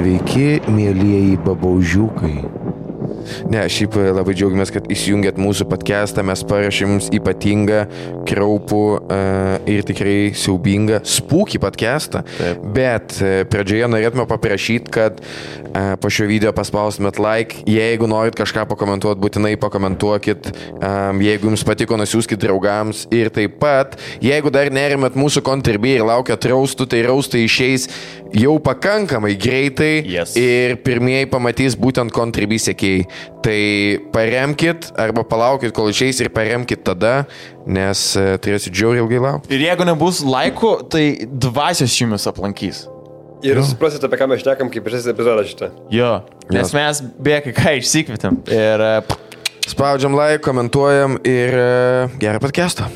Sveiki, mielieji babaužiukai. Ne, šiaip labai džiaugiamės, kad įsijungėt mūsų podcastą, mes parašėm jums ypatingą, kraupų ir tikrai siaubingą spooky podcastą. Taip. Bet pradžioje norėtume paprašyti, kad po šio video paspaustumėt like, jeigu norit kažką pakomentuoti, būtinai pakomentuokit, jeigu jums patiko, nusiųskit draugams ir taip pat, jeigu dar nerimėt mūsų kontribį ir laukiat raustų, tai raustai išeis jau pakankamai greitai ir pirmieji pamatys būtent kontribį sekėjai. Tai paremkit arba palaukit, kol išeis ir paremkit tada, nes turėsit žiauriai ilgai laukti. Ir jeigu nebus laikų, tai dvasios jumis aplankys. Ir suprasit, apie ką mes šnekam, kaip šis epizodas šitą. Jo, nes mes beje ką išsikvietėm. Ir spaudžiam like, komentuojam ir gerą podcastą.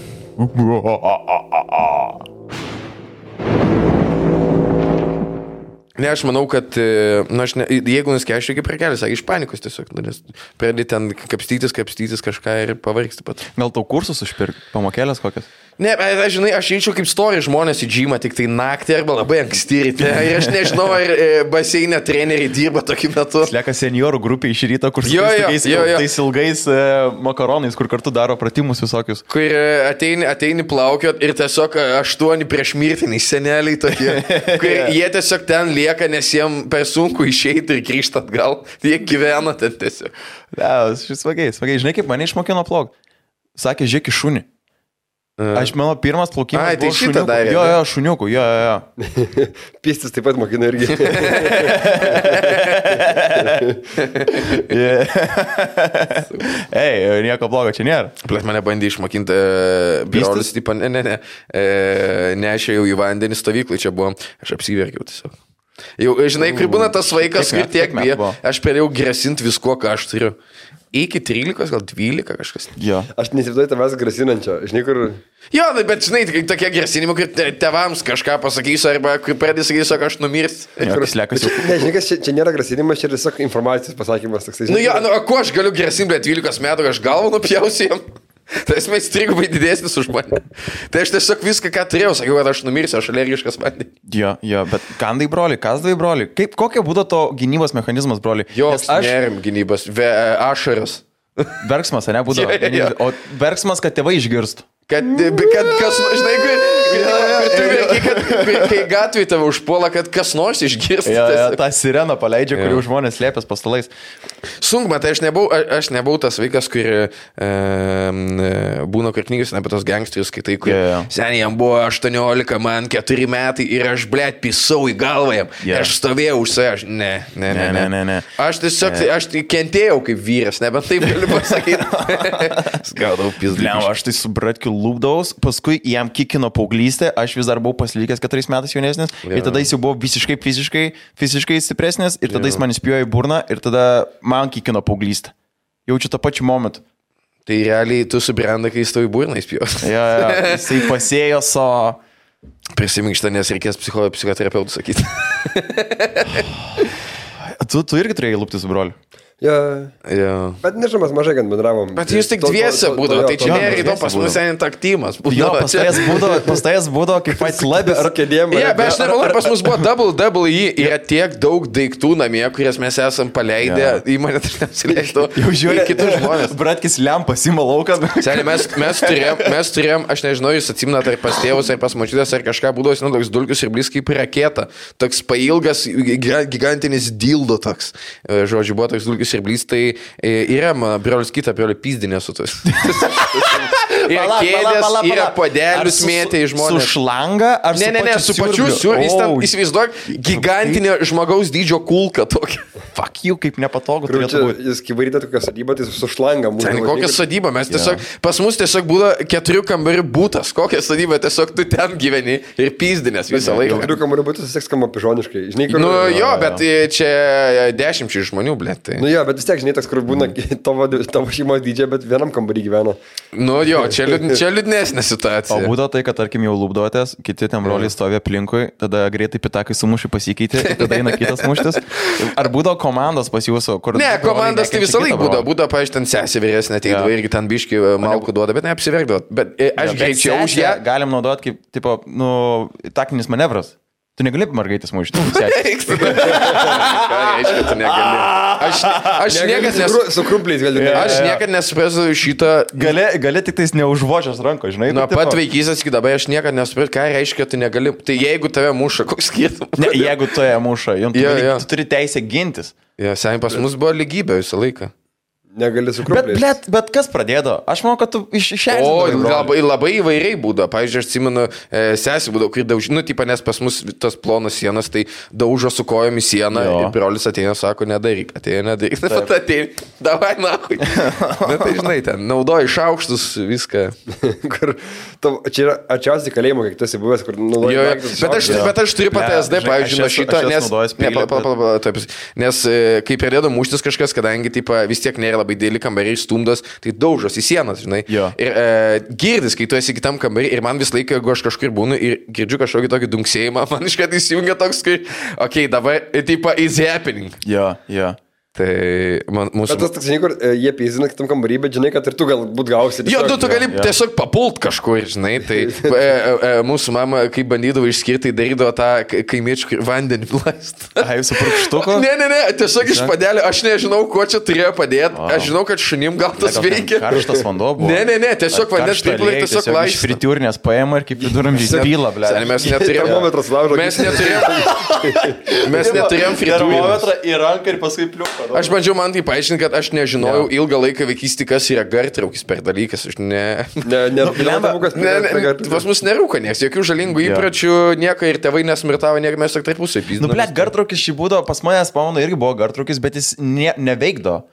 Ne, aš manau, kad jeigu nuskeščiau iki prekelį, sakė, iš panikos tiesiog, nes pradėti ten kapstytis kažką ir pavargsti pat. Gal tau kursus užpirk, pamokėlės kokias? Ne, žinai, aš eičiau kaip story žmonės į džymą tik tai naktį arba labai anksti ryte. Ir aš nežinau, ar baseinė treneriai dirba tokiu metu. Lieka seniorų grupė iš ryto, kur su tais ilgais makaronais, kur kartu daro pratimus visokius. Kur ateini plaukiot ir tiesiog 8 prieš mirtiniai seneliai tokie. Kur jie tiesiog ten lieka, nes jiems per sunku išeiti ir grįžti atgal. Jie gyvena ten tiesiog. Ne, smagiai. Žinai, kaip mane išmokino plauk? Sakė, žiūrėk į šunį. Aš mano pirmas plaukimas buvo šuniukų. Jo, šuniukų, jo. Pistis taip pat mokina irgi. Ei, nieko blogo čia nėra. Plės mane bandė išmokinti brolius, tipo, nešėjau į vandenį stovyklai, čia buvo, aš apsiverkiau tiesiog. Jau, žinai, kur būna tas vaikas, kur tiek bijo, aš perėjau grasinti visko, ką aš turiu. Iki 13, gal 12 kažkas. Jo. Aš nesivaizduoju tavęs grasinančio. Žinai, kur... Jo, bet žinai, tokie grasinimai, kur tėvams kažką pasakysiu, arba kur pradės sakysiu, kad aš numirsiu. Ne, žinai, čia nėra grasinimas, čia yra tiesiog informacijos pasakymas. Toksai, nu, jo, ko aš galiu grasinti, 12 metų, aš galvą nupjausiu jam. Tai esmės trigubai didesnis už mane. Tai aš tiesiog viską, ką turėjau, sakiau, kad aš numirsiu, aš alergiškas vandeniui. Jo, bet kandai broli, kasdai broli. Kokia būtų to gynybos mechanizmas, broli? Joks nerim gynybos, ašaras. Verksmas, ne, būdavo. O verksmas, kad tėvai išgirstų. Kad kas, žinai, kai gatvėje tave užpuola, kad kas nors išgirsta. Ja, tą sireną paleidžia, kurių žmonės slėpės po stalais. Sunkma, tai aš nebuvau tas vaikas, kur būna kur knygas apie tos gangsterius, kai tai, kur seniai jam buvo 18, man 4 metai ir aš, blėt, pisau į galvą jam. Aš stovėjau už save, ne. Aš tiesiog, aš kentėjau kaip vyras, nebent taip galiu pasakyti. Skaudau pizdą. Aš tai su bratkiu lūpdaus, paskui jam kikino paauglystė, aš vis dar buvau pasilikęs 4 metais jaunesnis ir tada jis jau buvo visiškai fiziškai stipresnis ir tada jis man įspėjo į burną ir tada man kikino paauglystę. Jaučiu tą pačiu momentu. Tai realiai tu subrenda, kai jis tau į burną įspėjos. Jisai pasėjo savo... Prisimink šitą, nes reikės psichoterapeutų sakyti. Tu irgi turėjai lūpti su broliu. Ja. Bet nežinau, mes mažai gan bendravom. Bet jūs tik dviese būdavo, tai čia nėra įdomu, pas mus einant aktymas. Jo, pas tajas būdavo kaip Fight Club ar kėdėm. Ja, bet aš nemanau, pas mus buvo WWE, yra tiek daug daiktų namie, kurias mes esam paleidę, į mane tai neapsileistų. Jau žiūrė kitus žmonės. Bratkis lempas ima lauką. Seniai, mes turėjom, aš nežinau, jūs atsimnat ar pas tėvus, ar pas močiutės, ar kažką būdavo, toks dulkius ir blis kaip raketa. Toks pailgas, gigantinis dildo toks. Žodžiu, buvo toks dulkius ir blys, tai yra brolius kitą, brolių pizdinė su tos. Yra kėdės, yra podelius mėtė į žmonės. Su šlanga? Ne, su pačiu siūr. Jis ten, įsivaizduok, gigantinė žmogaus dydžio kulka tokia. Fuck you, kaip nepatogu turėtų būti. Jis kaip varyti tokią sodybą, tai su šlanga. Ten kokią sodybą, mes tiesiog, pas mus tiesiog būda 4 kambarių būtas. Kokią sodybą, tiesiog tu ten gyveni ir pizdinės visą laiką. 4 kambarių būtas vis tiek skamba pižoniškai. Nu jo, bet čia 10 žmonių, blėt. Nu jo, bet vis tiek, žinai, toks, kur būna tavo šeimos dydžia, bet vienam kambarį gyvena. Nu jo, čia liūdnesnė situacija. O būdavo tai, kad, tarkim, jau lūpduotės, kiti ten broliai stovė aplinkui, tada greitai pitakai sumušį pasikeitė, tada eina kitas muštis. Ar būdavo komandos pas jūsų? Ne, komandos tai visą laiką būdavo, pavyzdžiui, ten sesė vyresnė ateidavo irgi ten biški malkų duoda, bet neapsiverkdavo. Bet aš greičiau už ją. Galim naudoti kaip, tipo, taktinis manevras. Tu negali mergaitės mušti. Ką reiškia, tu negali? Aš niekad Su krumpliais galiu. Aš niekad nesuprasiu šitą. Gali tik tais neužvočias ranko, žinai. Nuo pat vaikystės iki dabar aš niekad nesuprasiu, ką reiškia, tu negali. Tai jeigu tave muša, koks skirtumas? Ne, jeigu tu ją muša, tu turi teisę gintis. Ja, seniai pas mus buvo lygybė visą laiką. Negali su krumpliais. Bet kas pradėjo? Aš manau, kad tu išėjai. O, labai įvairiai būdavo. Pavyzdžiui, aš atsimenu, sesį būdavo, kai daužė, nes pas mus tas plonas sienas, tai daužo su kojom į sieną ir brolis ateina, sako, nedaryk, nedaryk. Taip, ateina, davai, nahui. Na, tai žinai, ten naudoji šaukštus, viską. Čia yra arčiausiai kalėjimo, kiek tu esi buvęs, kur naudoji. Bet aš turiu pat SD, pavyzdžiui, nuo šito, nes kai pradėjo muštis kažkas, kadangi vis tiek nėra labai dėlį kambariai stumdos, tai daužos į sienas, žinai. Jo. Ir girdis, kai tu esi kitam kambarį ir man vis laiką, jeigu aš kažkur būnu ir girdžiu kažkokį tokį dunksėjimą, man iškart įsijungia toks, kai, okei, dabar, tipo, is happening. Jo. Tai mūsų... Bet tas toks, žinai, kur jie pėzina kitam kambarį, bet žinai, kad ir tu galbūt gausi. Jo, tu gali tiesiog papult kažkur, žinai. Tai mūsų mama, kai bandydavo išskirti, darydavo tą kaimiečių vandenį plast. Ai, su purkštuku? Ne, tiesiog iš padelio, aš nežinau, ko čia turėjo padėti. Aš žinau, kad šunim gal tas veikia. Karštas vanduo buvo. Ne, tiesiog vandens piplai tiesiog laisvas. Iš fritiūrinės paėmė ir kaip viduramžiais pyla, ble. Mes neturėjom termometras laužo. Mes neturėjom termometrą į ranką ir paskui pliuką. Aš bandžiau man tai paaiškinti, kad aš nežinojau ilgą laiką vaikystį, kas yra gartraukis per dalykas. Aš pas mus nerūka nieks, jokių žalingų įpročių, nieko ir tėvai nesmirtavo, nieko mes tik tarpusai pyzdami. Nu, ble, gartraukis šį būdavo, pas manęs pamanu irgi buvo gartraukis, bet jis neveikdo.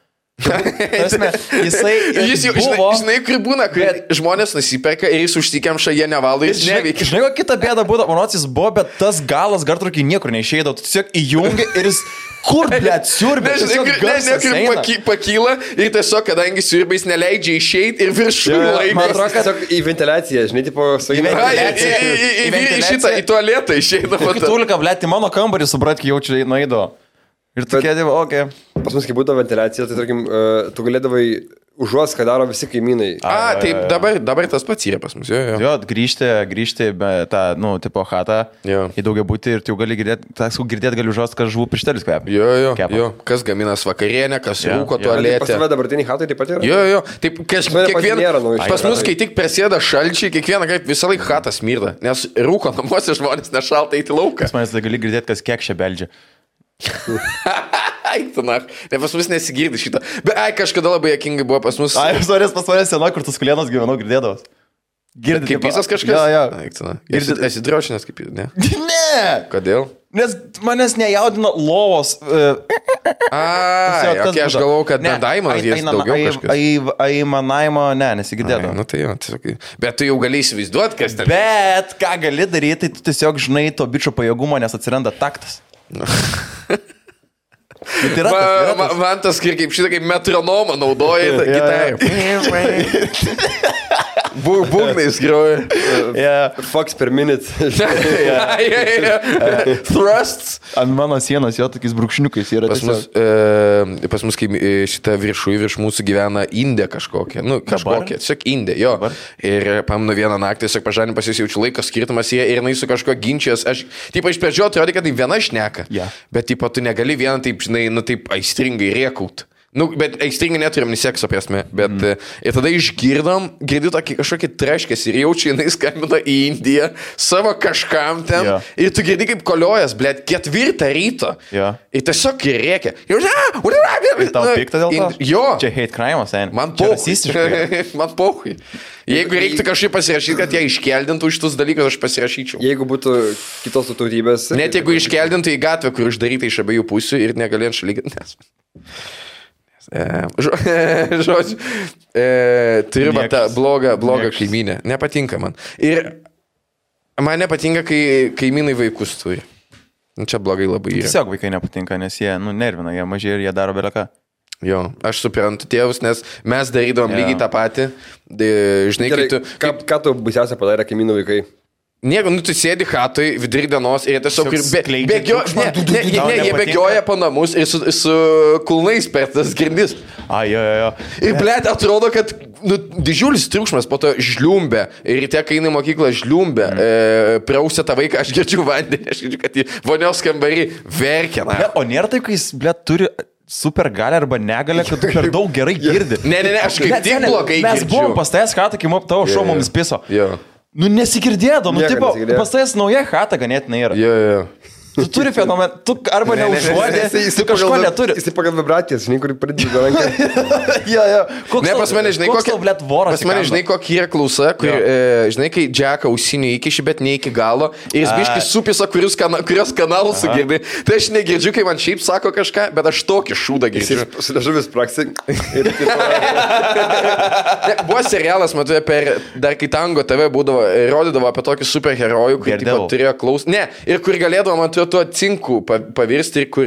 Jis jau, žinai, kur būna, kai žmonės nusiperka ir jis užsikemša, jie nevaldo, jis neveikia. Žinai, kokia kita bėda būdavo, manots jis buvo, bet tas galas gartraukį niekur neišeidavo, tu tiesiog įjungi ir jis... Kur, blėt, siurbė? Pakyla ir tiesiog, kadangi siurbės neleidžia išeiti ir viršų laikas. Man atrodo, kad į ventiliaciją, žinai, tipo, į tualetą išeina. Tulika, blėt, į mano kambarį, suprat, kai jaučiu nueido. Ir tu kėdėvo, okei. Pas mus, kai būdavo ventiliacija, tai, tarkim, tu galėdavai užuos, ką daro visi kaimynai. Taip, dabar tas pats yra pas mus. Jo, grįžti tą, tipo, chatą į daugiabutį ir tu gali girdėti, gali užuos, kad žuvų pirštelis kvepia. Jo. Kas gaminas vakarienę, kas rūko tualetę. Pas tave dabartiniai chatai taip pat yra? Jo. Taip, pas mus, kai tik prasideda šalčiai, kiekvieną kartą visą laiką chatas smirda, nes rūko namuose žmonės nešalta eiti lauką. Pas manęs gali girdėti, kas kiek čia beldžia. Aiktinach, ne pas mus nesigirdi šitą. Bet kažkada labai jokingai buvo pas mus. Pas manęs sena, kur tas kulienas gyvenau, girdėdavas. Girdi kaip visas kažkas? Jo. Aiktinach. Esi drošinės kaip jis, ne? Ne! Kodėl? Nes manęs nejaudino lovos. Aš galvojau, kad nedaimas jis daugiau kažkas. Aimanavimo, nesigirdėdavo. Nu tai jo, tiesiog. Bet tu jau gali įsivaizduoti, kas ten. Bet ką gali daryti, tai tu tiesiog žinai to bičio pajėgumo, nes atsiranda taktas. Man tas kaip šitą kaip metronomą naudoja gitarą. Būgnais groja. Fox per minute. Thrusts. Ant mano sienos jo tokiais brūkšniukais yra. Pas mus kaip šitą virš mūsų gyvena Indė kažkokia. Kažkokia, tiesiog Indė, jo. Ir pamenu vieną naktį, tiesiog pažanim pasijaučiu laiko skirtumas jie ir jinai su kažko ginčijos. Aš, iš pradžio atrodė, kad tai viena šneka. Bet, tu negali vieną taip, žinai, taip aistringai rėkaut. Bet aistringai neturim ni sekso prasme, bet ir tada girdi tokį kažkokį treškės ir jaučiu, jinai skambina į Indiją savo kažkam ten ir tu girdi kaip koliojas, blėt, 4 ryto ir tiesiog rėkia. Ir tau pikta dėl to? Jo. Čia hate crime, sen. Man pauhui. Jeigu reiktų kažkaip pasirašyti, kad jie iškeldintų šitus dalykus, aš pasirašyčiau. Jeigu būtų kitos tautybės. Net jeigu iškeldintų į gatvę, kur uždaryta iš abiejų pusių ir negalėjant šalyginti. Žodžiu, turiu tą blogą kaimynę. Nepatinka man. Ir man nepatinka, kai kaimynai vaikus turi. Čia blogai labai yra. Tiesiog vaikai nepatinka, nes jie nervina, jie mažai ir jie daro beleką. Jo, aš suprantu tėvus, nes mes darydavom lygiai tą patį. Žinai, Gerai, ką tu baisiausia padarė kaimynų vaikai? Nieko, tu sėdi chatui vidury dienos ir jie tiesiog jie bėgioja po namus ir su kulnais per tas grindis. Jo. Ir blėt, atrodo, kad didžiulis triukšmas po to žliumbė. Ir ryte, kai eina į mokyklą, žliumbė. Prausė tą vaiką, aš girdžiu vandenį, aš girdžiu, kad į vonios kambarį verkia. O nėra taip, kai jis, blėt, turi super galę arba negalę, kad tu per daug gerai girdi. Ne, aš kaip tik blogai girdžiu. Mes buvom pas tavęs chatą, kai tavo šou mums piso. Nu nesigirdėdo, tipo, pas tavęs nauja chata ganėtinai yra. Jo. Tu turi fenomeną, tu arba neužuodė, tu kažko neturi. Jis pagal vibracijas, žinai, kur pradėjo ranką. Jo. Ne, pas mane, žinai, kokia, blėt, voras. Pas mane, žinai, kokia yra klausa, kur, žinai, kai Džeką ausinių įkiši, bet ne iki galo, ir jis biškai supisa, kurios kanalus sugirdi. Tai aš negirdžiu, kai man šiaip sako kažką, bet aš tokį šūdą girdžiu. Su liežuvis praksi. Buvo serialas, matau, dar kai Tango TV būdavo, rodydavo apie tokį superherojų, kur turėjo klausą. Ne, ir kur galėdavo, man tuo cinku pavirsti ir kur...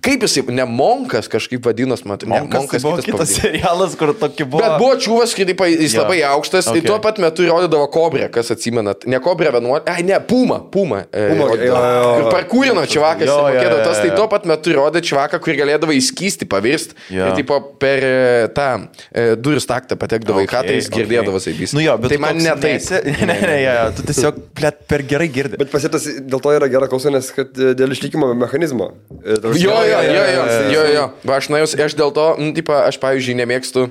Kaip jisai, ne Monkas kažkaip vadinos, matai. Monkas buvo kitas serialas, kur tokį buvo... Bet buvo čiūvas, kai jis labai aukštas, ir tuo pat metu rodydavo Kobrę, kas atsimenat. Ne Kobrę 11, ne, Puma. Kur parkūrino čivakas, tai tuo pat metu rodė čivaką, kur galėdavo įskysti, pavirsti. Ir tipo per tą durų staktą patekdavo į chatą, jis girdėdavo saibys. Nu jo, bet tai man ne taip. Ne, tu tiesiog per gerai girdi. Bet pasitas dėl to yra gera klausa, nes kad dėl išlikimo mechanizmo. Jo. Va, aš dėl to, aš pavyzdžiui nemėgstu,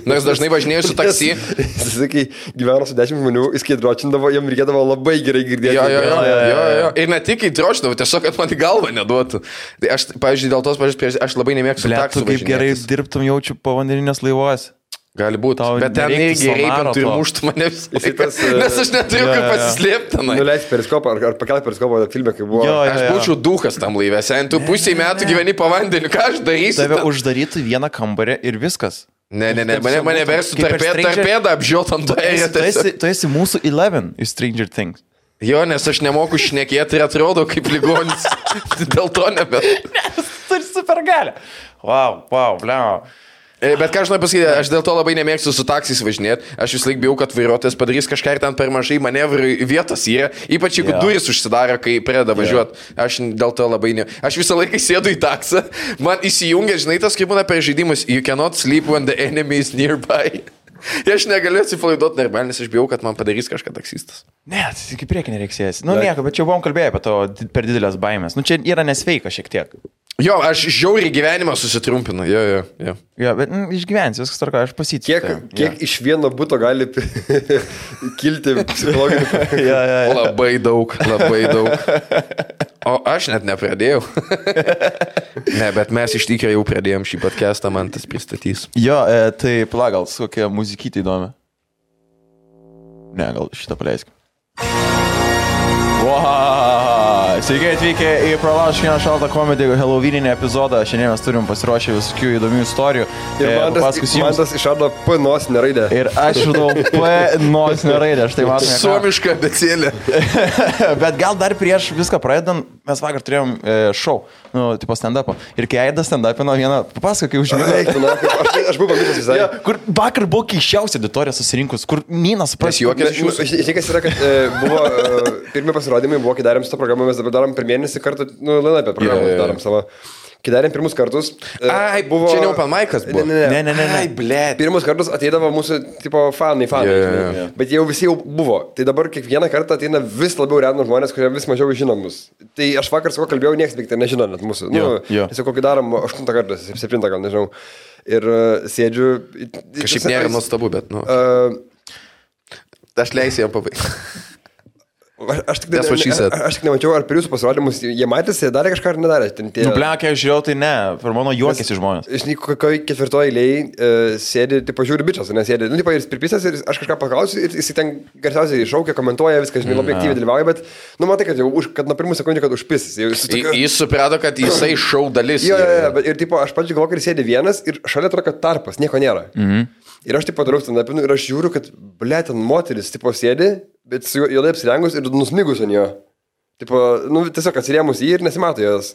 nors dažnai važinėjau su taksi. Jis, kai gyveno su 10 žmonių, jis kai dročindavo, jam reikėdavo labai gerai girdėti. Jo. Ir ne tik kai dročindavo, tiesiog, kad man į galvą neduotų. Tai aš, pavyzdžiui, dėl tos pažiūrės, aš labai nemėgstu taksų važinėtis. Kaip gerai dirbtum jaučiu povandeninės laivuose. Gali būti, bet ten irgi reipintų ir muštų mane visą laiką, nes aš neturiu kaip pasislėpti. Nuleis periskopą ar pakelti periskopą filme, kai buvo. Aš būčiau dukas tam laivė, tu pusėj metų gyveni po vandeniu, ką aš darysiu? Tave uždarytų vieną kambarį ir viskas. Ne, mane verstų tarpėdą apžiūrėt ant to ėrė. Tu esi mūsų 11 iš Stranger Things. Jo, nes aš nemoku šnekėti ir atrodo kaip ligonis. Dėl to nebet. Nes turi super galę. Wow, bliau. Bet ką aš noriu pasakyti, aš dėl to labai nemėgstu su taksais važinėti. Aš vis laik bijau, kad vairuotojas padarys kažką ir ten per mažai manevrų vietos yra. Ypač jeigu durys užsidaro, kai pradeda važiuoti. Aš dėl to labai ne. Aš visą laiką sėdu į taksą. Man įsijungia, žinai, tas kaip būna per žaidimus. You cannot sleep when the enemy is nearby. Aš negaliu atsipalaiduoti normaliai, nes aš bijau, kad man padarys kažką taksistas. Ne, tai iki priekį nereiksės. Nu nieko, bet čia buvom kalbėję apie to per didelės baimės. Nu čia yra nesveika šiek tiek. Jo, aš žiauriai gyvenimą susitrumpinu. Jo. Jo, bet išgyvensiu, viskas tvarko, aš pasitikiu. Kiek iš vieno buto gali kilti psichologinių? Labai daug. O aš net nepradėjau. Ne, bet mes iš tikrųjų jau pradėjom šį podcastą, man tas pristatys. Jo, tai gal kokia muzikytė įdomi. Ne, gal šitą paleiskim. Wow. Sveiki atvykę į Pralaužk vieną šaltą komedį Halloweeninį epizodą. Šiandien mes turim pasiruošę visokių įdomių istorijų. Ir man tas išrado P nosinę raidę. Ir aš išradau P nosinę raidę. Štai matome. Suomiška abėcėlė. Bet gal dar prieš viską pradedant, mes vakar turėjom šou, tipo stand-upą. Ir kai Aidas stand-upino vieną, papasako, kai užmigau. Aš buvau pamiršęs visai. Kur vakar buvo keiščiausia auditorija susirinkus, kur Ninas supras. Žinai, kas yra, kad buvo pirmi pasirodymai, buvo, kai darėm šitą programą, mes dabar darom per mėnesį kartą, Lina apie programą darom savo. Kai darėm pirmus kartus, buvo... Čia ne open mic'as buvo. Ne. Ai, blėt. Pirmus kartus ateidavo mūsų, tipo, fanai. Bet jau visi jau buvo. Tai dabar kiekvieną kartą ateina vis labiau random žmonės, kurie vis mažiau žino mus. Tai aš vakar su ko kalbėjau, nieks beveik nežino net mūsų. Tiesiog kokį darom 8 kartą, 7 gal, nežinau. Ir sėdžiu... Kažkaip nėra nuostabu, bet, aš leisiu jam pabaigti. Aš tik nemačiau, ar per jūsų pasirodymus jie matėsi, darė kažką ar nedarė. Nuplekė, aš žiūrėjau, tai ne, per mano juokėsi žmonės. Žinai, kokioje ketvirtoje eilėje sėdi, tipo, žiūri bičias, nes sėdi, ir pripisęs, ir aš kažką paklausiu, ir jis ten garsiausiai šaukia, komentuoja, viską, žinai, labai aktyviai dalyvauja, bet, matai, kad nuo pirmų sekundžių, kad užpisis. Jis suprato, kad jisai šau dalis. Jo, ir, tipo, aš pačiu galvoju, kad sėdi vienas ir šalia atrodo, kad tarpas, nieko nėra. Ir aš, tipo, darau stand-upinu ir aš žiūriu, kad, ble, ten moteris, tipo, sėdi, bet su juodai apsirengus ir nusmigus ant jo. Tipo, tiesiog atsirėmus jį ir nesimato jos.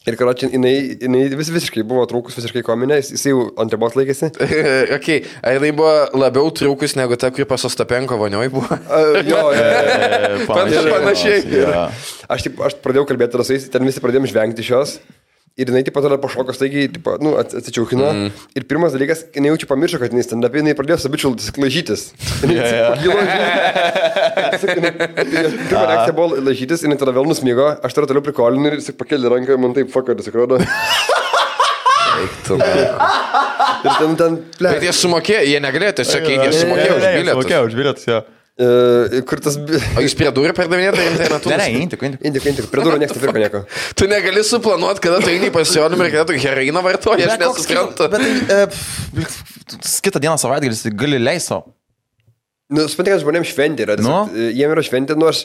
Ir karočiui, jinai visiškai buvo trūkus, visiškai kominė, jis jau ant ribos laikėsi. Okay. Ar jinai buvo labiau trūkus negu ta, kuri pas Ostapenko vonioj buvo? Jo, panašiai. Aš pradėjau kalbėti rasais, ten visi pradėjom žvengti šios. Ir jinai taip pat pašoko staigiai, atsičiaukino. Ir pirmas dalykas, jinai jaučiu pamiršo, kad jinai stand-up, jinai pradėjo sabičiultis, laižytis. Pirma reakcija buvo laižytis, jinai tada vėl nusmygo, aš tada toliau prikolinu ir jis pakėlė ranką, man taip fuckeris atrodo. Ir ten plėt. Bet jie sumokėjo, jie negalėjo, tiesiog jie sumokėjo už bilietus, jo. Kur tas... O jūs prie durų pardavinėte internetu? Ne, intik. Prie durų niekas nepirko nieko. Tu negali suplanuoti, kada tu eini į pasirodymą ir kada tu heroiną vartoji, aš nesuprantu. Bet kitą dieną savaitgalis gali leiso. Nu, suprantate, kad žmonėms šventė yra. Jiem yra šventė, nu aš...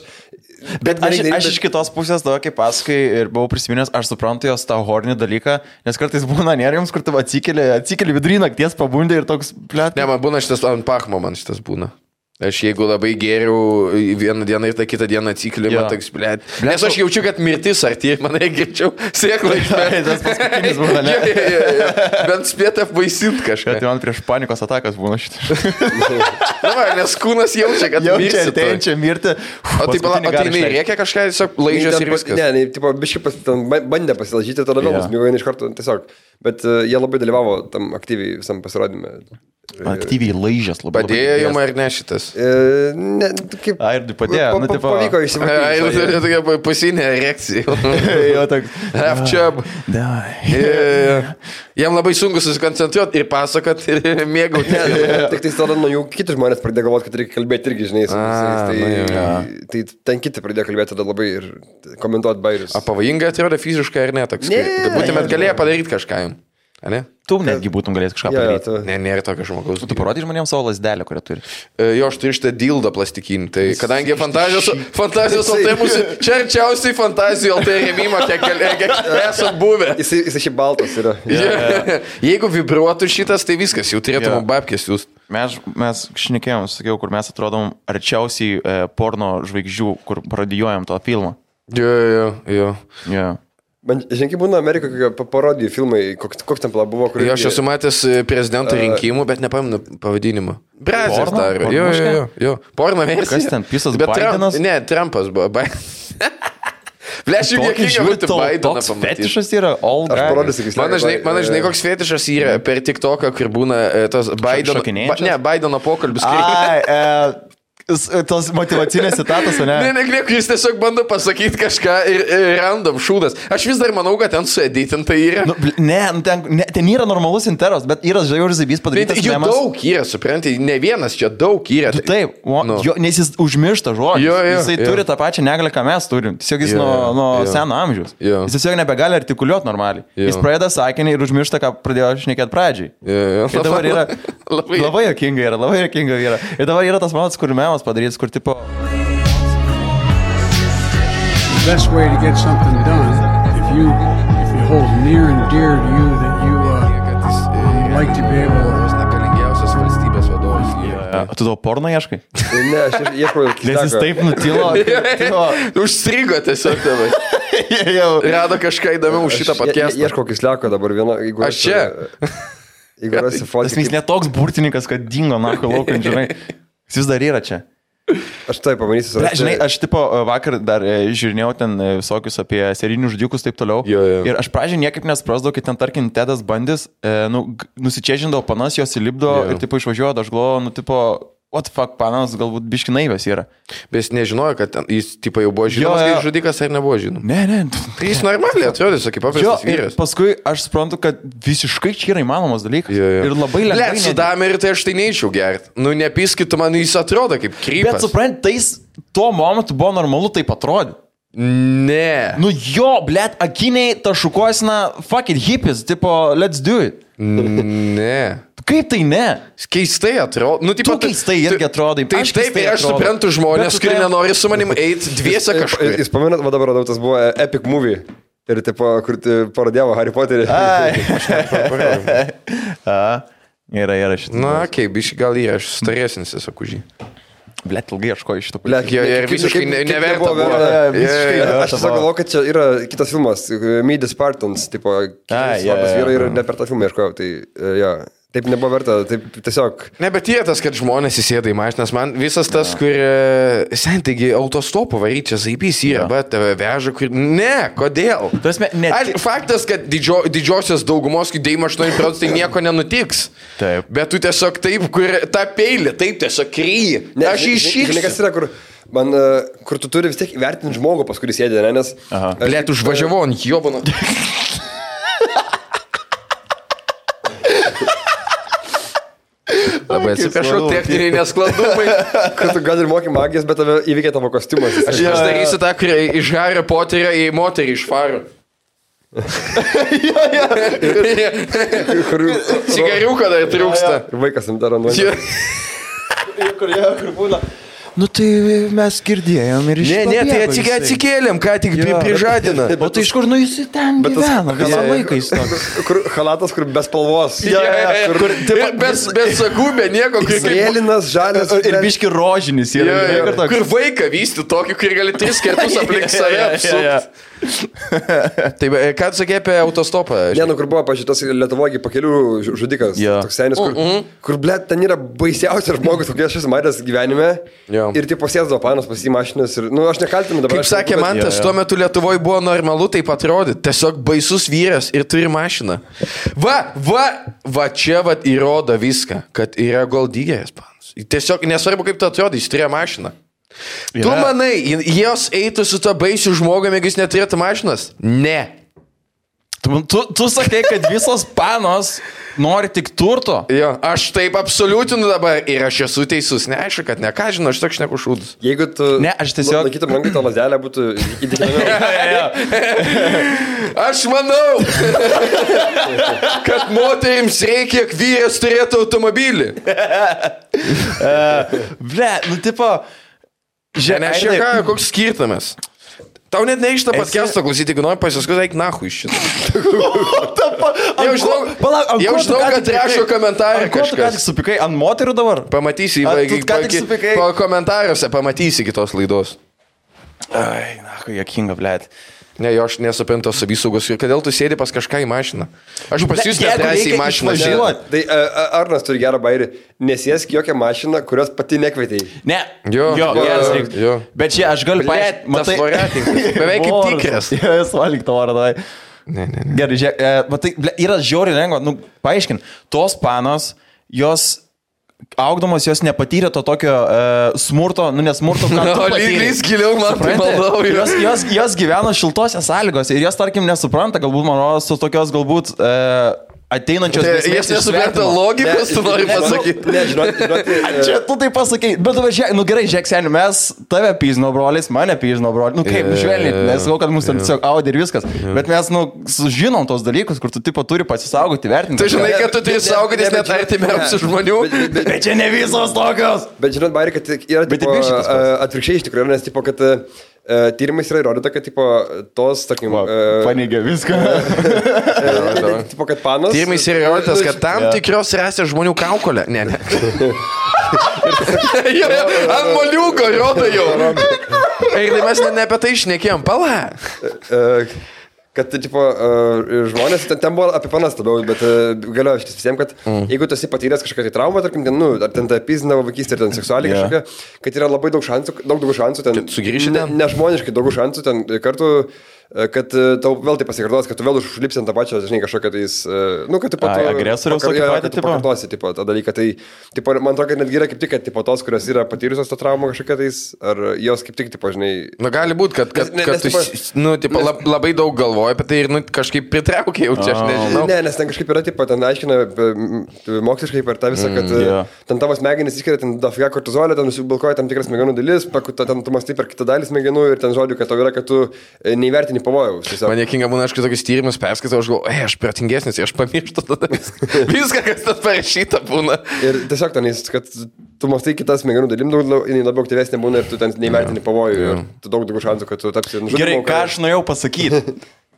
Bet aš iš kitos pusės tavo, kaip pasakai, ir buvau prisiminęs, aš suprantu jos tą hornį dalyką, nes kartais būna nerims, kur tu atsikeli vidury nakties pabundė ir toks plėt. Ne, man būna šitas ant pachmo, man šitas būna. Aš jeigu labai geriau vieną dieną ir tą kitą dieną atsikeliu, man toks, blėt. Nes aš jaučiu, kad mirtis arti, manai, greičiau sėklą išmėti. Tas paskutinis būna, ne? Bent spėt apvaisint kažką. Tai man prieš panikos atakas būna šitą. Nes kūnas jaučia, kad mirsi. Jaučia mirti. O tai nereikia kažką, tiesiog laižės ir viskas. Ne, tipo, biškai bandė pasilažyti, tada vėl nusmigo iš karto tiesiog. Bet jie labai dalyvavo tam aktyviai visam pasirodyme. Aktyviai laižęs labai. Padėjo jums ar ne šitas? Ne, kaip... Airdui padėjo. Pavyko išsimatyti. Airdui tokia pasinė erekcija. Jo, toks. Half-chub. Jam labai sunku susikoncentruoti ir pasakot ir mėgauti. Tik tai tada nuo jų kiti žmonės pradėjo galvoti, kad reikia kalbėti irgi, žinai, su visais. Tai ten kiti pradėjo kalbėti tada labai ir komentuoti bairius. O pavojingai atrodo fiziškai ar ne? Būtumėt galėję padaryti kažką jums. Ne? Tu netgi būtum galėjęs kažką padaryti. Ne, nėra tokio žmogaus. Tu parodai žmonėms savo lasdelę, kurią turi. Jo, aš turiu šitą dildą plastikinį. Tai kadangi fantazijos LT mūsų, čia arčiausiai fantazijų LT rėmimo, kiek esam buvę. Jis šiaip baltas yra. Jeigu vibruotų šitas, tai viskas, jau turėtum babkės jūs. Mes šnekėjom, sakiau, kur mes atrodom arčiausiai porno žvaigždžių, kur parodijuojam to filmą. Jo. Man, žinai, būna Amerikoje parodijų filmai, koks ten buvo, kur... Jo, aš esu matęs prezidento rinkimų, bet nepamenu pavadinimą. Brazės daro. Jo. Porno versija. Kas ten, Pisas Bidenas? Ne, Trumpas buvo. Bleš, jau niekinga būti Bideną pamatyti. Fetišas yra all guy. Aš parodysiu, kaip Mano žinai, koks fetišas yra per TikToką, kur būna tas Bideno pokalbis. Tos motivacinės citatos, ne? Ne, jis tiesiog bando pasakyti kažką ir random šūdas. Aš vis dar manau, kad ten sueditinta yra. Ten yra normalus interas, bet yra žiauriai zabys padarytas. Jų daug yra, supranti, ne vienas čia daug yra. Taip, nes jis užmiršta žodžius. Jisai turi tą pačią negalę, ką mes turim. Tiesiog jis nuo seno amžiaus. Jis tiesiog nebegali artikuliuoti normaliai. Jis pradeda sakinį ir užmiršta, ką pradėjo šnekėti pradžiai. Ir dabar yra labai jokinga yra. Ir dabar yra tas momentas, kur memas padarytas, kur tipo... The best way to get something done, if you hold near and dear to you that you like to be able to... Tu tavo porno ieškai? Ne, aš ieškau... Nes jis taip nutilo. Užstrigo tiesiog tavai. Rado kažką įdomiau už šitą podcastą. Ieškau kisliako dabar vieną... Aš čia. Jeigu rasi fotį... Jis netoks burtininkas, kad dingo narko laukant, žinai. Jis vis dar yra čia. Aš tai pamanysiu. Žinai, aš tipo vakar dar žiūrinėjau ten visokius apie serijinius žudikus taip toliau. Ir aš pradžiai niekaip nesprasdavau, kai ten, tarkim, Tedas Bandis nusičežindavo panas, jos įlipdo ir tipo išvažiuoja, aš galvoju, tipo... What the fuck, panas galbūt biški naivės yra. Bet jis nežinojo, kad jis tipo jau buvo žinomas, kaip žudikas ar nebuvo žinomas. Ne. Tai jis normaliai atrodė, kaip paprastas vyras. Paskui aš suprantu, kad visiškai čia yra įmanomas dalykas. Ir labai lengvai. Su Dameriu tai aš tai neičiau gerti. Nu, nepiskit, man jis atrodo kaip krypas. Bet suprant, tais tuo momentu buvo normalu taip atrodyti. Ne. Nu jo, blėt, akiniai tašukosina, fuck it, hippies, tipo, let's do it. Ne. Kaip tai ne? Keistai atrodo. Nu, tipo, tu keistai irgi atrodai. Taip, aš suprantu žmonės, kurie nenori su manim eiti dviese kažkur. Jūs pamenat, va dabar radau, tas buvo Epic Movie. Ir tipo, kur parodėvo Harry Potterį. Yra šitą. Na, kaip, biškai gal yra, aš staresnis esu už jį. Blet, ilgai ieškoju šitą Blet, ir visiškai neverta buvo. Aš tiesiog galvoju, kad čia yra kitas filmas, Meet the Spartans, tipo, svarbus vyrai ir ne per tą filmą ieškojau, tai jo. Taip nebuvo verta, taip tiesiog. Ne, bet yra tas, kad žmonės įsėda į mašinas, man visas tas, kur, taigi, autostopu varyti čia zaibys yra, bet tave veža, kur, ne, kodėl? Faktas, kad didžiosios daugumos, kai 98% tai nieko nenutiks. Taip. Bet tu tiesiog taip, kur tą peilį, taip tiesiog kryji. Aš iššyksiu. Žinai, kas yra, kur tu turi vis tiek įvertinti žmogų, pas kurį sėdė, ne, nes... Blet, užvažiavau ant jobano. Labai atsiprašau, techniniai nesklandumai. Kad tu gal ir moki magijos, bet tave įveikia tavo kostiumas. Aš darysiu tą, kur iš Hario Poterio į moterį iš Faro. Cigariuką dar trūksta. Ir vaikas jam daro nuomonę. Kur būna. Nu tai mes girdėjom ir iš Ne, tai atsikėlėm, ką tik prižadina. O tai iš kur, nu jis ten gyvena, visą laiką jis toks. Kur halatas, kur be spalvos. Be sagų, be nieko. Mėlynas, žalias. Ir biški rožinis yra. Kur vaiką vysti tokį, kur gali 3 kartus aplink save apsukti. Tai ką tu sakė apie autostopą? Ne, nu kur buvo pažiūrėtas Lietuvoje pakelių žudikas. Toks senis, kur blėt, ten yra baisiausias žmogus, kokie aš esu matęs gyvenime. Ir tai pasėdavo panos pas į mašinas ir, nu, aš nekaltinu dabar. Kaip sakė Mantas, tuo metu Lietuvoje buvo normalu taip atrodyti. Tiesiog baisus vyras ir turi mašiną. Va čia įrodo viską, kad yra goldygeris panas. Tiesiog nesvarbu, kaip tu atrodai, jis turėjo mašiną. Tu manai, jos eitų su to baisiu žmogumi, jeigu jis neturėtų mašinas? Ne. Tu sakai, kad visos panos nori tik turto? Jo, aš taip absoliutinu dabar ir aš esu teisus. Ne, aišku, kad ne, ką žinau, aš toks neku šūdus. Jeigu tu... Ne, aš tiesiog... Laikytum rankai to lazdelę, būtų įtikinamiau. Aš manau, kad moterims reikia, kiek vyras turėtų automobilį. Ble, nu tipo... Žiūrėk, koks skirtumas. Tau net neišta podcast'o klausyti, jeigu nori pasiskui, eik nahu iš šitą. Jau žinau, kad rašo komentarą kažkas. Ko tu ką tik supikai ant moterų dabar? Pamatysi, po komentaruose pamatysi kitos laidos. Ai, nahu, jokinga, blėt. Ne, jo, aš nesuprantu savisaugos. Ir kodėl tu sėdi pas kažką į mašiną? Aš pas jūs nedrąsiai į mašiną žiūrėjau. Tai Arnas turi gerą bairį. Nesėsk jokią mašiną, kurios pati nekvietei. Ne. Jo. Bet čia aš galiu paaiškinti. Tas variantininkas. Beveik kaip tikras. Jis valgyk tą varą, davai. Ne. Gerai, žiūrėk. Matai, yra žiauriai lengva. Nu, paaiškint. Tos panos, jos... Augdamos jos nepatyrė to tokio smurto, nu nesmurto, ką tu patyrė. Lyglis giliau, man tai maldau. Jos gyveno šiltose sąlygose ir jos, tarkim, nesupranta, galbūt, man rodos, tokios galbūt ateinančios grėsmės. Jis nesupranta logikos, tu nori pasakyti. Ne, žinoti. Čia tu tai pasakai, bet nu gerai, žiūrėk, seniai, mes tave pyžino brolis, mane pyžino brolis, nu kaip, žvelniai, nesakau, kad mūsų ten tiesiog audė ir viskas, bet mes, nu, žinom tos dalykus, kur tu tipo turi pasisaugoti, vertinti. Tu žinai, kad tu turi saugotis net artimiausių žmonių. Bet čia ne visos tokios. Bet žinot, Bairi, kad yra atvirkščiai iš tikrųjų, nes tipo, kad tyrimais yra įrodyta, kad tipo, tos, tarkim... Paneigia viską. Tipo, kad panos... Tyrimais yra įrodytas, kad tam tikros rasės žmonių kaukolė. Ne. Ant moliūko rodo jau. Tai mes ne apie tai šnekėjom. Pala. Kad, tipo, žmonės, ten buvo apie panas labiau, bet galioja šitas visiems, kad jeigu tu esi patyręs kažkokią tai traumą, tarkim, ten, nu, ar ten ta pizinavo vaikystė, ar ten seksualiai kažkokia, kad yra labai daug daugiau šansų, ten, nežmoniškai daug šansų, ten kartu, kad tau vėl tai pasikartos, kad tu vėl užlipsi ant tą pačią, žinai, kažkokią tais, nu, kad tu agresoriaus tokį patį, tipo, pakartosi, tipo, tą dalyką, tai, tipo, man atrodo, kad netgi yra kaip tik, kad, tipo, tos, kurios yra patyrusios tą traumą kažkokią tais, ar jos kaip tik, tipo, žinai... Nu, gali būti, kad tu, nu, tipo, labai daug galvoji apie tai ir, nu, kažkaip pritraukia jau čia, aš nežinau. Ne, nes ten kažkaip yra, tipo, ten aiškina moksliškai per tą visą, kad ten tavo smegenys išskiria, ten dafiga kortizolio, ten nusibilkoja tam tikras smegenų dalis, ten tu mąstai per kitą dalį smegenų ir ten žodžiu, kad tau yra, kad tu neįvertini pavojaus. Man niekinga būna, aš tokius tyrimus perskaitau, aš galvoju, aš protingesnis, aš pamirštu tada viską, kas tas parašyta būna. Ir tiesiog ten, kad tu mąstai kitas smegenų dalim, labiau aktyvesnė būna ir tu ten neįvertini pavojų ir tu daug šansų, kad tu tapsi nužudymu. Gerai, ką aš norėjau pasakyti,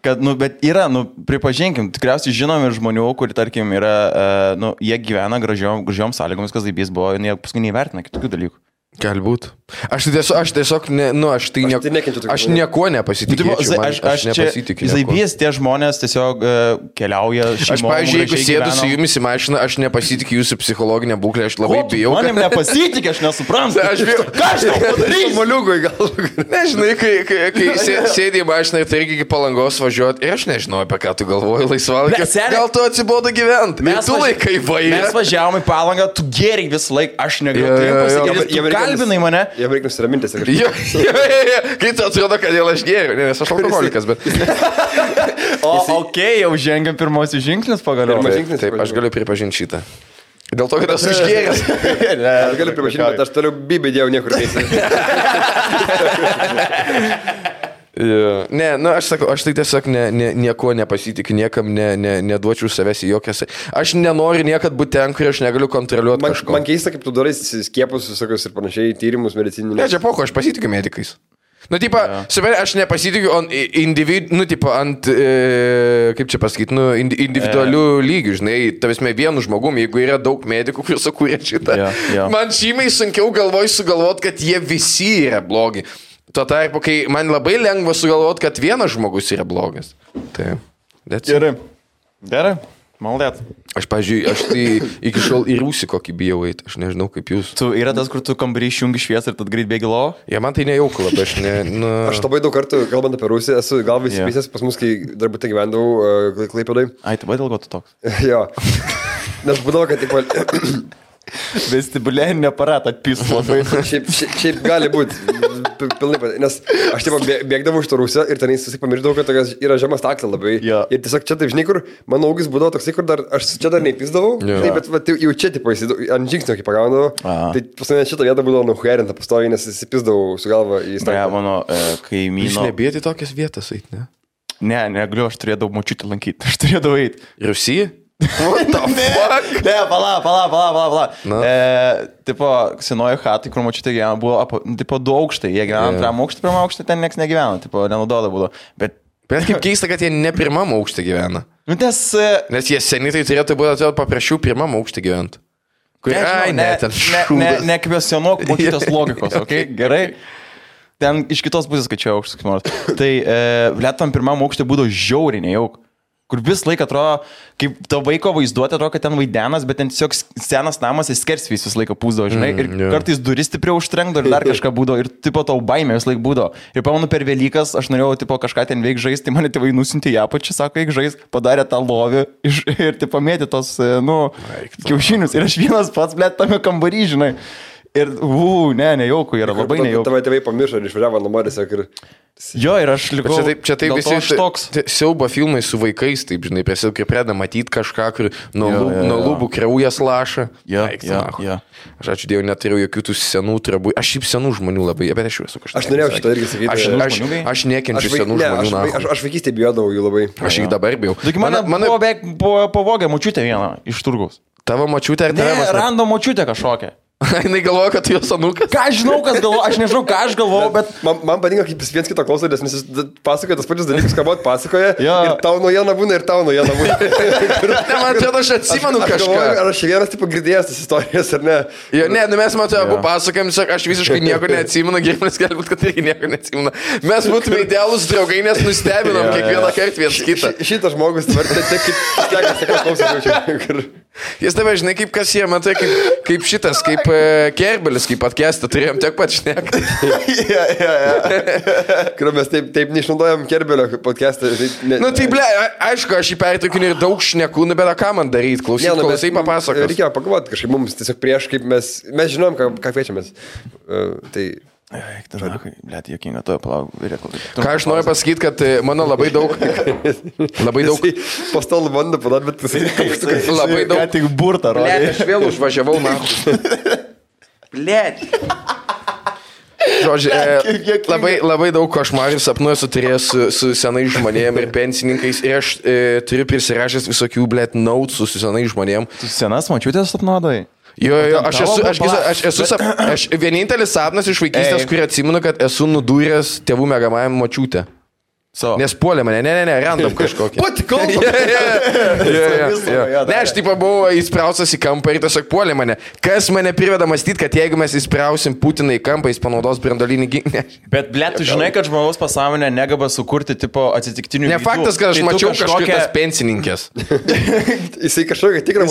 kad, nu, bet yra, nu, pripažinkim, tikriausiai žinomi žmonių, kurie, tarkim, yra, nu, jie gyvena gražiom sąlygomis, kas daibys buvo, jie paskui neįvertina kitokių dalykų. Galbūt. Aš tiesiog, aš nieko nepasitikėjau. Aš nepasitikiu. Zaibys tie žmonės tiesiog keliauja šeimom. Aš, pavyzdžiui, jeigu sėdu su jumis į mašiną, aš nepasitikiu jūsų psichologinę būklę, aš labai bijau. Manim nepasitikiu, aš nesuprantu. Aš bijau. Ką aš tau padarysiu? Moliugui gal. Nežinai, kai sėdė į mašiną ir tai irgi iki Palangos važiuoti, ir aš nežinau, apie ką tu galvoji laisvalaikį. Gal tu atsibodo gyventi? Tu laikai vairą. Mes važiavome į Palangą, tu geriai visą laiką, aš negaliu pasakyti. Tu kalbinai mane. Jam reikia nusiramintis. Kai tu atrodo, kad dėl aš geriu, nes aš alkoholikas, bet... Jau žengiam pirmosius žingsnius pagaliau. Taip, aš galiu pripažinti šitą. Dėl to, kad esu išgėręs. Aš galiu pripažinti, bet aš toliau bibį dėjau niekur neįsi. Ne, aš sakau, aš tai tiesiog nieko nepasitikiu, niekam neduočiau savęs į jokias. Aš nenoriu niekad būti ten, kur aš negaliu kontroliuoti kažko. Man keista, kaip tu darai skiepus visokius ir panašiai, tyrimus medicininius. Ne, čia poko, aš pasitikiu medikais. Aš nepasitikiu ant, kaip čia pasakyti, individualių lygių, žinai, tavasme vienu žmogumi, jeigu yra daug medikų, kurie sukūrė šitą. Man žymiai sunkiau galvoti, kad jie visi yra blogi. Tuo tarpu, kai man labai lengva sugalvoti, kad vienas žmogus yra blogas. Tai, Gerai. Maldėt. Aš, pavyzdžiui, tai iki šiol į rūsį kokį bijau eiti, aš nežinau kaip jūs. Tu yra tas, kur tu kambarį išjungi šviesą ir tad greit bėgi lovo? Man tai nejauku labai, Aš labai daug kartų, kalbant apie Rusiją, esu gal visi pisęs pas mus, kai darbute gyvendavau Klaipėdoj. Ai, tu dėl ko tu toks? Jo. Nes būdavo, kad vestibuliarinį aparatą atpis labai. Šiaip gali būti. Pilnai, nes aš bėgdavau iš to Rusijos ir ten susipamiršdavau, kad yra žemas taklė labai. Ir tiesiog čia taip, žinai, kur mano augis būdavo toksai, kur aš čia dar neįpisdavau, bet jau čia ant žingsnio kaip pagaunavau. Tai pas mane šitą vietą būdavo nuhuerinta pastoviai, nes įsipisdavau su galva į staklią. Mano kaimyno. Jūs nebėti tokias vietas eiti, ne? Ne, negaliu, aš turėdavau močiutį lankyti. Aš turėdavau eiti. Rusija? What the fuck? Ne, pala. Tipo, senoji hatai, kur močiutė gyveno, buvo, tipo, 2 aukštai. Jie gyveno antram aukštį, pirmam aukštį, ten nieks negyveno, tipo, nenaudodavo būdavo. Bet kaip keista, kad jie ne pirmam aukštį gyvena. Nes jie seniai tai turėtų būti paprašiau pirmam aukštį gyventi. Nekvestionuok močiutės logikos, okei? Gerai? Ten iš kitos pusės skaičiau aukštus, kaip nors. Tai Lietuvam pirmam aukštį būdavo žiauriai nejauk. Kur vis laik atrodo, kaip to vaiko vaizduoti, atrodo, kad ten vaidenas, bet ten tiesiog senas namas, jis skersvys vis laiką pūsdavo, žinai, ir kartais duris stipriau užtrenkdavo ir dar kažką būdavo, ir tipo tau baimė vis laik būdavo. Ir pamanu per Velykas, aš norėjau tipo kažką ten veik žaisti, tai mane tėvai nusintė į apačią, sako, veik žaisti, padarė tą lovį ir tipo mėtė tos, kiaušinius. Ir aš vienas pats, blėt, tame kambarį, žinai. Ir, nejauku, yra labai nejauku. Tavai tėvai pamiršo ir išvažiavo namo tiesiog ir... Jo, ir aš likau... Čia taip visi siaubo filmai su vaikais, taip, žinai, kai pradeda matyti kažką, kur nuo lūbų kraujas laša. Jo. Aš ačiū Dievui, neturiu jokių tų senų trabų. Aš šiaip senų žmonių labai, bet aš jau esu kažkas. Aš norėjau šitą irgi sakyti. Aš nekenčiu senų žmonių. Aš vaikystėje bijodavau jų labai. Aš jį dabar bijau. Mane pavogė močiutė vieną iš turgaus. Tavo močiutė ar tave? Ne, rando močiutė kažkokią. Jinai galvoja, kad tu jos anūkas? Ką aš žinau, kas galvoja, aš nežinau, ką aš galvoju, bet... Man patinka, kaip viens kito klauso, nes jis pasakoja tas pačius dalykus, ką buvot pasakoja. Ir tau naujiena būna, ir tau naujiena būna. Ne, man atrodo, aš atsimenu kažką. Ar aš vienas, tipo, girdėjęs tas istorijas, ar ne? Jo, ne, mes matome abu pasakojam, aš visiškai nieko neatsimenu, Girmanis galbūt, kad irgi nieko neatsimenu. Mes būtume idealūs draugai, nes nustebinom kiekvieną kartą vienas kitą. Šitas žmogus, jis tave, žinai, kaip kas jie, matai, kaip šitas, kaip Kerbelis, kaip podcastą turėjom tiek pat šnekti. Kur mes taip neišnaudojam Kerbelio podcastą. Tai ble, aišku, aš jį pertraukinu ir daug šnekų, bet ką man daryti, klausai papasakos. Reikėjo pagalvoti kažkaip mums tiesiog prieš, kaip mes žinom, ką kviečiamės. Tai... Blet, jokinga, to palauk. Ką aš noriu pasakyti, kad mano labai daug... Po stolų bandą padaryti, bet labai daug... Ką tik burtą rodė. Blet, aš vėl užvažiavau, man. Blet. Žodžiu, labai daug košmarų sapnų esu turėjęs su senais žmonėm ir pensininkais ir aš turiu prisirašęs visokių, blet, notes su senais žmonėm. Tu senas močiutės sapnuodai? Jo, vienintelis sapnas iš vaikystės, kurį atsimenu, kad esu nudūręs tėvų mėgamajam močiutę. Nes puolė mane, ne, random kažkokį. Pati kalba. Ne, aš taip buvau įspraustas į kampą ir tiesiog puolė mane. Kas mane priveda mąstyti, kad jeigu mes įsprausim Putiną į kampą, jis panaudos branduolinį ginklą. Bet, ble, tu žinai, kad žmogaus pasąmonė negaba sukurti tipo atsitiktinių. Ne faktas, kad aš mačiau kažkokias pensininkės. Jisai kažkokia tikra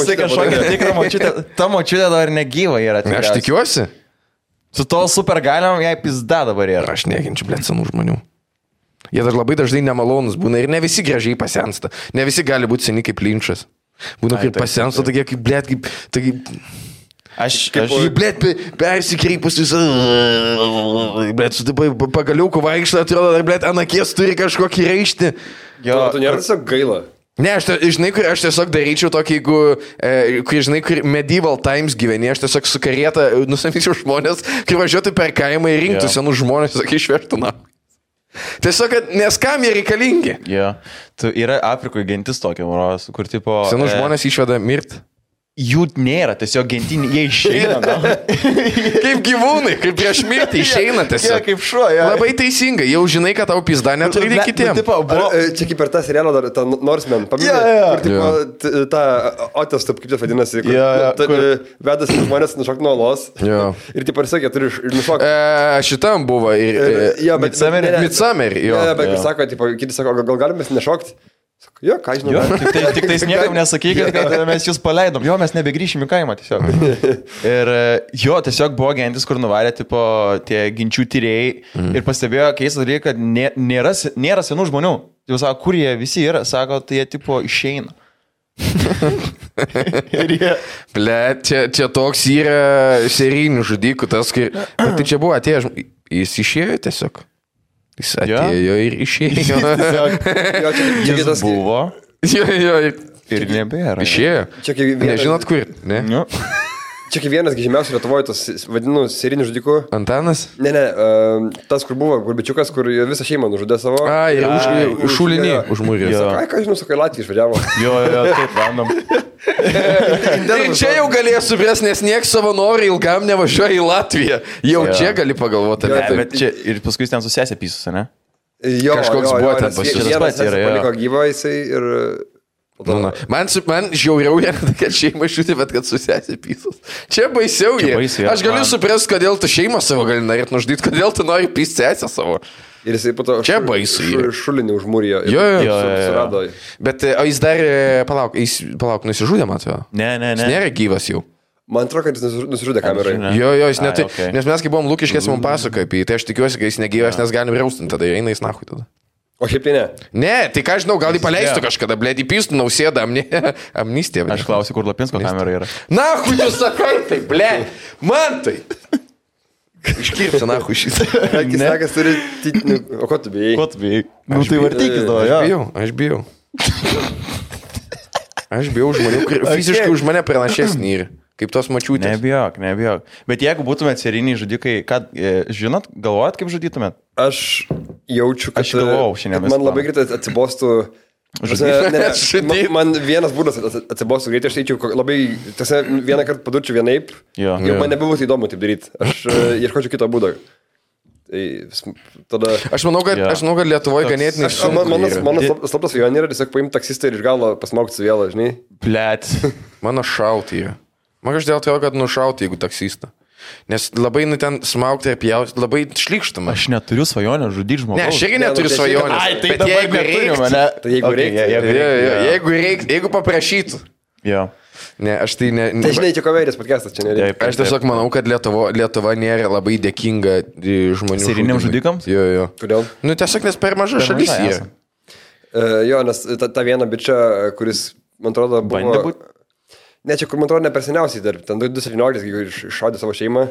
močiutė. Ta močiutė dar negyva yra. Aš tikiuosi. Su to super galiom jai pizda dabar yra. Aš neginčiu, ble, senų žmonių. Jie dar labai dažnai nemalonus būna ir ne visi gražiai pasensta. Ne visi gali būti seni kaip Linčas. Būna kaip pasensta, tokie kaip, ble, kaip... Aš ble, persikreipus visą... Ble, su taip pagaliuku vaikštą, atrodo, dar, ble, ant akies turi kažkokį raištį. Jo, tu nėra tiesiog gaila. Ne, žinai, kur aš tiesiog daryčiau tokį, jeigu, žinai, kur medieval times gyveni, aš tiesiog su karieta nusamyčiau žmonės, kai važiuotų per kaimą ir rinktų senus žmonės, sakai, išvežtų na. Tiesiog, nes kam jie reikalingi? Jo, tu yra Afrikoje gentis tokia, moros, kur tipo... Senus žmonės išveda mirti. Jų nėra, tiesiog gentinį, jie išeina. Kaip gyvūnai, kaip prieš mirtį išeina tiesiog. Jie kaip šuo, jo. Labai teisingai, jau žinai, kad tau pizda neturi kitiems. Čia kaip per tą serialą dar, tą Norseman, paminėjau, kur tipo, tą Otis, kaip tai vadinasi, vedasi žmonės nušokti nuo olos. Ir tipo, ir sakė, turi nušokti. Šitam buvo ir... Midsommar, jo. Bet kaip sako, tipo, kiti sako, gal galim mes nešokti? Jo, ką žinau. Tik tais niekam nesakykit, kad mes jūs paleidom. Jo, mes nebegrįšim į kaimą tiesiog. Ir jo, tiesiog buvo gentis, kur nuvarė tipo tie ginčių tyrėjai ir pastebėjo keistą dalyką, kad nėra senų žmonių. Jau sako, kur jie visi yra, sako, tai jie tipo išeina. Ir jie... Ble, čia toks yra serijinių žudikų, tas, kai... Bet tai čia buvo atėjęs, jis išėjo tiesiog. Jis atėjo ir išėjo. Jis buvo. Jo. Ir nebėra. Išėjo. Nežinot kur, ne? Čia kaip vienas žymiausių Lietuvoje, tas vadinu serinių žudikų. Antanas? Ne, tas, kur buvo, Gurbičiukas, kur visą šeimą nužudė savo. Ir šulinį užmūrė. Ką žinau, sakai, Latvija išvažiavo. Jo, taip, random. Ir čia jau galėjo suprasti, nes nieks savanoriai ilgam nevažiuoja į Latviją. Jau čia gali pagalvoti. Bet čia ir paskui ten susėsė pysus, ne? Jo, kažkoks buvo ten pasiūlymas. Vienas paliko gyvą jisai ir... Man žiauriau yra, kad šeima šūti, bet kad susėsė pysus. Čia baisiau yra. Aš galiu suprasti, kodėl tu šeimą savo gali norėti nužudyti, kodėl tu nori pysti sesę savo. Ir jisai po to šulinį užmūrijo. Jo. Bet o jis dar, palauk, nusižudė, matau. Ne. Jis nėra gyvas jau. Man atrodo, kad jis nusižudė kamerai. Jo, jis netai. Nes mes kai buvom Lukiškės, mums pasakoja apie jį, tai aš tikiuosi, kad jis negyvas, nes galim raustinti, tada eina jis nahui tada. O šiaip tai ne? Ne, tai ką žinau, gal jį paleistų kažkada, blėt, įpystų Nausėdą amnistiją. Aš klausiu, kur Lapinsko kamera yra. Nahui, tu sakai, tai, blėt, man tai. Iškirpsi, nahui, šitą. Akis sakas turi... O ko tu bijai? Nu tai vartykis tavo, jo. Aš bijau. Aš bijau žmonių, fiziškai už mane pranašesnį yra. Kaip tos mačiūtės. Nebijok. Bet jeigu būtumėt seriniai žudikai, ką, žinot, galvojat, kaip žudytumėt? Aš jaučiu, kad man labai greitai atsibostų... Man vienas būdas atsibostų greitai, aš eičiau labai... Vieną kartą padurčiau vienaip, jau man nebebūtų įdomu taip daryti. Aš ieškočiau kito būdo. Tada... Aš manau, kad Lietuvoje ganėtinai sunku. Mano slaptas svajonė yra tiesiog paimti taksistą ir iš galo pasmaukti su vėlą, žinai. Blet. Mano šauti yra. Man každėl tai, kad nušauti, jeigu taksistą. Nes labai ten smaukti ir pjauti, labai šlykštama. Aš neturiu svajonę žudyti žmogų. Ne, aš irgi neturiu svajonę. Bet jeigu reiktų, jeigu paprašytų. Jo. Ne, aš tai ne... Tai žinai, čia komerės podcastas čia nereikia. Aš tiesiog manau, kad Lietuva nėra labai dėkinga žmonių. Seriniams žudikams? Jo. Kodėl? Nu, tiesiog nes per maža šalis yra. Jo, nes ta viena bičia, kuris, man atrodo, buvo... Ne, čia kur man atrodo ne per seniausiai dar, ten 2017, kai iššaudė savo šeimą,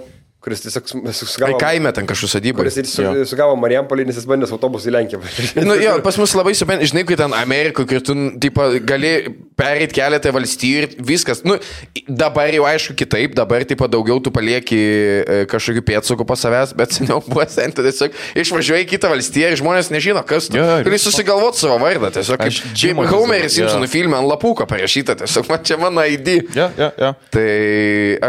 kuris tiesiog sugavo... Kaime ten kažkokiu sodybą. Kuris sugavo Marijampolį, nes jis bandė autobusų į Lenkiją. Nu, jo, pas mus labai supranti, žinai, kai ten Amerikoje, kai tu gali pereit keletą valstijų ir viskas. Nu, dabar jau aišku kitaip, dabar taip daugiau tu palieki kažkokių pėdsakų pas savęs, bet seniau buvo senti, tiesiog išvažiuoji į kitą valstiją ir žmonės nežino, kas tu. Gali susigalvoti savo vardą, tiesiog kaip Homeris Simpsonų filme ant lapuko parašyta, tiesiog man čia mano ID. Tai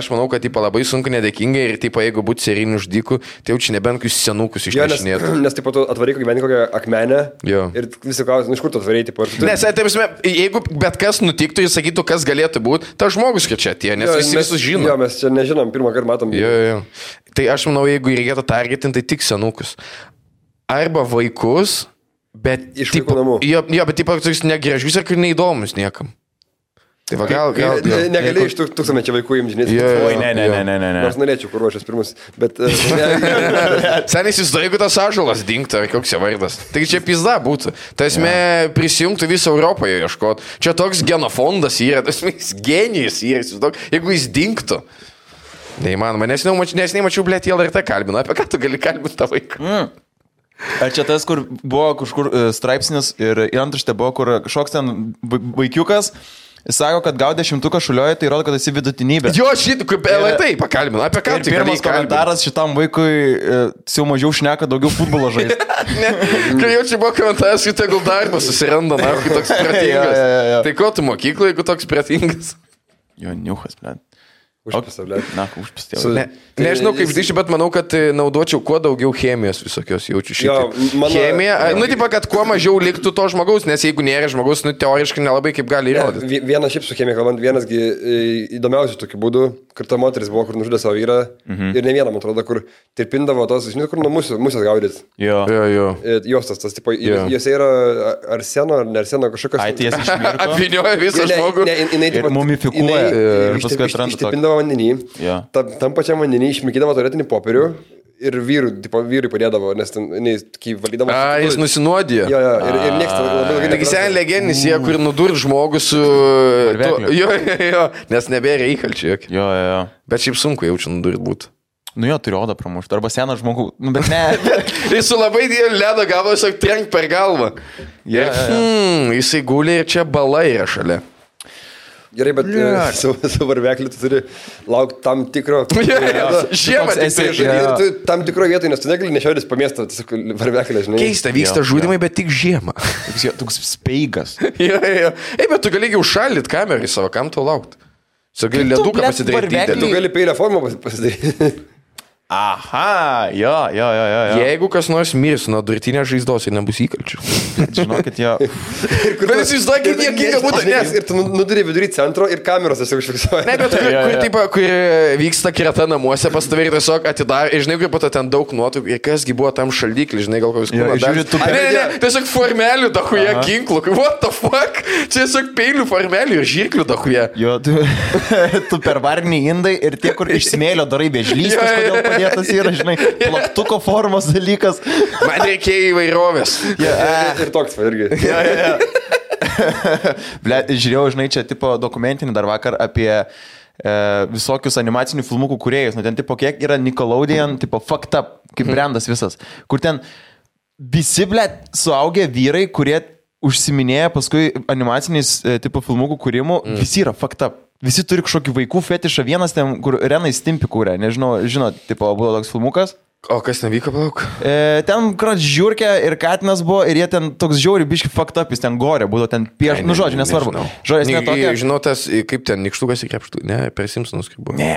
aš manau, kad labai sunku nedėkingai ir jeigu būtų serinių žudikų, tai jau čia nebent kokius senukus išnešinėtų. Nes taip pat atvaryk gyveni kokią akmenę ir visi klausia, iš kur tu atvarėjai, taip pat. Nes, jeigu bet kas nutiktų, jis sakytų, kas galėtų būti, ta žmogus čia atėjo, nes visi visus žino. Jo, mes čia nežinom, pirmą kartą matom. Jo. Tai aš manau, jeigu reikėtų targetinti, tai tik senukus. Arba vaikus, bet... Iš vaikų namų. Jo, bet taip pat negražius ir neįdomus niekam. Tai va, gal... Negali iš tūkstantmečio vaikų imžinėti. Oi, ne. Nors norėčiau, kur ruošias pirmus, bet... Seniai įsivaizduoju, jeigu tas ąžuolas dingtų, ar koks jo vardas. Tai čia pizda būtų. Tai esmė prisijungtų visą Europoje ieškoti. Čia toks genofondas yra, tas genijus yra, jeigu jis dingtų. Neįmanoma, nes nemačiau, blėt, LRT kalbino. Apie ką tu gali kalbinti tą vaiką? Ar čia tas, kur buvo kažkur straipsnis ir antraštė buvo, kur kažkoks ten vaikiukas sako, kad gaudė 100 šulioje, tai rodo, kad esi vidutinybė. Jo, šitą, kaip LRT pakalbino. Apie ką tu pirmas komentaras šitam vaikui jau mažiau šneka, daugiau futbolo žaisti. Kai jau čia buvo komentaras, kad tegul darbą susiranda, na, kai toks pratingas. Tai ko tu mokyklai, jeigu toks pratingas? Jo, niuchas, blėt. Užpistė. Užpistė. Nežinau kaip žinai, bet manau, kad naudočiau kuo daugiau chemijos visokios, jaučiu šitą. Chemija, tipa, kad kuo mažiau liktų to žmogaus, nes jeigu nėra žmogaus, teoriškai nelabai kaip gali įrodyti. Vienas šiaip su chemija kalbant, vienasgi įdomiausių tokių būdų, kur ta moteris buvo, kur nužudė savo vyrą ir ne vieną, man atrodo, kur tirpindavo tos, žinai, kur nuo musės gaudys. Jo. Jos tas, tipo, jose yra arseno ar nearseno kažkokios... Ai, ties išmirko. Apvinioja visą žmogų. Ir mumifikuoja. Ir paskui atranda tokį. Vandenį, tam pačiam vandenį išmikydavo tualetinį popierių ir vyrui padėdavo, nes ten, kai valydavo... Jis nusinuodė. Jo, ir nieks labai ilgai... Taigi sen legendinis, jie, kur nudurt žmogus su... Jo, nes nebėra įkalčių. Jo. Bet šiaip sunku jaučiu nudurt būtų. Nu jo, turi odą pramušti, arba seną žmogų, bet ne. Jis su labai dėlį ledo gavo, tiesiog trenk per galvą. Jisai guli ir čia bala yra šalia. Gerai, bet su varvekliu tu turi laukti tam tikro... Žiemą ir tam tikro vietoj, nes tu negali nešiotis po miestą, tiesiog varveklį, žinai. Keista, vyksta žudimai, bet tik žiemą. Toks speigas. Bet tu gali užšaldyt kamerą į savo, kam tau laukti? Tu gali leduką pasidaryti. Tu gali peilio formą pasidaryti. Aha, jo. Jeigu kas nors mirs nuo durtinės žaizdos ir nebus įkalčių. Žinokit, jo. Bet jis įsivaizduoja, kaip niekinga būtų, nes... Ir tu nuduri vidury centro ir kameros tiesiog užfiksuoja. Ne, bet kur vyksta kreta namuose, pas tavai tiesiog atidar, ir žinai, kaip pato ten daug nuotraukų, ir kasgi buvo tam šaldyklį, žinai, gal kokius kūną dar. Ne, tiesiog formelių dahuje ginklų, what the fuck, čia tiesiog peilių formelių ir žirklių dahuje. Jo, tu per varnį indai ir tie, kur iš smėlio darai bežlystas, kodėl padėtas yra, žinai, plaktuko formos dalykas. Man reikėjo įvairovės. Ir toks, irgi. Žiūrėjau, žinai, čia tipo dokumentinį dar vakar apie visokius animacinių filmukų kūrėjus. Nu, ten tipo kiek yra Nickelodeon, tipo fucked up, kaip brandas visas. Kur ten visi, suaugę vyrai, kurie užsiminėja paskui animaciniais tipo filmukų kūrimų, visi yra fucked up. Visi turi kažkokį vaikų fetišą. Vienas ten, kur Renai Stimpy kūrė, nežinau, žinot, tipo, buvo toks filmukas. O kas nevyko, palauk? Ten krat žiūrkė ir katinas buvo ir jie ten toks žiauri biški fucked up, jis ten gorė, būdavo ten pieš, nu žodžiu, nesvarbu. Žodžiu, netokia. Žinau, tas, kaip ten, nikštukas į krepštų, ne, per Simpsonus kaip buvo. Ne,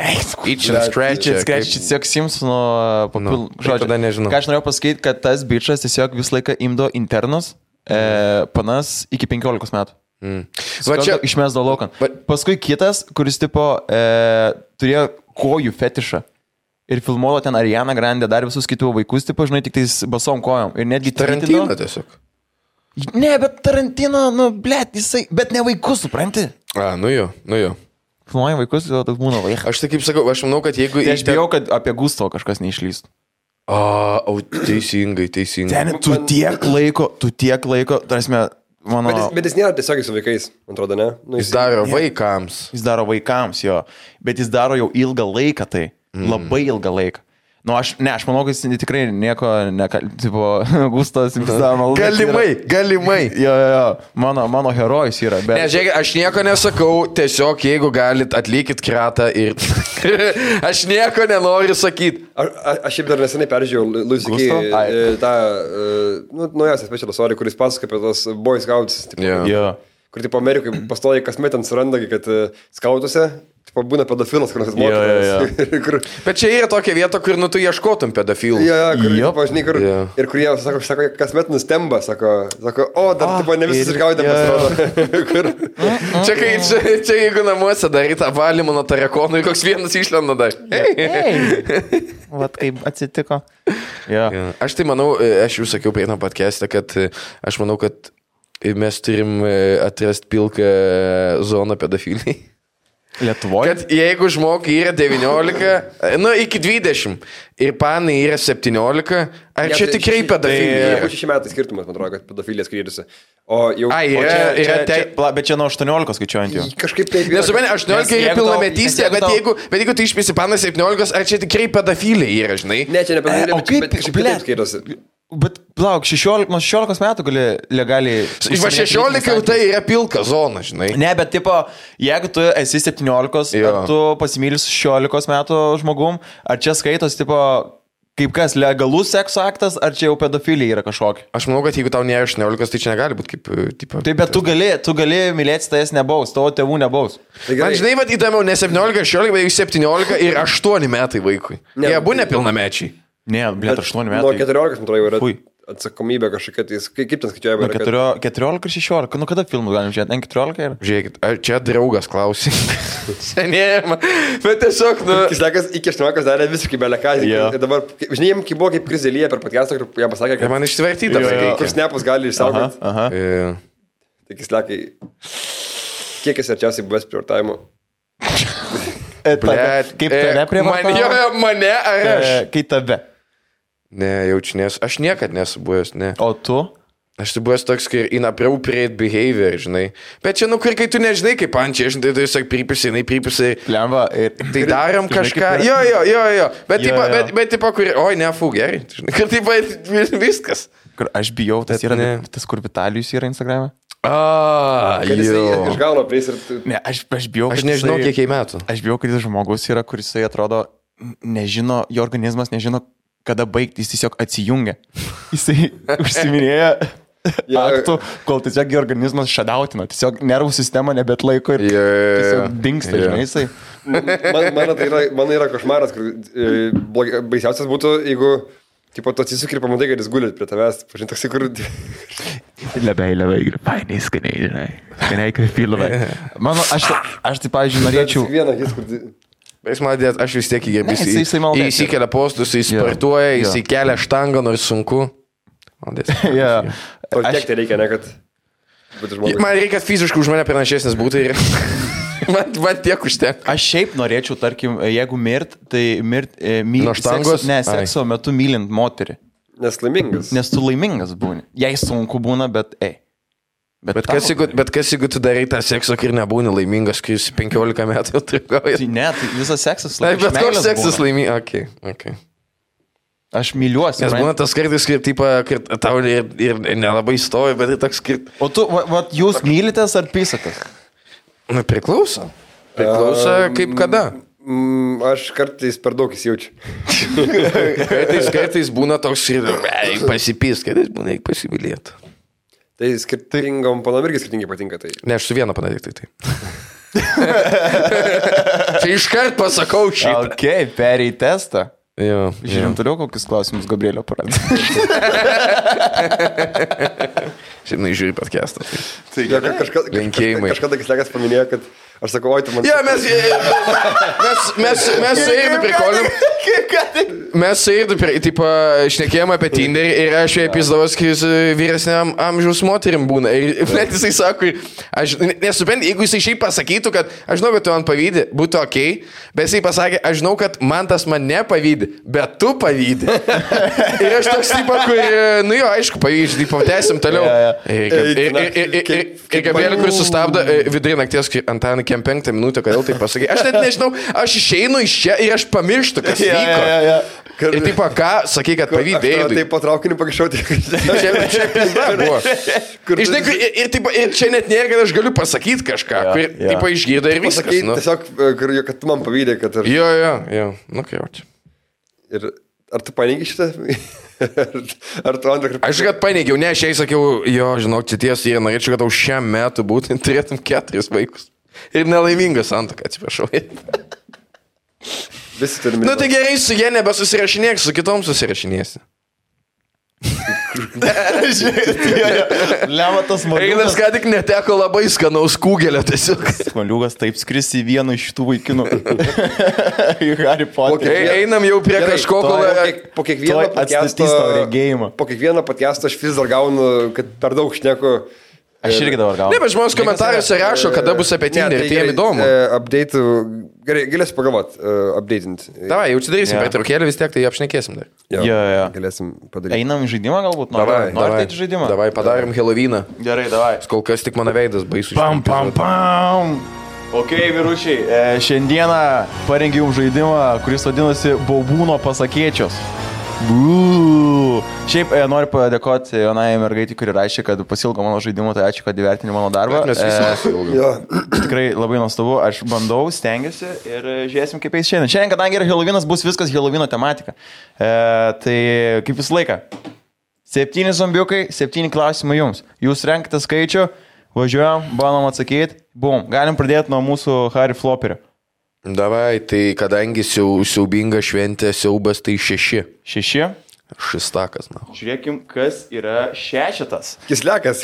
Itch and Scratch, tiesiog Simpsono papil, žodžiu. Tada nežinau. Ką aš norėjau pasakyti, kad tas bičas tiesiog visą laiką imdo internus, panas iki 15 metų. Va čia išmesdavo laukan. Paskui kitas, kuris tipo turėjo kojų fetišą. Ir filmuodo ten Ariana Grande, dar visus kitų vaikus, tipo, žinai, tik tais basom kojom. Ir netgi Tarantino tiesiog. Ne, bet Tarantino, nu, blėt, jisai, bet ne vaikus, supranti? Nu jo. Filmuoja vaikus, toks būna vaikas. Aš tai kaip sakau, aš manau, kad jeigu... Aš bijau, kad apie Gusto kažkas neišlystų. Teisingai. Ten, tu tiek laiko, tarsi, mano... Bet jis nėra tiesiogiai su vaikais, man atrodo, ne? Nu, jis daro vaikams. Jis daro vaikams, jo. Bet jis daro jau ilgą laiką tai. Labai ilgą laiką. Nu, aš manau, kad jis tikrai nieko, tipo, Gustas, Galimai. Jo, mano herojus yra. Bet... Ne, žiūrėk, aš nieko nesakau, tiesiog jeigu galit, atlikit kratą ir... Aš nieko nenoriu sakyti. Aš šiaip dar nesenai peržiūrėjau Louis C.K. tą naujausią specialą sorį, kuris pasakoja apie tos Boy Scouts. Kur, tipo, Amerikai pastoja kasmet ant suranda, kad skautuose tipo, būna pedofilas, kur nors mokytas. Bet čia yra tokia vieta, kur tu ieškotum pedofilų. Ir kur jie, sako, kasmet nustemba, sako, tipo, ne visi išgaudė pasirodo. Čia jeigu namuose darai tą valymą nuo tarakonų ir koks vienas išlenda dar. Vat kaip atsitiko. Aš tai manau, aš jau sakiau prie podcast'ą, kad aš manau, kad mes turim atrasti pilką zoną pedofiliai. Lietuvoje? Kad jeigu žmogui yra 19, iki 20 ir panai yra 17, ar čia tikrai pedofilija? Tai 6 metai skirtumas, man atrodo, kad pedofilija skiriasi. Bet čia nuo 18 skaičiuojant jau. Kažkaip taip. Nesupranti, 18 yra pilnametystė, bet jeigu tu išpisi panas 17, ar čia tikrai pedofilija yra, žinai? Ne, čia ne pedofilija, bet kažkaip taip skiriasi. Bet, plauk, 16 metų gali legaliai... 16 jau tai yra pilka zona, žinai. Ne, bet, tipo, jeigu tu esi 17, ar tu pasimylis 16 metų žmogum, ar čia skaitos, tipo, kaip kas, legalus sekso aktas, ar čia jau pedofilija yra kažkokia? Aš manau, kad jeigu tau nėra 18, tai čia negali būti kaip, tipo... Taip, bet tu gali mylėti, tai jas nebaus, tavo tėvų nebaus. Man, žinai, vad įdomiau, ne 17, 16, bet jau 17 ir 8 metai vaikui. Jie abu nepilnamečiai. Ne, blėt, 8 metai. Nuo 14, man atrodo, jau yra atsakomybė kažkokia, tai kaip ten skaičiuojama? 14 ir 16, nu kada filmus galim žiūrėti, N14 yra? Žiūrėkit, čia draugas klausė. Senėjama, bet tiesiog, Iki 18 darė visiškai beleką. Ir dabar, žinai, kai buvo kaip Krizelyje per podcastą, kur jam pasakė, kad... Man išsivertyta, kur snapus gali išsaugoti. Tai Kislekai, kiek esi arčiausiai buvęs prievartavimo? Kaip tave prievartavo? Mane ar aš? Kaip tave? Ne, jaučiu, aš niekad nesu buvęs, ne. O tu? Aš tai buvęs toks, kai inappropriate behavior, žinai. Bet čia, kur kai tu nežinai, kaip ančiai, žinai, tai tiesiog pripisi. Plemba. Tai darom kažką. Jo. Bet tipo, kur... Oi, ne, gerai. Kur tipo, viskas. Kur aš bijau, tas yra, tas kur Vitalijus yra Instagram'e. Kad jisai išgauna pris ir... Ne, aš bijau, aš nežinau, kiek metų. Aš bijau, kad jis žmogus yra, kuris atrodo, nežino, jo organizmas nežino, kada baigti, jis tiesiog atsijungia. Jisai užsiminėja aktų, kol tiesiog organizmas šadautina, tiesiog nervų sistema nebet laiko ir tiesiog dingsta, žinai, jisai. Man yra košmaras, kur baisiausias būtų, jeigu tipo, tu atsisuk ir pamatai, kad jis guli prie tavęs, pažinti toksai, kur... Labai, fainiai, skaniai, žinai. Skaniai, kaip filovai. Mano, aš tai, pavyzdžiui, norėčiau... Bet jis madės, aš vis tiek jis įkelia postus, jis sportuoja, jis įkelia štangą, nors sunku. O tiek tai reikia, ne, kad... Man reikia fiziškai už mane pranašesnis būti ir... Man tiek užtenka. Aš šiaip norėčiau, tarkim, jeigu tai nuo štangos? Sekso metu mylint moterį. Nes laimingas. Nes tu laimingas būni. Jei sunku būna, bet Bet kas jeigu tu darai tą seksą ir nebūni laimingas, kai jis 15 metų trikauja? Tai ne, tai visas seksas laimingas. Bet koks seksas laimingas? Okay. Aš myliuosi. Nes būna tas kartais, kad tau ir nelabai stovi, bet tai toks kaip... O tu, jūs mylitės ar pysatės? Priklauso. Priklauso kaip kada. Aš kartais per daug įsijaučiu. Kartais būna toks ir pasipys, kartais būna eik pasimylėti. Tai skirtingom panom irgi skirtingai patinka tai. Ne, aš su viena panadik tai. Čia iškart pasakau šitą. Ok, perėjai testą. Jo. Žiūrim toliau, kokius klausimus Gabrielio paradė. Šiandien žiūri podcastą. Tai kažkada Kislekas paminėjo, kad aš sakau, oi, tu man... Jo, mes su Eidu prikolim. Mes su Eidu, tipo, šnekėjom apie Tinderį ir aš jai pizdavos, kai jis vyresniam amžiaus moterim būna. Ir net jisai sako, aš nesuprantu, jeigu jisai šiaip pasakytų, kad aš žinau, kad tu man pavydi, būtų ok, bet jisai pasakė, aš žinau, kad man tas man nepavydi, bet tu pavydi. Ir aš toks tipo, kur, nu jo, aišku, pavyzdžiui, tipo, tęsim toliau. Ir Gabrielė, kuris sustabdo vidurį nakties, Antanai, kem 5 minutę, kodėl tai pasakai. Aš net nežinau, aš išeinu iš čia ir aš pamirštu, kas vyko. Ir taip, ką, sakai, kad pavydėjai. Taip patraukini pakščiauti. Čia pizda buvo. Ir čia net nėra, kad aš galiu pasakyti kažką. Taip, išgirdo ir viskas. Tiesiog, kad tu man pavydėjai, kad... Jo. Nu, kai jau čia. Ir ar tu paneigi šitą? Ar tu antrą kartą? Aš kad paneigiau, ne, aš jai sakiau, jo, žinok, čia tiesa, ir norėčiau, kad tau šiam metu būtent turėtum 4 vaikus. Ir nelaimingas santuoka, atsiprašau. Visi turime. Nu tai gerai, su jie nebesusirašinėk, su kitom susirašinėsi. Lematas Maliukas. Einas ką tik neteko labai skanaus kūgelio tiesiog. Maliukas taip skris į vieną iš šitų vaikinų. Į Harry Potter. Einam jau prie kažko, po kiekvieno podcast'o aš vis dar gaunu, kad per daug šneku. Aš irgi dabar gaunu. Ne, bet žmonės komentaruose rašo, kada bus apie Tinder ir tai jiem įdomu. Update'ų, gerai, galėsim pagalvoti, update'int. Davai, jau čia darysim pertraukėlę vis tiek, tai apšnekėsim dar. Jo. Galėsim padaryti. Einam į žaidimą galbūt? Davai, Norite žaidimą? Davai, padarim Halloweeną. Gerai, davai. Kol kas tik mano veidas baisu. Pam. Ok, vyručiai, šiandieną parengiau žaidimą, kuris vadinasi Baubūno pasakėčios. Šiaip noriu padėkoti jaunai mergaitį, kuri rašė, kad pasilgo mano žaidimą, tai ačiū, kad įvertini mano darbą. Tikrai labai nuostabu, aš bandau, stengiuosi ir žiūrėsim, kaip eis šiandien. Šiandien, kadangi yra Halloweenas, bus viskas Halloweeno tematika. Tai kaip visą laiką. 7 zombiukai, 7 klausimai jums. Jūs renkate skaičių, važiuojam, bandom atsakyti. Bum, galim pradėti nuo mūsų Harry Flopperio. Davai, tai kadangi siaubinga šventė, siaubas, tai 6. 6? Šistakas, na. Žiūrėkim, kas yra 6. Kislekas.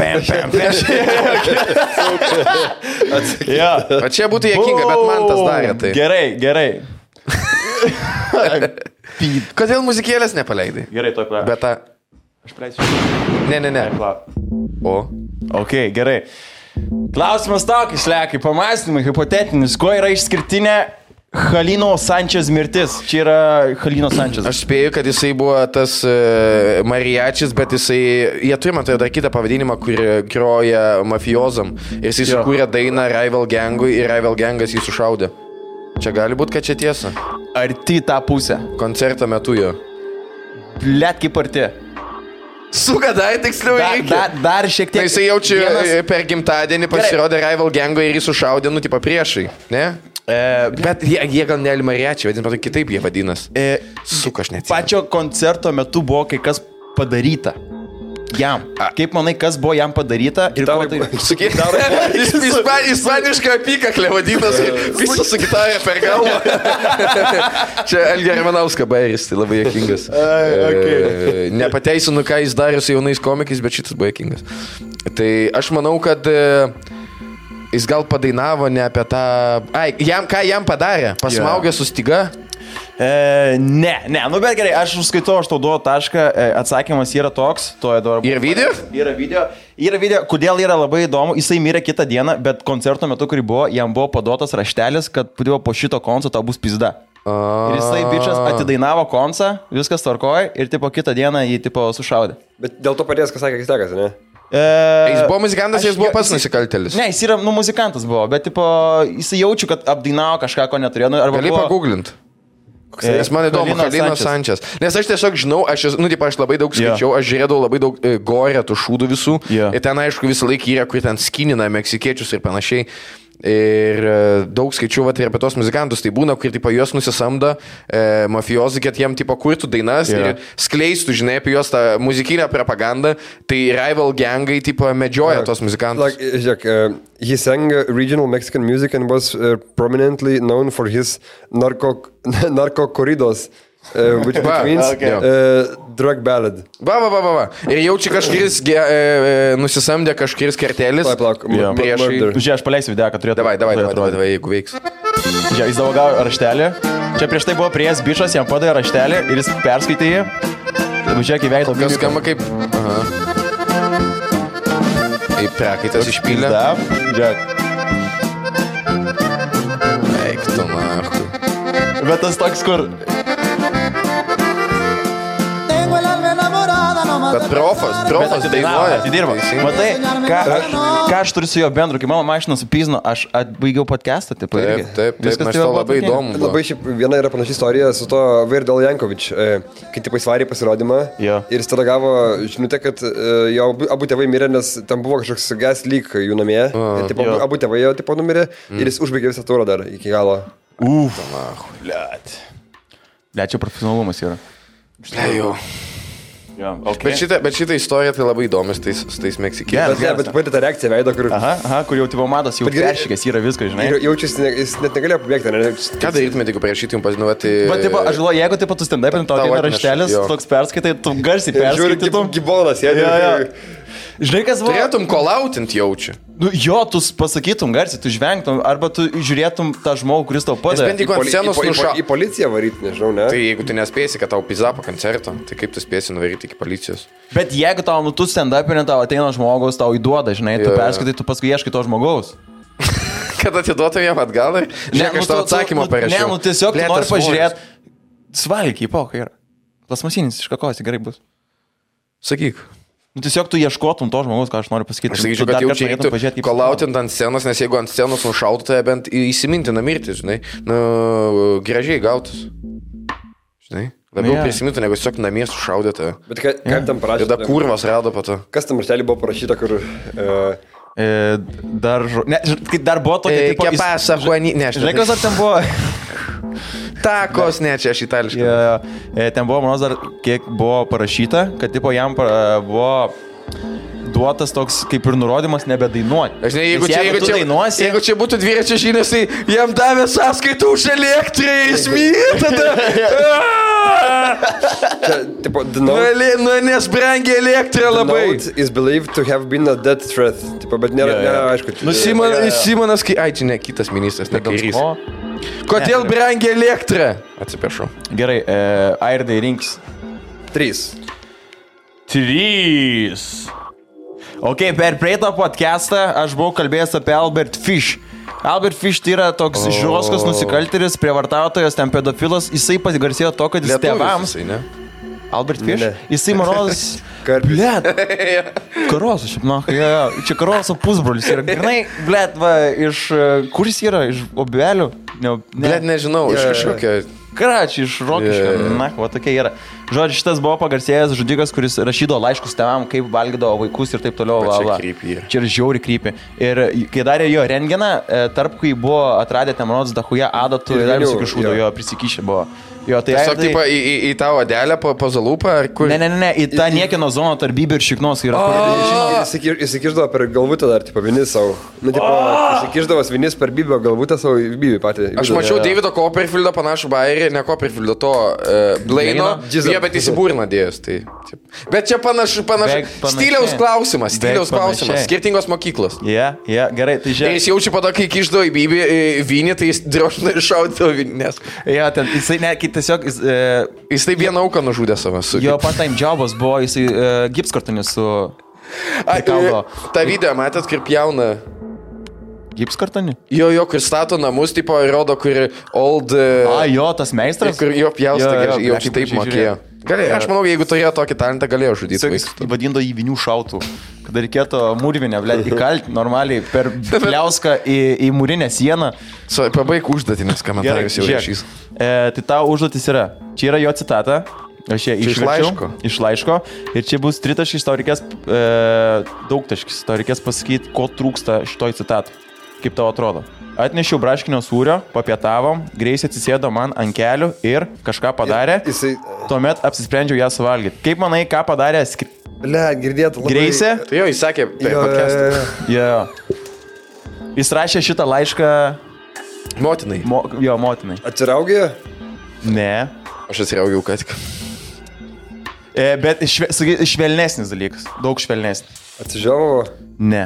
O čia būtų juokinga, bet man tas darė tai. Gerai. Kodėl muzikėlės nepaleidai? Gerai, to klausiu. Bet tą... Aš praleisiu. Ne. O? Ok, gerai. Klausimas tokis, Lekai, pamąstymai, hipotetinis. Kuo yra išskirtinė Halino Sančes mirtis? Čia yra Halino Sančes. Aš spėju, kad jisai buvo tas mariachis, bet jisai... Jie turi, man tai dar kitą pavadinimą, kur groja mafiozam. Ir jisai sukūrė dainą Rival Gangui ir Rival Gangas jį sušaudė. Čia gali būti, kad čia tiesa. Arti tą pusę. Koncerto metu jo. Blet kaip arti. Suka, dar tiksliau reikia. Dar šiek tiek. Na, jisai jaučia per gimtadienį pasirodė Rival Gango ir jį sušaudė, nu, tipo priešai, ne? Bet jie gal ne mariačiai vadina, bet kitaip jie vadinas. Suka, aš neatsimenu. Pačio koncerto metu buvo kai kas padaryta. Jam. Kaip manai, kas buvo jam padaryta ir ko tai... Ispanišką apykaklę vadinas, visas su gitarė per galvą. Čia Elgė Ramanauska bairis, tai labai juokingas. Nepateisinu, ką jis darė su jaunais komikais, bet šitas buvo juokingas. Tai aš manau, kad jis gal padainavo ne apie tą... Ką jam padarė? Pasmaugė su styga? Ne, nu bet gerai, aš užskaitau, aš tau duodu tašką, atsakymas yra toks. Yra video? Yra video, kodėl yra labai įdomu, jisai mirė kitą dieną, bet koncerto metu, kurį buvo, jam buvo paduotas raštelis, kad po šito konco tau bus pizda. Ir jisai bičias atidainavo koncą, viskas tvarkoja ir tipo kitą dieną jį tipo sušaudė. Bet dėl to padės, kas sakė, Kislekas, ne? Jis buvo muzikantas, jis buvo pats nusikaltėlis. Ne, jis yra, muzikantas buvo, bet tipo, jisai jaučiu, kad apdainavo kažką, ko neturėjo. Gali paguglinti. Nes man įdomu, Halino Sančes. Nes aš tiesiog žinau, aš labai daug skaičiau, aš žiūrėdavau labai daug gore tų šūdų visų. Ir ten, aišku, visą laiką yra, kur ten skinina meksikiečius ir panašiai. Ir daug skaičiau ir apie tos muzikantus, tai būna, kur tipo, juos nusisamdo mafijozai, kad jiem tipo, kurtų dainas ir skleistų, žinai, apie juos tą muzikinę propagandą, tai Rival Gangai tipo, medžioja tos muzikantus. He sang regional Mexican music and was prominently known for his narco corridos. Which means drug ballad. Va. Ir jaučia kažkuris nusisamdė kažkuris kartelis. Priešai. Žiūrėk, aš paleisiu video, kad turėtų. Davai, jeigu veiks. Žiūrėk, jis davogavo raštelį. Čia prieš tai buvo prieės bičas, jam padavė raštelį ir jis perskaitė jį. Žiūrėk, į veidą. Kas skamba kaip... Kaip prakaitas išpylė. Žiūrėk. Eik tu marku. Bet tas toks, kur... bet profas dainuoja. Atidirba. Matai, ką aš turiu su jo bendru, kai mano mašina supyzino, aš atbaigiau podcastą, taip. Taip, man šito labai įdomu. Labai šiaip viena yra panaši istorija su to Verdal Jankovič, kai taip įsvarė pasirodymą ir jis tada gavo žinutę, kad jo abu tėvai mirė, nes tam buvo kažkoks gas leak jų namie. Abu tėvai jo tipo numirė ir jis užbaigė visą turą dar iki galo. Čia profesionalumas yra. Jau. Okay. Bet šitą istoriją tai labai įdomis su tais meksikiečiais. Bet pati ta reakcija veido, kur... Kur jau tipo matos, jau peršykęs yra viskas, žinai. Jaučiasi, jis net negalėjo pabėgti, ne? Ką darytumėte, jeigu prašytum pasinuoti... Bet tipo, aš galvoju, jeigu tipo tu stand-upin, tau ateina raštelis, toks perskaitai, tu garsiai perskaitytum. Žiūri, gibonas, Žinai, kas buvo? Turėtum kolautint jaučiu. Nu, jo, tu pasakytum garsiai, tu žvengtum, arba tu žiūrėtum tą žmogų, kuris tau padeda. Į policiją varyti, nežinau, ne? Tai jeigu tu nespėsi, kad tau pizza po koncerto, tai kaip tu spėsi nuvaryti iki policijos? Bet jeigu tau, tu stand-upinė, tau ateina žmogaus, tau įduoda, žinai, tu perskaitai, tu paskui ieškai to žmogaus. Kad atiduotum jam atgal ir žiūrėk, aš tau atsakymą parašiau. Ne, tiesiog tu nori pažiūrėti. Svalgiai, pokai yra. Plasmasinis iš kakos, gerai bus. Sakyk. Tiesiog tu ieškotum to žmogaus, ką aš noriu pasakyti. Aš sakyčiau, kad jaučiai reiktų kolautint ant scenos, nes jeigu ant scenos nušautų, tai bent įsimintina mirti, žinai. Gražiai gautus. Žinai. Labiau prisimintų, negu tiesiog namie sušaudėte. Bet kaip tam parašyta? Ir da kurvas rado po to. Kas tam raštelį buvo parašyta, kur... Dar buvo tokia... Che pasa, Juani... Žinai, kas ar ten buvo... Takos, ne, čia aš itališkai. Ten buvo, manos, dar kiek buvo parašyta, kad tipo jam buvo duotas toks kaip ir nurodymas nebedainuoti. Aš ne, jeigu čia būtų dviračio žinios, tai jam davė sąskaitų už elektrą, jis myli tada. Nes brangia elektra labai. The note is believed to have been a death threat. Bet nėra, aišku. Simonas, ai, čia ne kitas ministras, ne kairys. Kodėl brangia elektra? Atsiprašau. Gerai, Airdai rinks. 3. Ok, per praeitą podcastą aš buvau kalbėjęs apie Albert Fish. Albert Fish tai yra toks žiūroskas nusikaltėlis, prievartautojas, ten pedofilas. Jisai pasigarsėjo to, kad jis tėvams... Albert Fish? Jisai, manos... Blet. Karoso, šiaip, čia Karoso pusbrolis yra. Grinai, blet, va, iš... Kur jis yra? Iš Obelių? Blet, nežinau, iš kažkokio... Karačiai, iš Rokiškio. Va, tokia yra. Žodžiu, šitas buvo pagarsėjęs žudikas, kuris rašydavo laiškus tėvam, kaip valgydavo vaikus ir taip toliau. Čia yra žiauri krypį. Ir kai darė jo rentgeną, tarp kai buvo atradę ten, manos, dachuja adatų ir dar visokių šūdų, jo prisikišę buvo. Jo, tai tiesiog taip į tą odelę po zalūpą ar kur? Ne, į tą niekino zoną tarp Bybį ir Šiknos yra. Įsikiždavo per galvutę dar, tipo, vinis savo. Įsikiždavo vinis per Bybio galvutę savo Bybį patį. Aš mačiau Davido Copperfieldo panašų bairį, ne Copperfieldo, to Blaino, bet įsibūrina dėjus. Bet čia panašu, stiliaus klausimas, skirtingos mokyklos. Gerai, tai žiūrėk. Ir jis jaučia po to, kai kiždavo į Bybį vinį, tai jis drožina ir šaudavo vinės. Jisai tiesiog... Jis taip vieną auką nužudė savo. Jo part-time jobas buvo, jisai gipskartonis su... Ta video matėt, kaip jauna... Gipskartonį? Jo, kur stato namus, tipo, rodo, kur old... Jo, tas meistras? Kur jo pjausta, jau taip mokėjo. Aš manau, jeigu turėjo tokį talentą, galėjo žudyti vaikus. Vadindo į vinių šautų, kada reikėtų mūrvinę, įkalti normaliai per pliauską į mūrinę sieną. Pabaig užduotį, nes komentaras jau rašys. Tai tau užduotis yra. Čia yra jo citata. Aš ją išverčiau. Iš laiško. Ir čia bus tritaškis, tau reikės daugtaškis. Tau reikės pasakyti, ko trūksta šitoj citatui. Kaip tau atrodo? Atnešiau braškinio sūrio, papietavom, Greisė atsisėdo man ant kelių ir kažką padarė. Tuomet apsisprendžiau ją suvalgyti. Kaip manai, ką padarė girdėtų labai... Greisė? Tai jo, jis sakė per podcastą. Jis rašė šitą laišką... Motinai. Motinai. Atsiraugė? Ne. Aš atsiraugiau ką tik. Bet švelnesnis dalykas. Daug švelnesnis. Atsižiavo? Ne.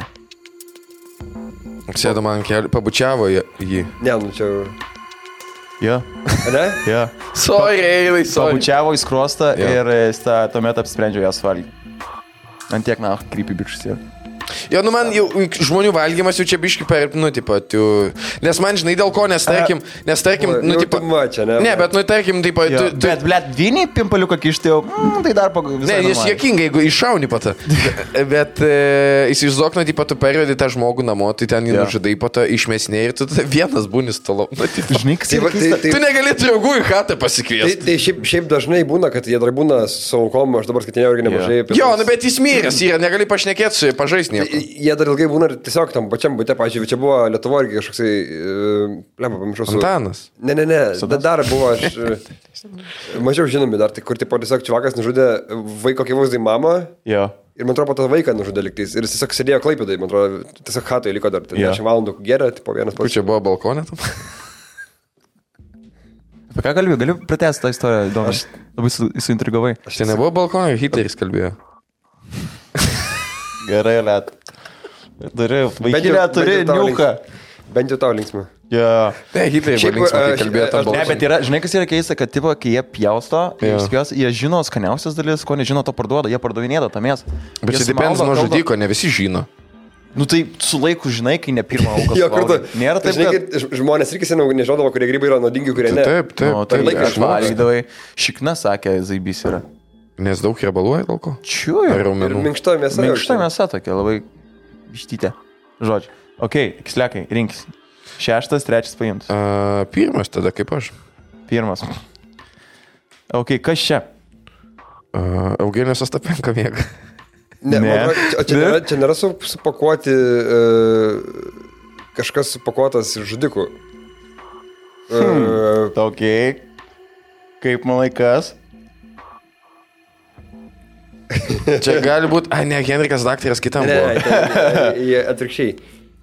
Sėdo man kelių, pabučiavo jį. Ne, čia... Jo. Ne? Jo. Sorry. Pabučiavo į skruostą ir tuomet apsisprendžiau ją suvalgyti. Ant tiek, krypy bičius yra. Jo, nu man jau žmonių valgymas jau čia biški per, nu, tipo, nes man žinai dėl ko, nes tarkim, nu, tipo, ne, bet, nu, tarkim, tipo, bet, blėt, vyniai pimpaliuką kišti jau, tai dar visai. Ne, jis juokingai, jeigu iššauni patą. Bet įsivaizduok, nu, tipo, tu pervedi tą žmogų namo, tai ten jį nužudai, patą išmesnė ir tu vienas būni stalo. Žinai, kas yra keista. Tu negali draugų į chatą pasikviesti. Tai šiaip dažnai būna, kad jie dar būna su aukom, aš dabar skaitinėjau irgi nemažai. Jo, nu bet jis miręs yra, negali pašnekėti su pažais nieko. Jie dar ilgai būna tiesiog tam pačiam bute, pažiūrėjau, čia buvo Lietuvoje irgi kažkoksai, lemba, pamiršau su... Antanas. Ne, dar buvo aš... Mažiau žinomi dar, tai kur tipo tiesiog čivakas nužudė vaiko akivaizdai mamą. Jo. Ir man atrodo, tą vaiką nužudė liktais. Ir jis tiesiog sėdėjo Klaipėdai, man atrodo, tiesiog chatoje liko dar 10 valandų geria, tipo vienas pats. Kur čia buvo balkonė tam? Apie ką kalbėjau? Galiu pratęsti tą istoriją, įdomu. Aš labai suintrigavai. Čia nebuvo balkonė, Hitleris kalbėjo. Gerai, Liet. Turi niuką. Bent jau tau linksmą. Yeah. Ne, Hitleris buvo linksmą, kai kalbėjo tą balkonę. Ne, bet yra, žinai, kas yra keista, kad tipo, kai jie pjausto, jie žino skaniausias dalis, ko nežino, to parduoda, jie pardavinėda tą mėsą. Bet čia depends nuo žudiko, ne visi žino. Nu tai su laiku žinai, kai ne pirmą auką. Jo, kartu. Nėra taip, kad žmonės irgi seniau nežinodavo, kurie grybai yra naudingi, kurie ne. Taip. Tai laiką aš valgydavai. Šikna sakė, zaibys yra. Nes daug riebaluoja dėl ko? Čiūju. Ir minkšta mėsa. Minkšta mėsa tokia, labai vištytė. Žodžiu. Ok, kislekai, rinkis. 6, 3 paimtas. Pirmas tada, kaip aš. Pirmas. Ok, kas čia? Eugenijos Ostapenko mėga. Ne. Čia nėra supakuoti kažkas supakuotas žudikų. Ok. Kaip manai kas? Čia gali būti, ne, Henrikas daktaras kitam buvo. Ne, atvirkščiai.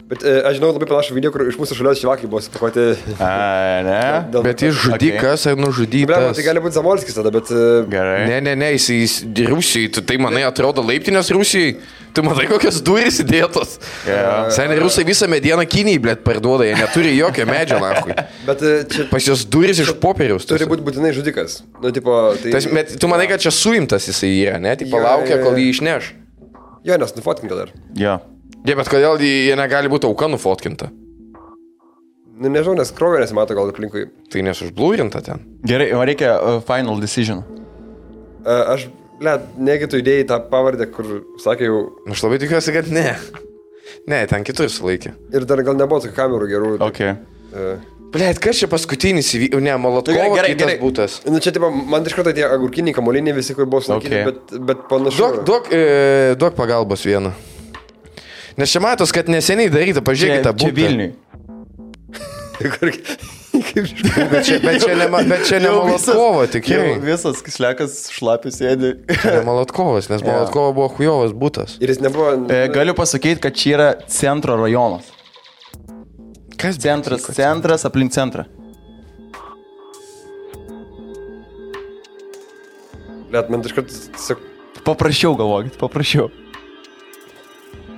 Bet aš žinau labai panašų video, kur iš mūsų šalios šivakai buvo supakuoti. Ne. Bet jis žudikas ar nužudytas. Tai gali būti Zamolskis tada, bet... Gerai. Ne, jis Rusijai, tu tai manai atrodo laiptinės Rusijai. Tu matai kokios durys įdėtos. Seniai Rusai visą medieną Kinijai, blėt, parduoda, jie neturi jokio medžio, lakui. Bet čia... Pas jos durys iš popieriaus. Turi būti būtinai žudikas. Nu, tipo, tai... Bet tu manai, kad čia suimtas jisai yra, ne? Tipo, laukia, kol jį išneš. Jo, nes nufotkinta dar. Jo. Ne, bet kodėl jie negali būti auka nufotkinta? Nu, nežinau, nes kraujo nesimato gal aplinkui. Tai nesužblūrinta ten. Gerai, man reikia final decision. Aš, negi tu idėjai tą pavardę, kur sakė jau... Aš labai tikiuosi, kad ne. Ne, ten kitur sulaikė. Ir dar gal nebuvo tokių kamerų gerų. Ok. Blėt, kas čia paskutinis įvyko? Ne, Molotkovo kitas būtas. Nu, čia, tipo, man iš karto tie agurkiniai kamoliniai visi, kur buvo sulaikyti, bet panašu. Duok pagalbos vieną. Nes čia matos, kad neseniai daryta, pažiūrėkite tą būtą. Čia Vilniui. Bet čia ne Molotkovo, tikrai. Visas kislekas šlapis sėdi. Čia ne Molotkovas, nes Molotkovo buvo chujovas būtas. Ir jis nebuvo... Galiu pasakyti, kad čia yra centro rajonas. Kas centras aplink centrą. Man iš karto... Paprašiau galvokit, paprašiau.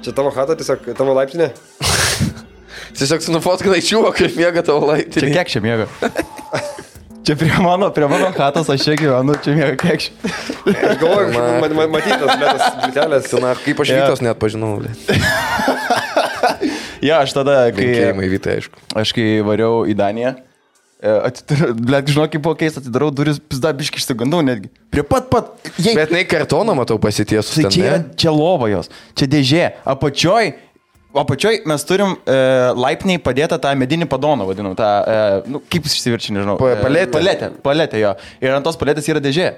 Čia tavo chata, tiesiog tavo laiptinė? Tiesiog su nufotkinai čiuvo, kaip miega tavo laiptinė. Čia kiek čia miega? Čia prie mano chatos aš čia gyvenu, čia miega kiek čia. Aš galvoju, matytas lėtas blitelės. Kaip aš Vytos net pažinau. Ja, aš tada, kai kai variau į Daniją, žinau, kaip buvo keista, atidarau duris, pizda biški išsigandau netgi. Prie pat. Bet nei kartoną matau pasitiesus. Tai čia lova jos, čia dėžė. Apačioj mes turim laipniai padėtą tą medinį padoną, vadinam, tą, kaip jis išsiverčia, nežinau. Paletė, jo. Ir ant tos paletės yra dėžė.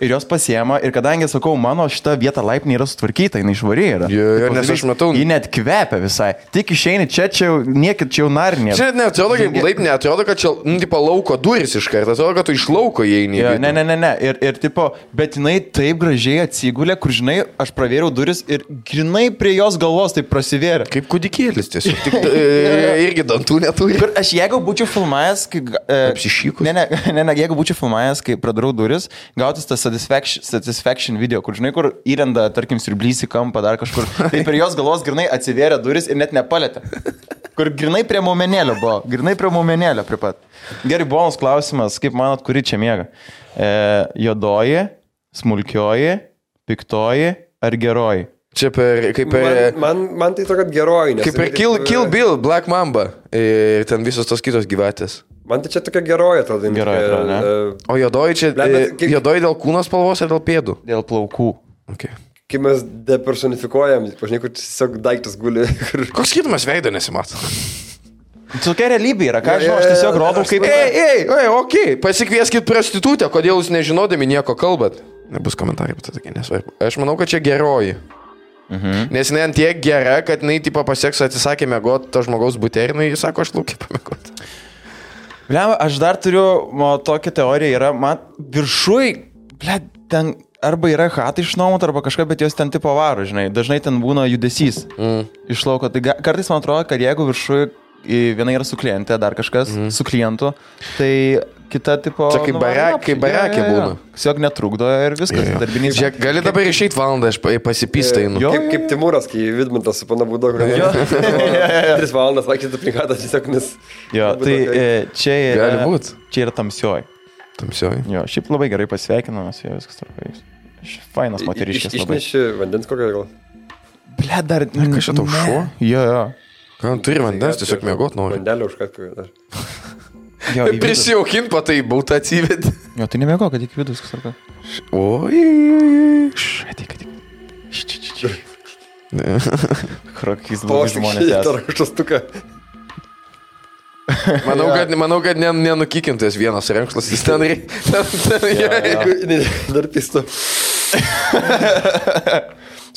Ir jos pasiema, ir kadangi, sakau, mano šita vieta laipnė yra sutvarkyta, jinai švari yra. Nes aš matau... Ji net kvepia visai. Tik išeini čia jau, niekit čia jau narinė. Čia net atrodo, kaip laipnė, atrodo, kad čia, tipo, lauko duris iš karto, atrodo, kad tu iš lauko įeini. Ne. Ir tipo, bet jinai taip gražiai atsigulė, kur, žinai, aš pravėriau duris ir grinai prie jos galvos taip prasivėrė. Kaip kūdikėlis tiesiog. Tik irgi dantų neturi. Kur aš jeigu būčiau filmavęs, kai... Apsišykus. Ne, jeigu būčiau filmavęs, kai pradarau duris, gautis tas satisfaction video, kur, žinai, kur įrenda, tarkim, sirblys į kampą dar kažkur. Tai per jos galvos grinai atsivėrė duris ir net nepalėtė. Kur grinai prie momenėlio buvo. Grinai prie momenėlio prie pat. Gerai, bonus klausimas, kaip manot, kuri čia miega? Juodoji, smulkioji, piktoji ar geroji? Čia kaip per... Man tai tokia geroji, nes... Kaip per Kill Bill, Black Mamba ir ten visos tos kitos gyvatės. Man tai čia tokia geroji atrodo. Geroji atrodo, ne? O juodoji čia... Juodoji dėl kūno spalvos ar dėl pėdų? Dėl plaukų. Okay. Kai mes depersonifikuojam, pažinai, kur tiesiog daiktas guli. Koks skirtumas veido nesimato? Tokia realybė yra, ką žinau, aš tiesiog rodau kaip... Okei, pasikvieskit prostitutę, kodėl jūs nežinodami nieko kalbat. Nebus komentarai, bet tokie nesvarbu. Aš manau, kad čia geroji. Nes jinai ant tiek gera, kad jinai tipo pasieks atsisakė mėgoti to žmogaus bute ir jinai sako, aš laukiu pamėgoti. Bliam, aš dar turiu, tokia teorija yra, man viršui, ten arba yra chatai išnuomot, arba kažką, bet jos ten tipo varo, žinai, dažnai ten būna judesys iš lauko. Tai kartais man atrodo, kad jeigu viršui viena yra su klientė, dar kažkas su klientu, tai kita tipo... Čia kaip barakė būna. Tiesiog netrukdo ir viskas. Darbinys. Žiūrėk, gali dabar išeit valandą, aš pasipystainu. Kaip Timūras, kai Vidmantas su pana Būdo, kur 3 valandas vaikščiai aplikatą tiesiog, nes... Jo, tai čia yra... Gali būt. Čia yra tamsioji. Tamsioji. Jo, šiaip labai gerai pasveikinamas, jo, viskas tarpai. Fainas moteriškės labai. Išneši vandens kokią gal? Ble, dar... Kas čia tau šuo? Jo. Ką, turi vandens, tiesiog mėgot nori. Vandelį užkat kokią dar. Prisijaukint, patai bautą atsivedė. Jo, tai nemėgo, kad iki vidus viskas tarpai. Oi. Ateik. Krokys blogi žmonės esą. Manau, kad nenukikintas vienas renkšlas, jis ten dar pisto.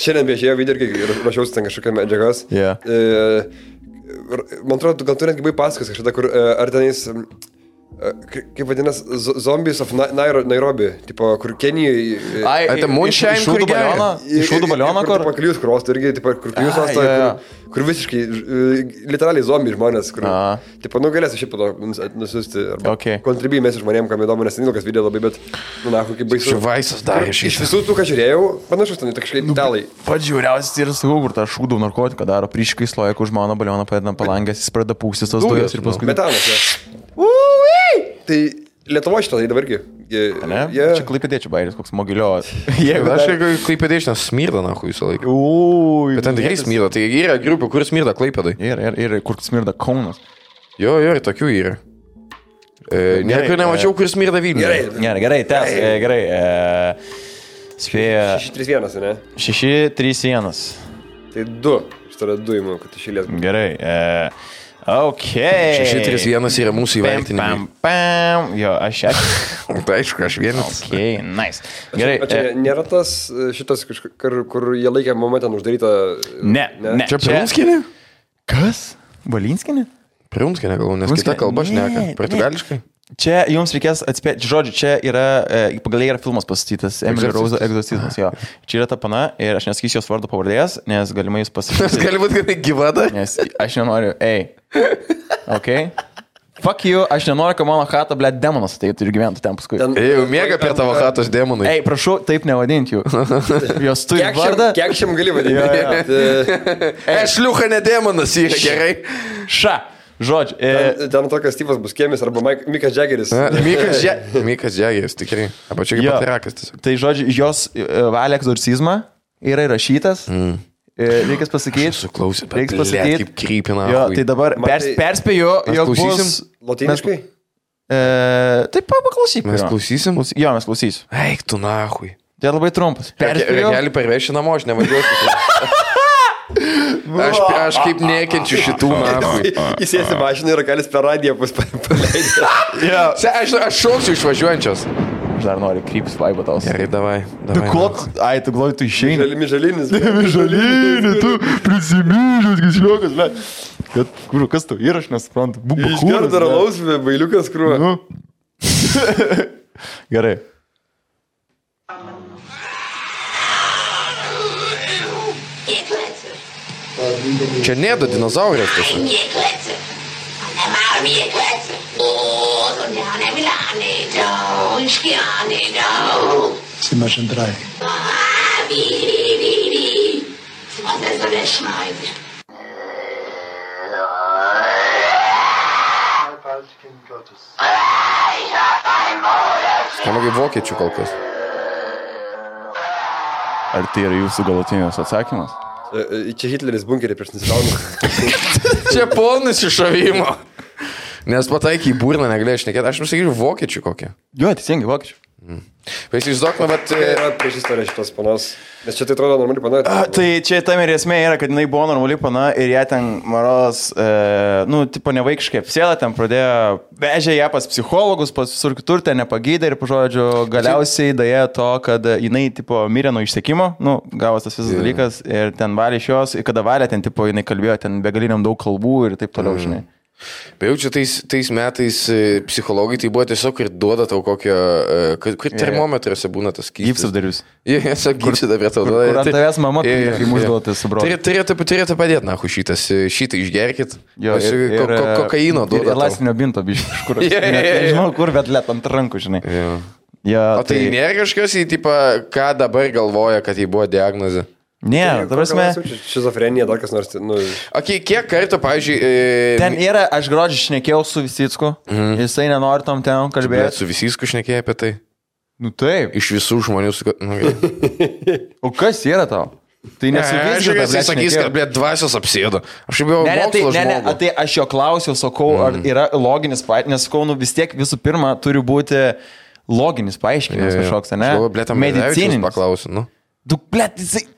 Šiandien viešėjo video, kai rašiausi ten kažkokią medžiagas. Man atrodo, gal tu netgi buvai pasakas kažkada, kur ar tenais... Kaip vadinas, Zombies of Nairobi, tipo, kur Kenijoje... Tai Moonshine, kur geria. Iš šūdų balioną, kur... Paklius krostų irgi, tipo, kur klius ostą, kur visiškai, literaliai zombi žmonės, kur... Tipo, galėsiu šiaip po to nusiusti, arba kontribijimės žmonėm, kam įdomu, nes neilgas video labai, bet, kaip baisu. Šivaisas darė šį. Iš visų tų, ką žiūrėjau, panašus ten, kažkaip italai. Pats žiūriausias yra sakau, kur tą šūdų narkotiką daro, prieškai sloja, kur žmona balioną padeda palangęs, jis pradeda pūstis tos dujos ir paskui... Metanas, Tai Lietuvo šitą, tai dabargi. Ne? Čia klaipėdėčių bairis, koks mogilio. Aš klaipėdėčių nesmirda, nahu, visą laiką. Bet ten tikrai smirda, tai yra grupė, kur smirda klaipėdai. Ir kur smirda Kaunas. Jo, ir tokių yra. Niekur nemačiau, kur smirda Vilniuje. Gerai, gerai. Spėja... 6-3-1, ne? 6-3-1. Tai 2. Šitą yra 2 įmų, kad išėlės. Gerai. Ok. 6-3-1 yra mūsų įvertinimai. Jo, aš... Tai aišku, aš vienas. Ok, nice. Gerai. O čia nėra tas šitas, kur jie laikė momentą uždarytą... Ne. Čia Prunskienė? Kas? Valinskinė? Prunskienė, galvoju, nes kita kalba šneka. Portugališkai. Čia jums reikės atspėti, žodžiu, čia yra, pagal yra filmas pastatytas, Emily Rose Egzorcizmas, jo. Čia yra ta pana ir aš nesakysiu jos vardo pavardės, nes galimai jūs pasakysite. Gali būti, kad gyva dar? Nes aš nenoriu, ok? Fuck you, aš nenoriu, kad mano chata, ble, demonas ateitų ir gyventų ten paskui. Jau miega per tavo chatos demonai. Ei, prašau, taip nevadinti jų. Jos turi vardą. Kiek šiam gali vadinti? Šliucha ne demonas, yra gerai. Ša. Žodžiu. Ten tokias Steve'as Buskiemis arba Mikas Jaggeris. Mikas Jaggeris, tikrai. Arba čia kaip patirakas tiesiog. Tai žodžiu, jos valia egzorcizmą yra įrašytas. Reikia pasakyti. Suklausė, bet kaip krypina. Jo, tai dabar perspėju, jog bus... Lotyniškai? Taip, paklausyk. Mes klausysim? Jo, mes klausysim. Eik tu nahui. Tai labai trumpas. Gali parvežti namo, aš nevažiuosiu. Aš kaip nekenčiu šitų nahui. Įsėsi mašiną ir galis per radiją paleidė. Aš šauksiu išvažiuojančios. Aš dar noriu kryptis vaibo tau. Gerai, davai. Ai, tu galvoji, tu išeini. Mižalinis. Mižalinį, tu prisimyžas, kisliukas, ble. Kas tu ir aš nesuprantu. Išgerda ralaus, bailiukas krūva. Gerai. Čia nėda dinozaurės tiesa. Zimmer schon 3. Skamba kaip vokiečių kol kas. Ar tai yra jūsų galutinis atsakymas? Čia Hitleris bunkerį prieš nusikaltimą. Čia polnis iššovimo. Nes pataikai į burną negalėjai šnekėti. Aš pasakyčiau vokiečių kokią. Jo, teisingai, vokiečių. Įsivaizduokime, bet... Yra prieš istoriją šitos panos. Nes čia tai atrodo normali pana. Tai čia tam ir esmė yra, kad jinai buvo normali pana ir ją ten maros, tipo nevaikiškai apsėda, ten pradėjo, vežė ją pas psichologus, pas visur kitur, ten nepagydė ir, pažodžiu, galiausiai daėjo to, kad jinai, tipo, mirė nuo išsekimo, gavos tas visas dalykas ir ten valė iš jos, ir kada valė, ten, tipo, jinai kalbėjo ten begaliniam daug kalbų ir taip toliau, žinai. Bet jau čia tais metais psichologai tai buvo tiesiog ir duoda tau kokio, kur termometruose būna tas skystis. Gypsabdarius. Jie tiesiog gypsada prie tau duoda. Kur ant tavęs mama, kai mūsų duotis su broliu. Turėtų padėti, nahu, šitą išgerkit. Kokaino duoda. Ir lastinio binto, biškai, iš kur. Nežinau kur, bet let ant rankų, žinai. O tai nėra kažkas į tipą, ką dabar galvoja, kad jį buvo diagnozė? Ne, dabar mes... Šizofrenija, dar kas nors... Kiek kartų, pavyzdžiui... Ten yra, aš gruodžiai šnekėjau su Visicku, jisai nenori tam ten kalbėti. Bet su Visicku šnekėjai apie tai? Nu taip. Iš visų žmonių... O kas yra tau? Tai nesuvizgė, jisai sakys, kad, blėt, dvasios apsėdo. Aš jau buvau mokslo žmogų. Tai aš jo klausiau, sakau, ar yra loginis paaiškinimas, nes sakau, vis tiek visų pirma turi būti loginis paaiškinimas kažkoks, ne? Medicininis. Paklausiu, nu. Tu, blėt, jisai...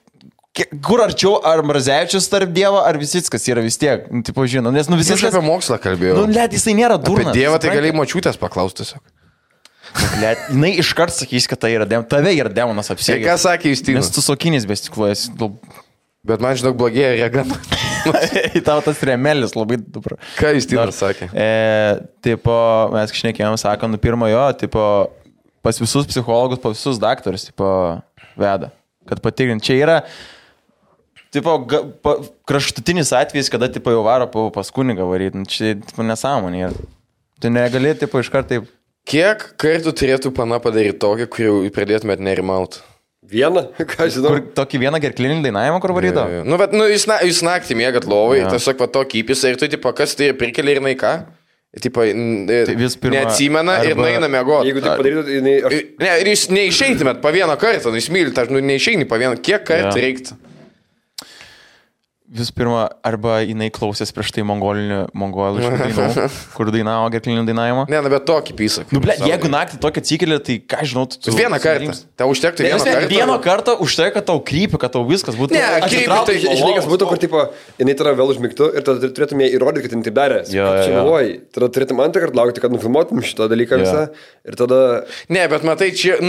Kur arčiau, ar Mrazevičius tarp Dievo, ar Visickas yra vis tiek, tipo žinau, nes Visickas... Aš apie mokslą kalbėjau. Let, jisai nėra durnas. Apie Dievą tai galėjai močiutės paklausti tiesiog. Let, jinai iškart sakys, kad tai yra tave yra demonas apsėgęs. Ką sakė Justinas? Nes tu sokinis bestikluojas. Bet man žinok blogėja regama. Į tavo tas remelis labai dupra. Ką Justinas sakė? Tipo, mes šnekėjom, sakom, pirmo jo, tipo, pas visus psichologus, pas visus daktarus, tipo, veda. Kad patikrint, čia yra... Tipo, kraštutinis atvejis, kada tipo, jau varo pas kunigą varyti, čia tipo, nesąmonė yra. Tu negali tipo, iškart taip... Kiek kartų turėtų pana padaryti tokį, kurį pradėtumėt nerimauti? Vieną, ką žinau. Tokį vieną gerklinį dainavimą, kur varydo? Bet jūs naktį mėgat lovai, tiesiog va tokį įpisą ir tu, tipo, kas tai prikelia ir naika? Tipo, neatsimena ir naina mėgoti. Jeigu tai padarytų, ir jūs neišeitumėt po vieną kartą, jūs mylit, neišeini po vieną, kiek kartų reiktų? Vis pirma, arba jinai klausės prieš tai mongolų dainų, kur dainavo gerklinį dainavimą. Ne, bet tokį pysą. Jeigu naktį tokį atsikėlė, tai ką žinau, tu... Vieną kartą. Tau užtektų vieną kartą. Vieną kartą užtektų, kad tau krypi, kad tau viskas būtų... Ne, krypi, tai žinai, kas būtų, kur, tipo, jinai tada vėl užmigtų ir tada turėtum ją įrodyti, kad jinai taip darė. Čia galvoji. Tada turėtum antrą kartą laukti, kad nufilmuotum šitą dalyką visą. Ir tada... Ne, bet matai, čia,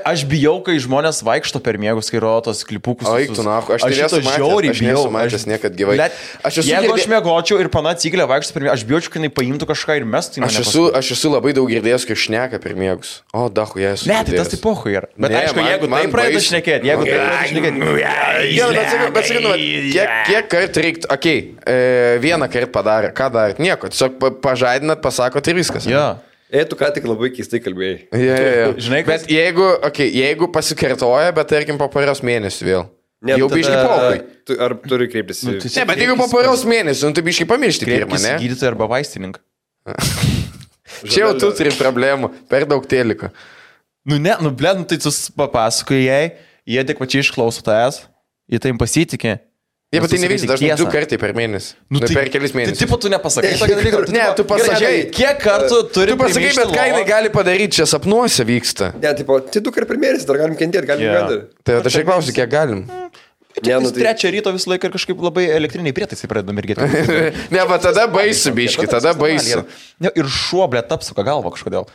Aš bijau, kai žmonės vaikšto per miegus, kai rodo tos klipukus. Gyvai. Jeigu aš mėgočiau ir pana atsikėlė vaikščioti per miegus, aš bijočiau, kad jinai paimtų kažką ir mestų. Aš esu labai daug girdėjęs, kai šneka per miegus. O, dahu, jie esu. Ne, tai tas tai pohu yra. Bet ne, aišku, jeigu tai pradeda šnekėti, bet sakinu, kiek kartų reiktų, vieną kartą padarė, ką darė, nieko, tiesiog pažadinat, pasakot ir viskas. Jo. Tu ką tik labai keistai kalbėjai. Žinai, bet jeigu pasikartoja, bet tarkim po poros mėnesių vėl. Jau biškai pohui. Ar turi kreiptis? Ne, bet jeigu po poros mėnesių, tu biškai pamiršti pirmą, ne? Gydytoją arba vaistininką. Čia jau tu turi problemų, per daug teliko. Tai tu papasakoji jai, jie adekvačiai išklauso tavęs, jie tai pasitikė. Jie, bet tai nevyksta, dažnai 2 kartai per mėnesį. Per kelis mėnesius. Tai tipo tu nepasakai tokį dalyką. Ne, tu pasakai. Kiek kartų turi tu pasakai, bet ką jinai gali padaryti, čia sapnuose vyksta. Ne, tipo, tai 2 kartai per mėnesį, dar galim kentėti, galim gyventi. Tai aš klausiu, kiek galim. Trečią ryto visą laiką ir kažkaip labai elektriniai prietaisai pradeda mirgėti. Ne, bet tada baisu, biški, tada baisu. Ir šuo, blėt, apsuka galvą kažkodėl.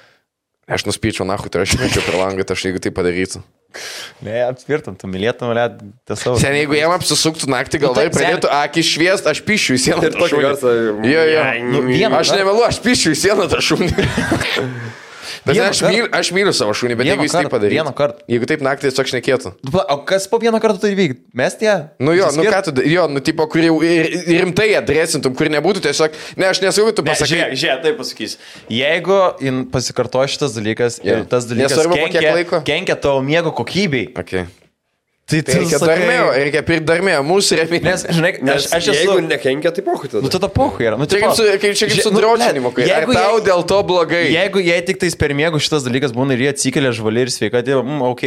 Aš nuspyčiau, nahui, tai aš mečiau per langą, tai aš jeigu tai padarytų. Ne, aptvirtam, tu mylėtum, blėt, tiesiog. Sen, jeigu jam apsisuktų naktį galvą ir pradėtų akį šviest, aš pišiu į sieną tą šunį. Aš nevėlu, aš pišiu į sieną tą šunį. Bet aš myliu savo šunį, bet jeigu jis taip padarytų. Vieną kartą. Jeigu taip naktį tiesiog šnekėtų. O kas po vieną kartą tai vykti? Mes tie? Ką tu, tipo, kur jau rimtai adresintum, kur nebūtų tiesiog, aš nesakau, tu pasakai. Žiūrėk, taip pasakys. Jeigu pasikartoja šitas dalykas ir tas dalykas kenkia tavo miego kokybei. Okay. Reikia pirkti darmėjo, mūsų remėjai. Nes, žinai, aš esu... Jeigu nekenkia, tai pohui tada. Nu, tada pohui yra. Nu, Kaip su dročinimu, kai tau dėl to blogai. Jeigu jie tik tais per miegų šitas dalykas būna ir jie atsikelia žvali ir sveika, tai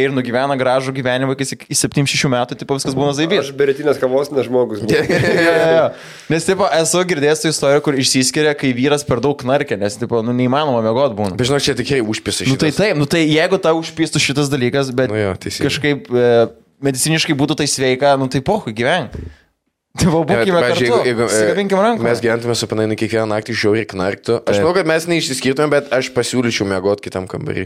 ir nugyvena gražų gyvenimą iki 7-6 metų, tipo viskas būna zaibys. Aš beretinės kavos nežmogus. Nes, tipo, esu girdėjęs tą istoriją, kur išsiskiria, kai vyras per daug knarkia, nes, tipo, neįmanoma miegot būna. Bet žinau, čia tikrai užpisa šitas. Nu, tai taip, tai jeigu tau užpistų šitas dalykas, bet kažkaip mediciniškai būtų tai sveika, nu tai pohui gyvenk. Tai būkime kartu, sikabinkime ranką. Mes gyventume su panainu kiekvieną naktį žiauriai knarktų. Aš manau, kad mes neišsiskirtume, bet aš pasiūlyčiau miegot kitam kambarį.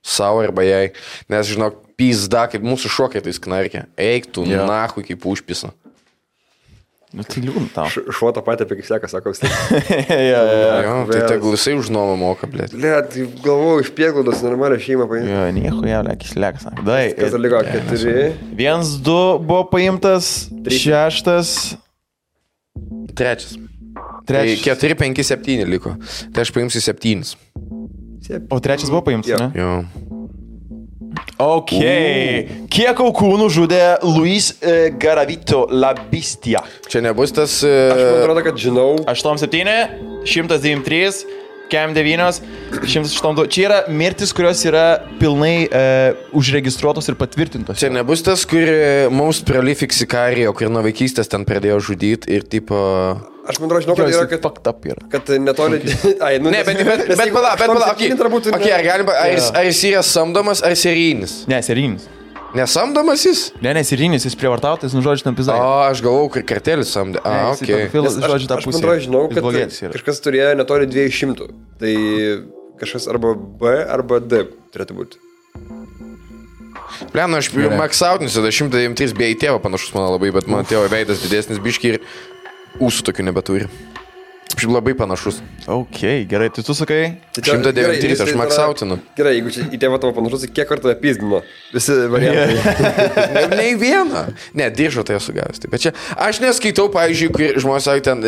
Savo arba jai. Nes, žinok, pizda, kaip mūsų šokai tais knarkia. Eik tu, nahui, kaip užpisa. Nu tai liūdna tau. Šuo tą patį apie kaip seka, sako, vis tai tegul visai už nuomą moka, blėt. Blėt, galvoju, iš Prieglaudos normalią šeimą paimti. Jo, nieko jau, lekis lekas. Dai. Kas dar liko? 4. 1-2 buvo paimtas, 6. 3. 4, 5, 7 liko. Tai aš paimsiu 7. O 3 buvo paimtas, ne? Jo. Ok. Kiek aukų nužudė Luis Garavito La Bestia? Čia nebus tas... Aš man atrodo, kad žinau. 8-7, 193, Kem 9, 108. Čia yra mirtis, kurios yra pilnai užregistruotos ir patvirtintos. Čia nebus tas, kur mums prolific Sicarijo, kur nuo vaikystės ten pradėjo žudyti ir tipo... Aš man atrodo, žinau, kad yra, kad netoli... Ai, nu, ne, bet pala, ar jis yra samdomas, ar serijinis? Ne, serijinis. Nesamdomas jis? Ne, serijinis, jis prievartautas, žodžiu, tam pizai. O, aš galvau, kad kartelis samdė. Žodžiu, tą pusę. Aš man atrodo, žinau, kad kažkas turėjo netoli 200. Tai kažkas arba B, arba D turėtų būti. Pliam, aš maksautinsiu, 193 bei tėvą panašus mano labai, bet mano tėvo veidas didesnis biški ir ūsų tokių nebeturi. Šiaip labai panašus. Ok, gerai, tai tu sakai? 193, aš maksautinu. Gerai, jeigu čia į tėvą tavo panašus, kiek kartų apizdino? Visi variantai. Ne į vieną. Ne, diržo tai esu gavęs. Bet čia, aš neskaitau, pavyzdžiui, kai žmonės sako ten,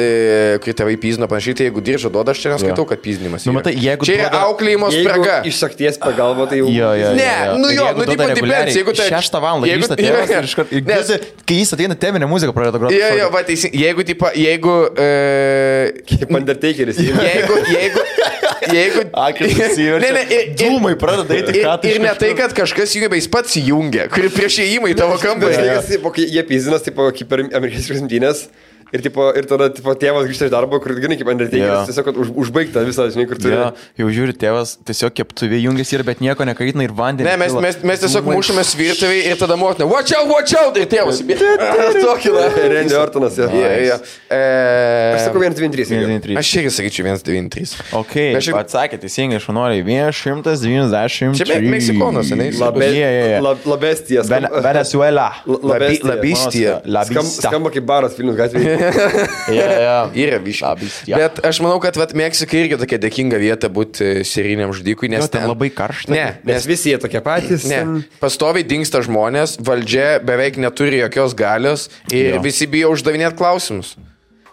kai tėvai pizdino panašiai, tai jeigu diržo duoda, aš čia neskaitau, kad pizdinimas yra. Čia yra auklėjimo spraga. Iš sakties pagalba, tai jau... Ne, nu tipo dipens, jeigu tai... 6 valandą grįžta tėvas ir iškart... Kai jis ateina, teminė muzika pradeda groti. Jo, va, jeigu Kaip Undertakeris. Jeigu... Dūmai pradeda eiti ką tai. Ir ne tai, kad kažkas jungia, bet jis pats jungia, kuri prieš įėjimą į tavo kambarį. Jie pizinas, kaip per amerikiečių rungtynės. Ir tada tėvas grįžta iš darbo, kur gana kaip Undertakeris, tiesiog užbaigta visą, žinai, kur turi. Jau žiūri, tėvas tiesiog keptuvė jungiasi ir bet nieko nekaitina ir vandenį. Ne, mes tiesiog mušamės virtuvėje ir tada motina, watch out, ir tėvas. Tokį, na. Randy Ortonas, jo. Aš sakau 193. Aš irgi sakyčiau 193. Ok, atsakė teisingai, šaunuoliai, 193. Čia Meksikonas, ne? Labestijas. Venezuela. Labestija. Skamba kaip baras Vilnius gatvėje. Yra biškiai. Bet aš manau, kad Meksika irgi tokia dėkinga vieta būti serijiniam žudikui, nes ten labai karšta. Ne, nes visi jie tokie patys. Ne, pastoviai dingsta žmonės, valdžia beveik neturi jokios galios ir visi bijo uždavinėti klausimus.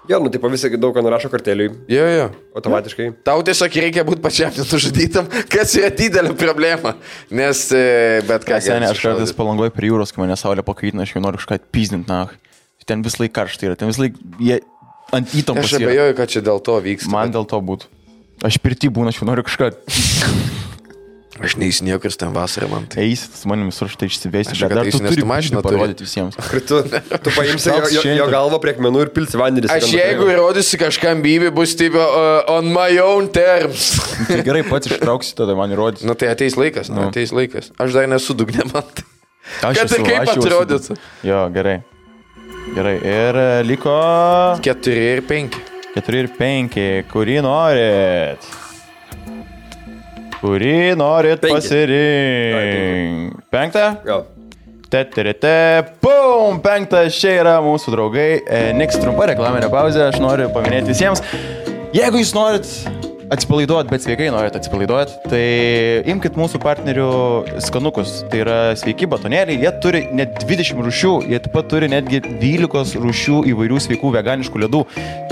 Jo, nu, tipo visi daug ką nurašo karteliui. Jo. Automatiškai. Tau tiesiog reikia būti pačiam nesužudytam, kas yra didelė problema. Nes, bet ką... Aš kartais Palangoje prie jūros, kai mane saulė pakaitina, aš jau noriu kažką atpizdinti, na. Ten vis laik karštai yra, ten vis laik jie ant įtampos yra. Aš abejoju, kad čia dėl to vyksta. Man dėl to būtų. Aš pirti būna, aš jau noriu kažką... Aš neįsinėjau, kad ten vasarą man tai. Eisit, su manim visur štai išsivesti, bet dar tu turi mašiną parodyti visiems. Tu paimsi jo galvą prie akmenų ir pilsi vandenį. Aš jeigu įrodysi kažkam bybį, bus taip on my own terms. Tai gerai, pats ištrauksi, tada man įrodysi. Nu tai ateis laikas, ateis laikas. Aš dar nesu dugne man. Kad ir kaip atrodytų. Jo, gerai. Gerai, ir liko... 4 ir 5. 4 ir 5. Kurį norit? Kurį norit pasirinkti? 5? Jo. Pum! 5. Čia yra mūsų draugai. Niks trumpa reklaminė pauzė. Aš noriu paminėti visiems. Jeigu jūs norit atsipalaiduot, bet sveikai norit atsipalaiduot, tai imkit mūsų partnerių skanukus. Tai yra sveiki batonėliai, jie turi net 20 rūšių, jie taip pat turi netgi 12 rūšių įvairių sveikų veganiškų ledų.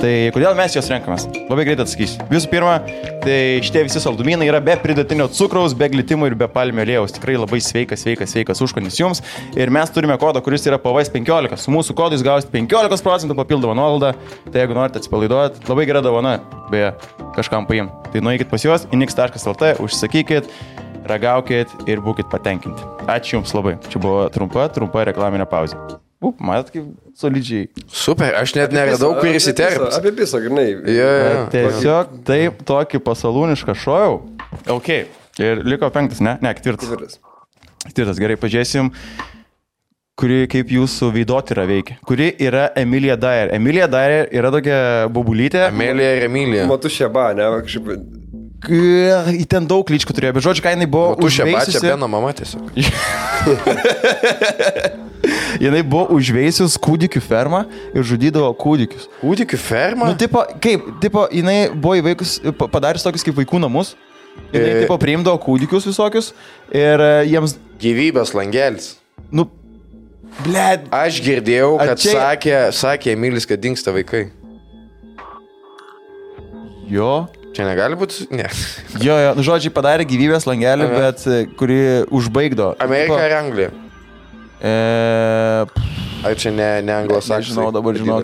Tai kodėl mes juos renkamės? Labai greit atsakysiu. Visų pirma, tai šitie visi saldumynai yra be pridėtinio cukraus, be glitimo ir be palmių aliejaus. Tikrai labai sveikas užkandis jums. Ir mes turime kodą, kuris yra PVS15. Su mūsų kodu jūs gausite 15% papildomą nuolaidą. Tai jeigu norite atsipalaiduoti, labai gera dovana, beje, kažkam paim. Tai nueikit pas juos, inix.lt, užsakykit, ragaukit ir būkit patenkinti. Ačiū jums labai. Čia buvo trumpa reklaminė pauzė. Matot, kaip solidžiai. Super, aš net neradau, kur įsiterpti. Apie pisą, grinai. Tiesiog taip tokį pasalūnišką šojau. Ok. Ir liko 5, ne? Ne, 4. 4, gerai, pažiūrėsim, kuri kaip jūsų veidotyra veikia. Kuri yra Emilia Dyer. Emilia Dyer yra tokia bobulytė. Emilija. Matu Šeba, ne? Kažkaip... Į ten daug lyčkų turėjo, bet žodžiu, ką jinai buvo užveisusi. Matu Šeba, čia Beno mama tiesiog. Jinai buvo užveisius kūdikių fermą ir žudydavo kūdikius. Kūdikių fermą? Nu, jinai buvo įveikus, padarius tokius kaip vaikų namus. Jinai priimdavo kūdikius visokius ir jiems... Gyvybės langelis. Nu, bled. Aš girdėjau, kad sakė Emilis, kad dingsta vaikai. Jo. Čia negali būti? Ne. Jo, nu žodžiai padarė gyvybės langelį, bet kuri užbaigdo. Amerika ar Anglija? Ar čia ne anglosaksai? Žinau,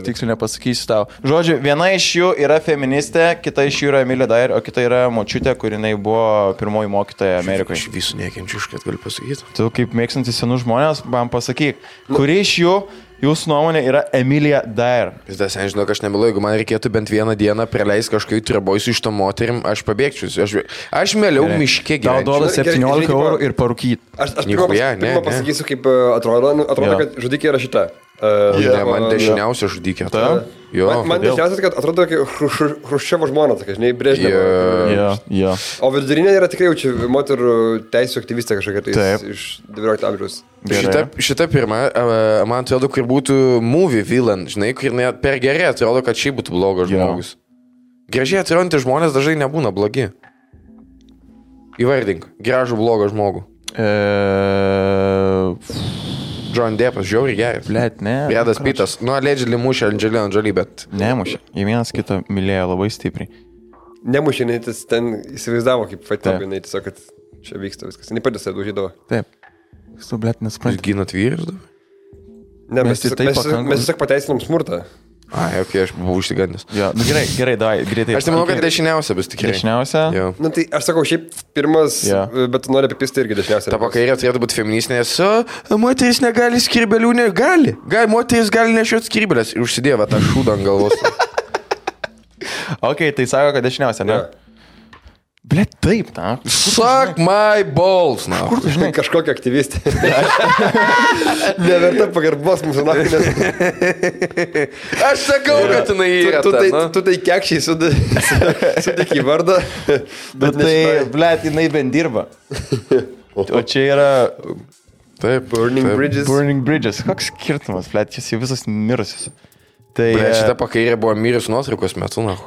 tiksliai nepasakysiu tau. Žodžiu, viena iš jų yra feministė, kita iš jų yra Emilia Dyer, o kita yra močiutė, kur jinai buvo pirmoji mokytoja Amerikoje. Aš visų nekenčiu, kad galiu pasakyti. Tu kaip mėgstantis senus žmonės, man pasakyk, kuri iš jų jūsų nuomonė yra Emilia Dyer? Vis dar, žinau, aš nemilu, jeigu man reikėtų bent vieną dieną praleisti kažkokiu tribojus iš to moterim, aš pabėgčiau. Aš mieliau miške gyvenčiau. Tau duoda 17 eurų ir parūkyt. Aš pirmą pasakysiu, kaip atrodo, kad žudikė yra šita. Man dešiniausia žudikė. Man dešiniausia, kad atrodo Hruščiovo žmona, tokia, žinai, Brežnevo. O vidurinė yra tikrai jaučiu moterų teisų aktyvistė kažkokia iš 19 amžiaus. Šita pirma, man atrodo, kur būtų movie villain, žinai, kur net per gerai atrodo, kad šiaip būtų blogas žmogus. Gražiai atrodantys žmonės dažnai nebūna blogi. Įvardink, gražų blogą žmogų. John Deppas, žiauriai geras. Blet, ne. Bredas Pittas. Nu, allegedly mušė Angelina Jolie, bet... Nemušė. Jie vienas kitą mylėjo labai stipriai. Nemušė, jinai ten įsivaizdavo kaip fatėm, jinai tiesiog, kad čia vyksta viskas. Jinai patys daužydavo. Taip. Jūs tu, blet, nesuprantate. Jūs ginat vyrus dabar? Ne, mes tiesiog pateisinam smurtą. Ai, ok, aš buvau užsigandęs. Jo, nu gerai, davai, greitai. Aš tai manau, kad dešiniausia bus tikrai. Dešiniausia? Jo. Nu tai aš sakau, šiaip pirmas, bet tu nori apipisti irgi dešiniausia. Ta pakairė turėtų būti feministinė, nes moteris negali skirbelių, gali. Moteris gali nešioti skirbelės ir užsidėva tą šūdą ant galvos. Ok, tai sako, kad dešiniausia, ne? Blet, taip, na. Suck my balls, na. Kur tu žinai? Kažkokia aktyvistė. Neverta pagarbos mūsų nakinės. Aš sakau, kad jinai yra. Tu tai kekščiai sudėk į vardą. Bet tai, blet, jinai bent dirba. O čia yra... Taip, Burning Bridges. Koks skirtumas, blet, jis jau visas mirusius. Tai... Blet, šita pakairė buvo mirus nuotraukos metu, na.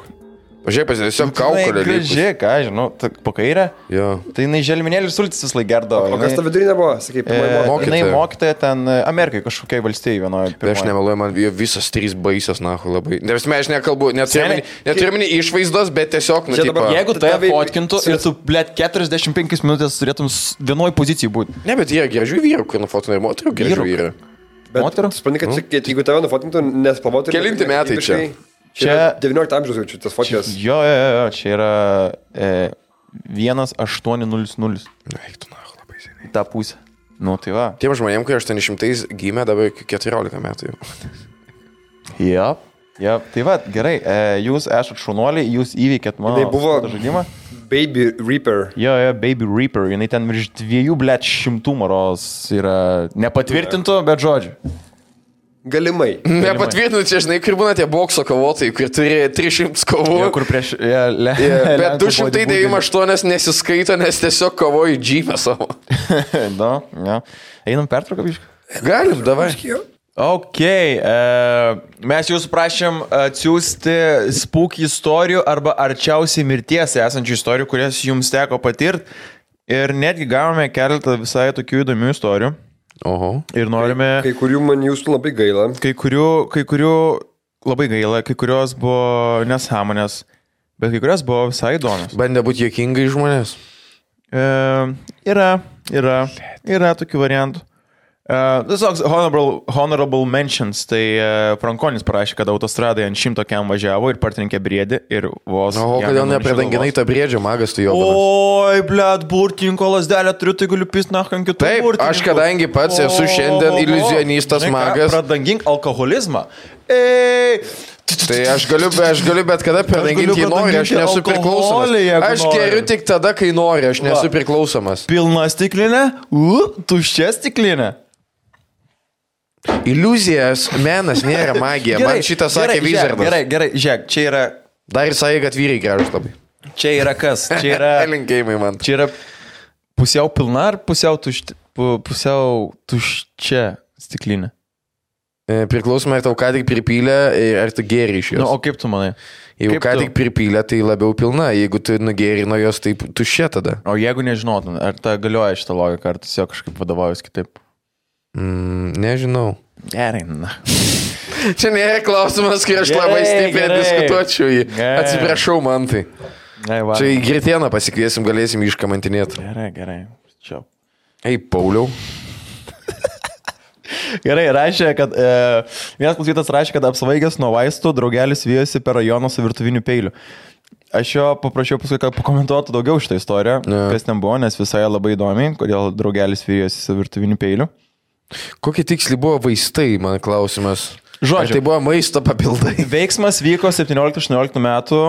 Pažiūrėk, tiesiog kaukolė. Gražiai, ką, žinau, po kairę. Jo. Tai jinai želminėlį sultis vis laik gerdavo. O kas ta vidurinė buvo, sakai, jinai mokytoja ten Amerikai, kažkokiai valstijai vienoje. Aš nemeluoju, man visas 3 baisios, nahu, labai. Nes aš nekalbu, neturiu išvaizdos, bet tiesiog, nu, tipo... Jeigu tave fotkintų ir tu, blėt, 45 minutės turėtum vienoj pozicijai būti. Ne, bet yra gražių vyrų, kur nufotinai ir moterų gražių vyrų. Moterų? Supranti, kad jeigu tave nufotintų, nespalvotų... Kelinti metai čia. Čia 19 amžiaus jaučiu, tas fotijas. Jo, čia yra 1800. Eik tu, nahu, labai seniai. Ta pusė. Nu, tai va. Tiem žmonėm, kai 800 gimė, dabar 14 metų jau. Ja, tai va, gerai. Jūs esat šaunuoliai, jūs įveikėt mano žaidimą. Baby Reaper. Jo, Baby Reaper. Jinai ten virš 200 maros yra nepatvirtintų, bet žodžiu. Galimai. Nepatvirtinu, čia žinai, kur būna tie bokso kovotojai, kur turi 300 kovų. Jo, kur prieš... Bet 298 nesiskaito, nes tiesiog kovoju džymę savo. Da, ja. Einam pertrauką, biškai? Galim, davai. Ok, mes jūsų prašėm atsiųsti spooky istorijų arba arčiausiai mirties esančių istorijų, kurias jums teko patirti. Ir netgi gavome keletą visai tokių įdomių istorijų. Oho. Ir norime... Kai kurių man jūsų labai gaila. Kai kurių labai gaila, kai kurios buvo nesąmonės, bet kai kurios buvo visai įdomios. Bandė būti juokingai žmonės. Yra tokių variantų. Tiesiog honorable mentions, tai Frankonis parašė, kad autostradai ant 100 kiam važiavo ir partrenkė briedį ir vos... O kodėl nepredanginai tą briedžio, magas tu jo? Oi, blėt, burtininko lasdelę turiu, tai galiu pist nach ant kitų burtininkų. Taip, aš kadangi pats esu šiandien iliuzionistas magas. Pradangink alkoholizmą. Tai aš galiu bet kada pradanginti, jį nori, aš nesu priklausomas. Aš geriu tik tada, kai nori, aš nesu priklausomas. Pilna stiklinė, tuščia stiklinė. Iliuzijas, menas nėra magija. Man šitą sakė Wizardas. Gerai, žiūrėk, čia yra... Dar ir sakė, kad vyrai gražus labai. Čia yra kas? Čia yra... Linkėjimai man. Čia yra pusiau pilna ar pusiau tuščia stiklinė? Priklausomai, ar tau ką tik pripylė, ar tu gėri iš jos. O kaip tu manai? Jeigu ką tik pripylė, tai labiau pilna. Jeigu tu nugėri nuo jos, tai tuščia tada. O jeigu nežinotum, ar ta galioja šitą logiką, ar tiesiog kažkaip vadovaujus kitaip? Nežinau. Gerai, na. Čia nėra klausimas, kai aš labai stipriai diskutuočiau jį. Atsiprašau, man tai. Čia į Gritieną pasikviesim, galėsim iškamantinėti. Gerai. Čia. Ei, Pauliau. Gerai, rašė, kad vienas klausytas rašė, kad apsvaigęs nuo vaistų draugelis vijosi per rajoną su virtuviniu peiliu. Aš jo paprašiau paskui, kad pakomentuotų daugiau šitą istoriją, kas ten buvo, nes visai labai įdomi, kodėl draugelis vijosi su virtuviniu peiliu. Kokie tiksliai buvo vaistai, man klausimas. Žodžiu, ar tai buvo maisto papildai? Veiksmas vyko 17-18 metų.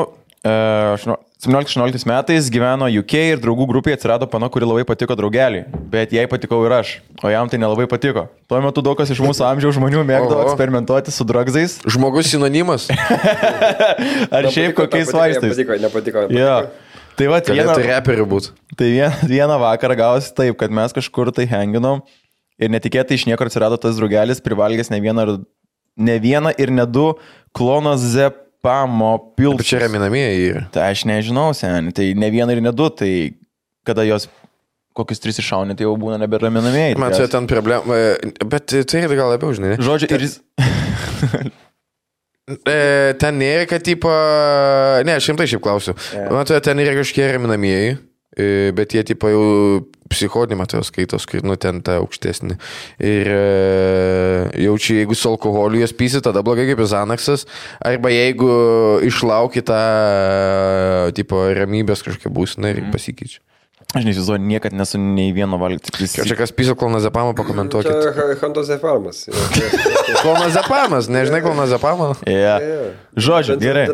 17-18 metais gyveno UK ir draugų grupėje atsirado pana, kuri labai patiko draugeliui, bet jai patikau ir aš, o jam tai nelabai patiko. Tuo metu daug kas iš mūsų amžiaus žmonių mėgdavo eksperimentuoti su drugsais. Žmogus sinonimas? Ar šiaip kokiais vaistais? Nepatiko. Jo. Tai va, vieną vakarą gavosi taip, kad mes kažkur tai henginom ir netikėtai iš niekur atsirado tas draugelis, privalgęs ne vieną ir ne du klonazepamo pilsus. Čia raminamieji yra. Tai aš nežinau, seni, tai ne vieną ir ne du, tai kada jos kokius 3 iššaunė, tai jau būna neberaminamieji. Man čia ten problema, bet tai yra gal labiau, žinai. Žodžiu, ir jis... Ten nėra, kad tipo... Ne, aš rimtai šiaip klausiu. Man ten yra kažkiek raminamieji. Bet jie tipo jau psichodinį matau skaitos, kai ten ta aukštesnį. Ir jaučiu, jeigu su alkoholiu jas pysi, tada blogai kaip Xanaxas. Arba jeigu išlauki tą tipo ramybės kažkokia būsina ir pasikeičia. Aš neįsivaizduoju, niekad nesu nei vieno valgyti. Čia kas pyso klonazepamą, pakomentuokit. Čia Hantozepamas. Klonazepamos, nežinai klonazepamą? Žodžiu, gerai.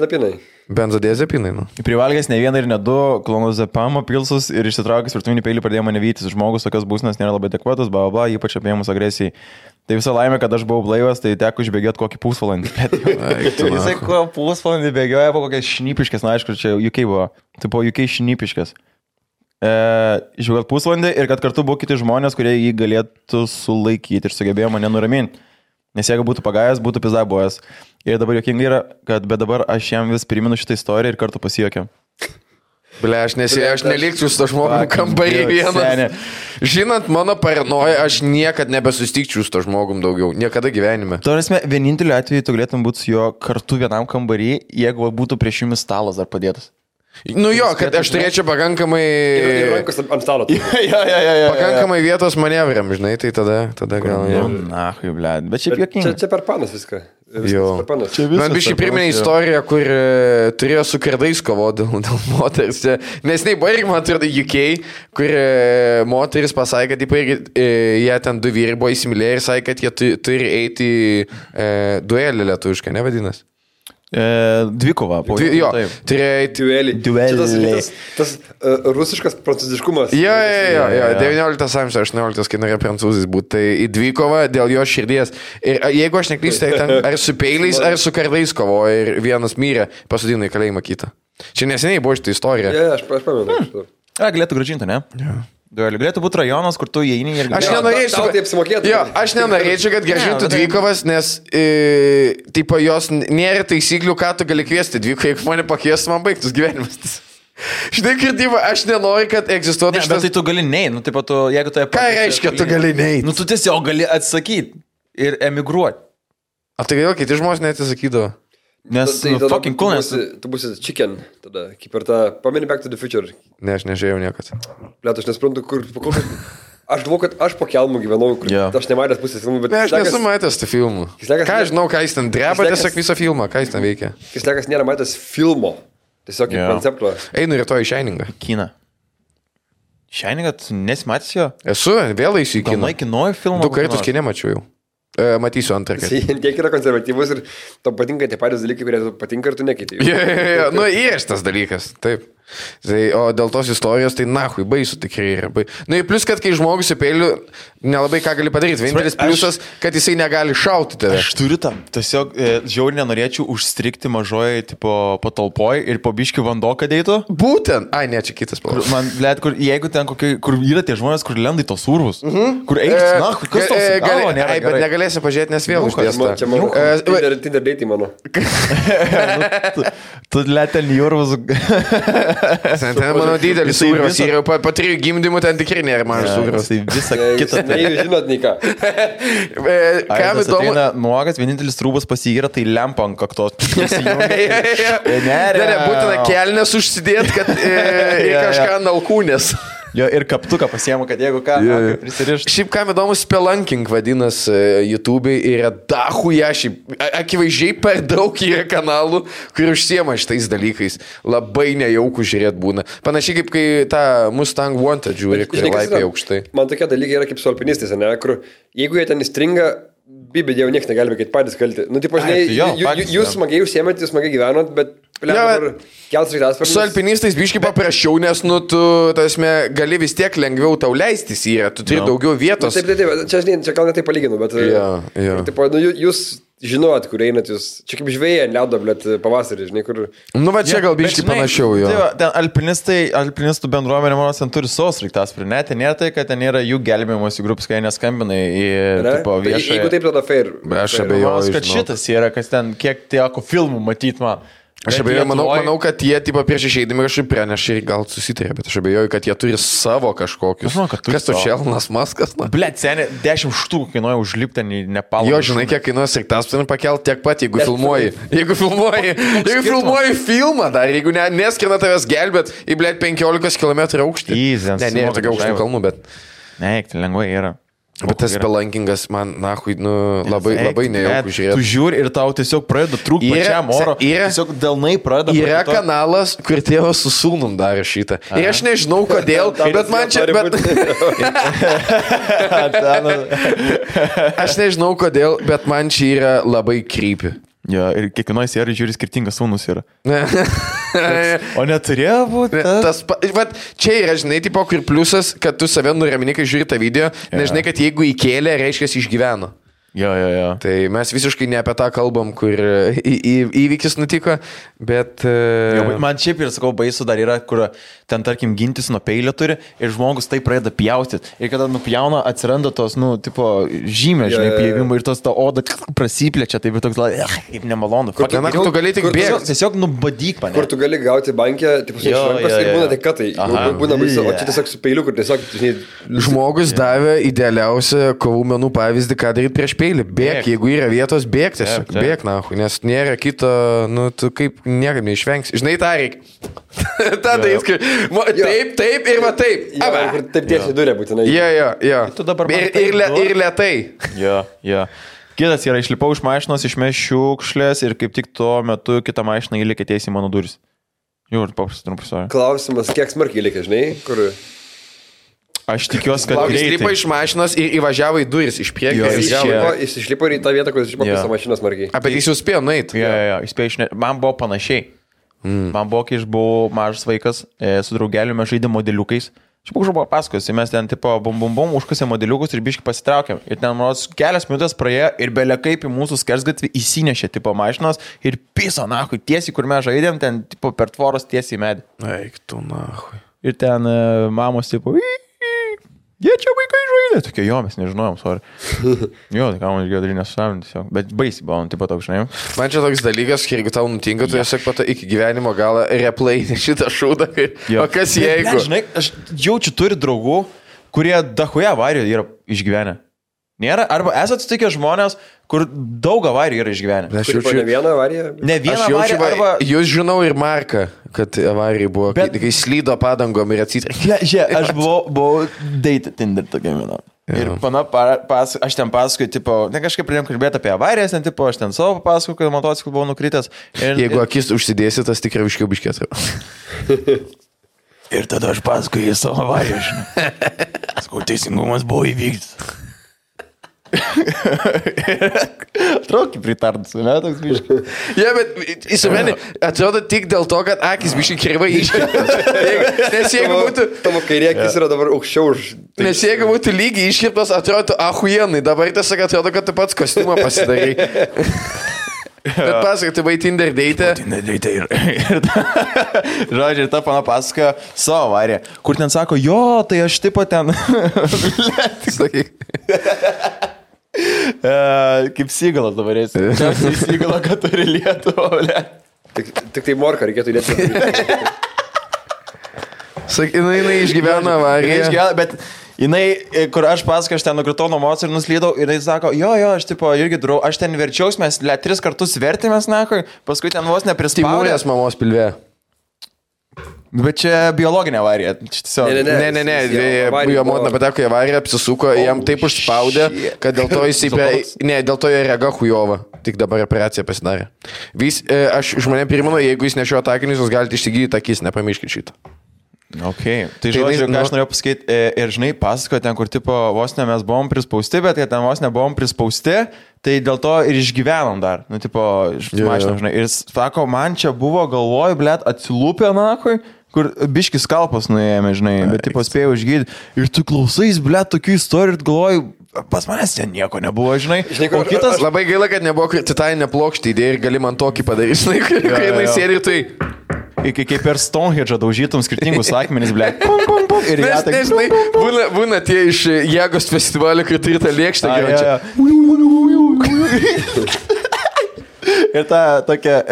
Benzodiazepinai, nu. Privalgęs ne vieną ir ne du klonazepamo pilsus ir išsitraukęs virtuvinį peilį pradėjo mane vytis. Žmogus tokios būsnas nėra labai adekvatus, ypač apėmus agresijai. Tai visą laimę, kad aš buvau blaivas, tai teko išbėgioti kokį pusvalandį. Jisai pusvalandį bėgioja po kokias šnipiškės, na aišku, čia UK buvo. Tai po UK šnipiškės. Išbėgioti pusvalandį ir kad kartu buvo kiti žmonės, kurie jį galėtų sulaikyti ir sugebėjo mane nuraminti. Nes jeigu būtų pagavęs, būtų pizdabojas. Ir dabar juokingai yra, kad bet dabar aš jam vis primenu šitą istoriją ir kartu pasijuokiam. Aš nelikčiau su to žmogum kambarį vienas. Žinant mano paranoją, aš niekad nebesustikčiau su to žmogum daugiau. Niekada gyvenime. Tuo vieninteliu atveju tu galėtum būti su juo kartu vienam kambarį, jeigu būtų prieš jumis stalas dar padėtas. Nu jo, kad aš turėčiau pakankamai... Ir rankos ant stalo. Pakankamai vietos manevram, žinai, tai tada gal... Na, blėd, bet šiaip juokingai. Čia per panas viską. Man biškai priminė istoriją, kur turėjo su kardais kovoti dėl moters. Nes nei buvo irgi, man atrodo, UK, kur moteris pasakė, kad jie ten 2 vyrai buvo įsimylėję ir sakė, kad jie turi eiti duelį lietuviškai, nevadinas? Dvikova. Jo, duelį. Tas rusiškas prancūziškumas. Jo, 19 amžiaus, 18, kai norėjo prancūzais būti. Tai į dvikovą dėl jo širdies. Ir jeigu aš neklystu, tai ten ar su peiliais, ar su kardais kovojo ir vienas mirė, pasodino į kalėjimą kitą. Čia neseniai buvo šitą istoriją. Aš pamenu. Galėtų grąžinti, ne? Duelių. Galėtų būti rajonas, kur tu įeini ir... Aš nenorėčiau, tau tai apsimokėtų. Jo, aš nenorėčiau, kad grąžintų dvikovas, nes tipo, jos nėra taisyklių, ką tu gali kviesti dvikovą, jeigu mane pakviestų, man baigtus gyvenimas. Žinai, kirtimą, aš nenoriu, kad egzistuotų šitas... Bet tai tu gali neiti, nu, taip pat, jeigu tai... Ką reiškia, tu gali neiti? Nu, tu tiesiog gali atsakyti ir emigruoti. O tai vėl kiti žmonės neatsisakydavo. Nes fucking cool, nes... Tu būsi chicken, tada, kaip ir tą, pameni Back to the Future. Ne, aš nežiūrėjau niekad. Liet, aš nesprantu, kur... Aš galvoju, kad aš po kelmų gyvenau, kur aš nematęs pusės filmų, bet... Ne, aš nesu matęs tų filmų. Ką žinau, ką jis ten dreba, tiesiog visą filmą, ką jis ten veikia. Kislekas nėra matęs filmo. Tiesiog kaip koncepto. Einu rytoj į Šeiningą. Kiną. Šeiningą, tu nesimatys jo? Esu, vėl eisiu į kiną. Galai kinoju filmą. 2 kartus kinė mačiau jau. Matysiu antrą kartą. Tiek yra konservatyvus ir tau patinka tie patys dalykai, kurie tau patinka ir tu nekeiti. Nu, yra tas dalykas, taip. Tai, o dėl tos istorijos, tai nahui, baisu tikrai yra. Nu, ir plus, kad kai žmogus į peilių, nelabai ką gali padaryti. Vienintelis pliusas, kad jisai negali šauti tave. Aš turiu tam. Tiesiog žiauriai nenorėčiau užstrikti mažoje patalpoje ir po biškių vanduo, kad eitų. Būtent. Ai, ne, čia kitas palauk. Man, blėt, jeigu ten kur yra tie žmonės, kur lenda į tos urvus, kur eis, na, kas tos galvo nėra. Bet negalėsi pažiūrėti, nes vėl uždėsta. Čia mano Tinder date mano. Tu lėtel į urvus. Ten mano didelis sūrios ir jau po 3 gimdymų ten tikrai nėra mažas sūrios. Tai visą kitą. Žinot, nei ką. Kam įdomu? Nuogas, vienintelis trūbas pasigyra, tai lempa ant kaktos. Ne, būtina kelnes užsidėti, kad į kažką nalkūnės. Jo, ir kaptuką pasiemu, kad jeigu ką, prisirišt. Šiaip kam įdomu, spelunking vadinasi YouTube'ai ir yra dahuja, šiaip akivaizdžiai per daug yra kanalų, kur užsiema šitais dalykais. Labai nejaukų žiūrėti būna. Panašiai kaip kai tą Mustang Wanted žiūri, kur laipiai aukštai. Man tokie dalykai yra kaip su alpinistais, ne, kur jeigu jie ten įstringa, bibė dievo niekas negali kaip patys kalti. Nu, tipo, žinai, jūs smagiai užsiemėt, jūs smagiai gyvenot, bet su alpinistais biškai paprasčiau, nes, nu, tu, tasme, gali vis tiek lengviau tau leistis yra, tu turi daugiau vietos. Taip, čia gal netai palyginu, bet tipo, nu, jūs žinot, kur einat jūs, čia kaip žvėja, ledo, blėt, pavasarį, žinai, kur... Nu, va čia gal biškai panašiau, jo. Tai alpinistų bendruomenė, manos, ten turi savo sraigtasparnį, ne, ten nėra tai, kad ten yra jų gelbėjimosi grupės, kai neskambinai į, tipo, viešą... Jeigu taip, tada fair. Aš abejoju, kad šitas yra, kas ten, kiek teko filmų matyt man. Aš abejoju, manau, kad jie tipo, prieš išeidami kažkaip pranešė ir gal susitarė, bet aš abejoju, kad jie turi savo kažkokius. Kas tu Čelnas Maskas? Blet, seniai, 10 štukų kainuoja užlipti į Nepalą. Jo, žinai, kiek kainuoja sraigtasparnį pakelti tiek pat, jeigu filmuoji. Jeigu filmuoji filmą dar, jeigu neskrina tavęs gelbėt į, blet, 15 km aukštį. Ne, tokia aukštų kalnų, bet... Ne, tai lengvai yra. Bet tas spelankingas man, nahui, nu, labai nejaukų žiūrėti. Tu žiūri ir tau tiesiog pradeda trūkti pačiam oro. Tiesiog delnai pradeda. Yra kanalas, kur tėvas su sūnum darė šitą. Ir aš nežinau kodėl, bet man čia... Aš nežinau kodėl, bet man čia yra labai creepy. Jo, ir kiekvienoje serijoje žiūri skirtingas sūnus yra. O neturėjo būti? Čia yra, žinai, tipo, kur pliusas, kad tu save nuramini, kai žiūri tą video, nežinai, kad jeigu įkėlė, reiškia, išgyveno. Jo. Tai mes visiškai ne apie tą kalbam, kur įvykis nutiko, bet... Jo, man šiaip ir, sakau, baisu dar yra, kur ten, tarkim, gintis nuo peilio turi ir žmogus tai pradeda pjaustyti. Ir kada nupjauna, atsiranda tos, nu, tipo, žymė, žinai, pjavimų ir tos ta oda prasiplečia, tai bet toks, kaip nemalonu. Kur tu gali tik bėgti. Tiesiog nubadyk mane. Kur tu gali gauti bankę, tipo, su šrankos ir būna tik katai. Būna baisu, o čia tiesiog su peiliu, kur tiesiog, žinai... Žmogus davė idealiausią kovų menų pavyzdį, ką daryti prieš peilį. Bėk, jeigu yra vietos, bėk tiesiog. Bėk, nahu, nes nėra kito, nu, tu kaip niekaip neišvengsi. Žinai, tą reikia. Ta darys, kaip... Taip ir va taip. Taip tiesiai durė būtinai. Jo. Ir lėtai. Jo. Kitas yra, išlipau iš mašinos, išmeš šiukšlės ir kaip tik tuo metu kitą mašiną įlėkė tiesiai mano duris. Jau ir paprastai trumpai. Klausimas, kiek smarkiai įlėkė, žinai, kur... Aš tikiuosi, kad jis išlipo iš mašinos ir įvažiavo į duris iš priekio. Jis išlipo į tą vietą, kur jis išlipo visą mašiną smarkiai. Bet jis jau spėjo nueiti. Jo, jis spėjo išnešti. Man buvo panašiai. Man buvo, kai aš buvau mažas vaikas, su draugeliu mes žaidėm modeliukais. Aš buvo pasakojusi, mes ten tipo bum, užkasėm modeliukus ir biškai pasitraukėm. Ir ten, manos, kelias minutės praėjo ir belia kaip į mūsų skersgatvį įsinešė tipo mašinos ir piso, nahui, tiesiai, kur mes žaidėm, ten tipo per tvoros tiesiai į medį. Eik tu, nahui. Ir ten mamos tipo... Jie čia vaikai žaidė. Tokie, jo, mes nežinojom, sorry. Jo, tai ką man išgėjo dalinę susavinti tiesiog. Bet baisiai buvo, taip pat toks, žinai. Man čia toks dalykas, kai jeigu tau nutinka, tu tiesiog pato iki gyvenimo galą replay šitą šūdą. O kas jeigu? Ne, žinai, aš jaučiu turi draugų, kurie dahoje avarijų yra išgyvenę. Nėra, arba esate sutikę žmonės, kur daug avarijų yra išgyvenę. Aš jaučiu ne vieną avariją. Ne vieną avariją, arba... Jūs žinau ir Marką, kad avarijai buvo, bet... kai slydo padangom ir atsitraukė. Aš buvau date Tinder tokia viena. Ir aš ten pasakoju, tipo, ne kažkaip pradėjom kalbėti apie avarijas, ten, tipo, aš ten savo pasakoju, kad motociklu buvau nukritęs. Jeigu akis užsidėsi, tas tikrai viškiau biškėt. Ir tada aš pasakoju į savo avariją, žinai. Sakau, teisingumas buvo įvykdytas. Atrodo, kaip pritardas, ne, toks biškai. Ja, bet įsumeni, atrodo tik dėl to, kad akis biškai kirvai iškirptas. Nes jeigu būtų... Tavo kairė akis yra dabar aukščiau už... Nes jeigu būtų lygiai iškirptas, atrodo ahuienai. Dabar tiesiog atrodo, kad tu pats kostiumą pasidarai. Bet pasakai, tu buvai Tinder date. Tinder date ir žodžiu, ir ta pana pasakoja savo avariją, kur ten sako, jo, tai aš tipo ten... Kaip Sygalas dabar esi. Čia Sygalo, kad turi Lietuvą, ble. Tik tai morką reikėtų Lietuvą. Sakai, jinai išgyveno avariją. Bet jinai, kur aš pasakoju, aš ten nukritau nuo moco ir nuslydau, ir jinai sako, jo, aš tipo irgi durau, aš ten verčiaus, mes 3 kartus vertėmės, nakui, paskui ten vos neprispaudė. Timūrės mamos pilve. Bet čia biologinė avarija. Ne. Jo motina pateko į avariją, apsisuko, jam taip užspaudė, kad dėl to jis dėl to jo rega hujova. Tik dabar operacija pasidarė. Aš žmonėm primenu, jeigu jis nešiojo takinius, jūs galite išsigydyti akis, nepamirškit šitą. Ok, tai žodžiu, ką aš norėjau pasakyti, ir žinai, pasakoju ten, kur tipo vos ne mes buvom prispausti, bet ten vos nebuvom prispausti, tai dėl to ir išgyvenom dar, nu tipo, mašinom, žinai, ir sako, man čia buvo galvoj, blėt, atsilūpė nakui, kur biškis kalpas nuėjame, žinai, bet tipo spėjau išgydyti, ir tu klausais, blėt, tokių istorijų ir galvoju, pas manęs ten nieko nebuvo, žinai. O kitas... Labai gaila, kad nebuvo titaninė plokštė idėja ir gali man tokį padaryti, žinai, kai jinai sėdi ir tai... Kaip per Stonehenge daužytum skirtingus akmenis, ble. Ir jie tai... Būna tie iš Jėgos festivalio, kai turi tą lėkštą gyvenčią. Ir ta tokia,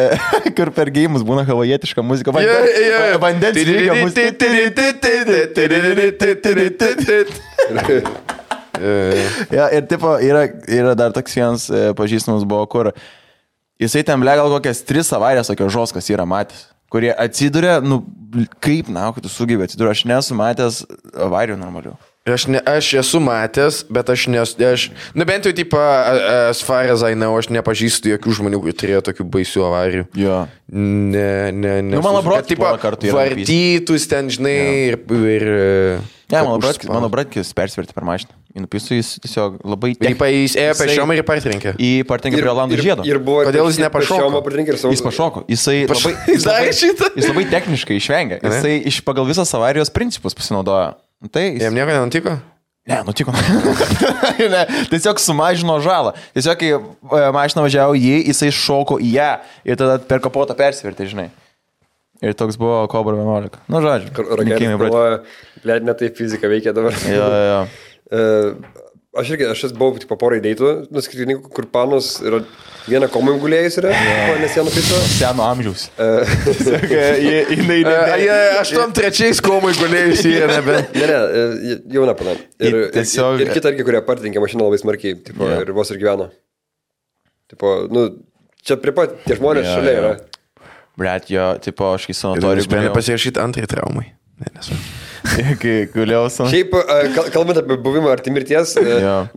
kur per geimus būna havajietiška muzika. Vandens lygio muzika. Ir tipo, yra dar toks vienas pažįstamas buvo, kur jisai ten, ble, gal kokias 3 avarijas tokios žoskas yra matęs, kurie atsiduria, nu, kaip, na, kad tu sugebė atsiduria, aš nesu matęs avarijų normalių. Aš esu matęs, bet aš bent jau, tipo, as far as I know, aš nepažįstu jokių žmonių, kurie turėjo tokių baisių avarijų. Jo. Ne. Nu, mano brotis porą kartų yra. Vartytus ten, žinai, ir... Ne, mano bratkis persverti per mašiną. Įnupisų jis tiesiog labai... Jis ėjo pešiom ir partrenkė. Į partrenkė prie Olandų žiedo. Kodėl jis nepašoko? Jis pašoko. Jis labai techniškai išvengė. Jisai pagal visas avarijos principus pasinaudojo. Jam nieko nenutiko? Ne, nutiko. Ne, tiesiog sumažino žalą. Tiesiog, kai mašina važiavo jisai šoko į ją ir tada per kapotą persverti, žinai. Ir toks buvo Cobra 11. Nu, žodžiu. Raketai galvoja, blėt, ne taip fizika veikia dabar. Jo. Aš buvau tipo porai deitų, nuskirtininkų, kur panos yra viena komai gulėjus yra, nes jie nupiso. Seno amžiaus. 83 komai gulėjus yra nebent. Ne, jauna pana. Ir kita irgi, kurie partinkė mašiną labai smarkiai, tipo, ir vos ir gyveno. Tipo, nu, čia prie pat tie žmonės šalia yra. Bret, jo, tipo, aš kai sanatorijų sprendė pasirašyti antrai traumai. Ne, nesu. Kai guliau savo. Šiaip, kalbant apie buvimą arti mirties,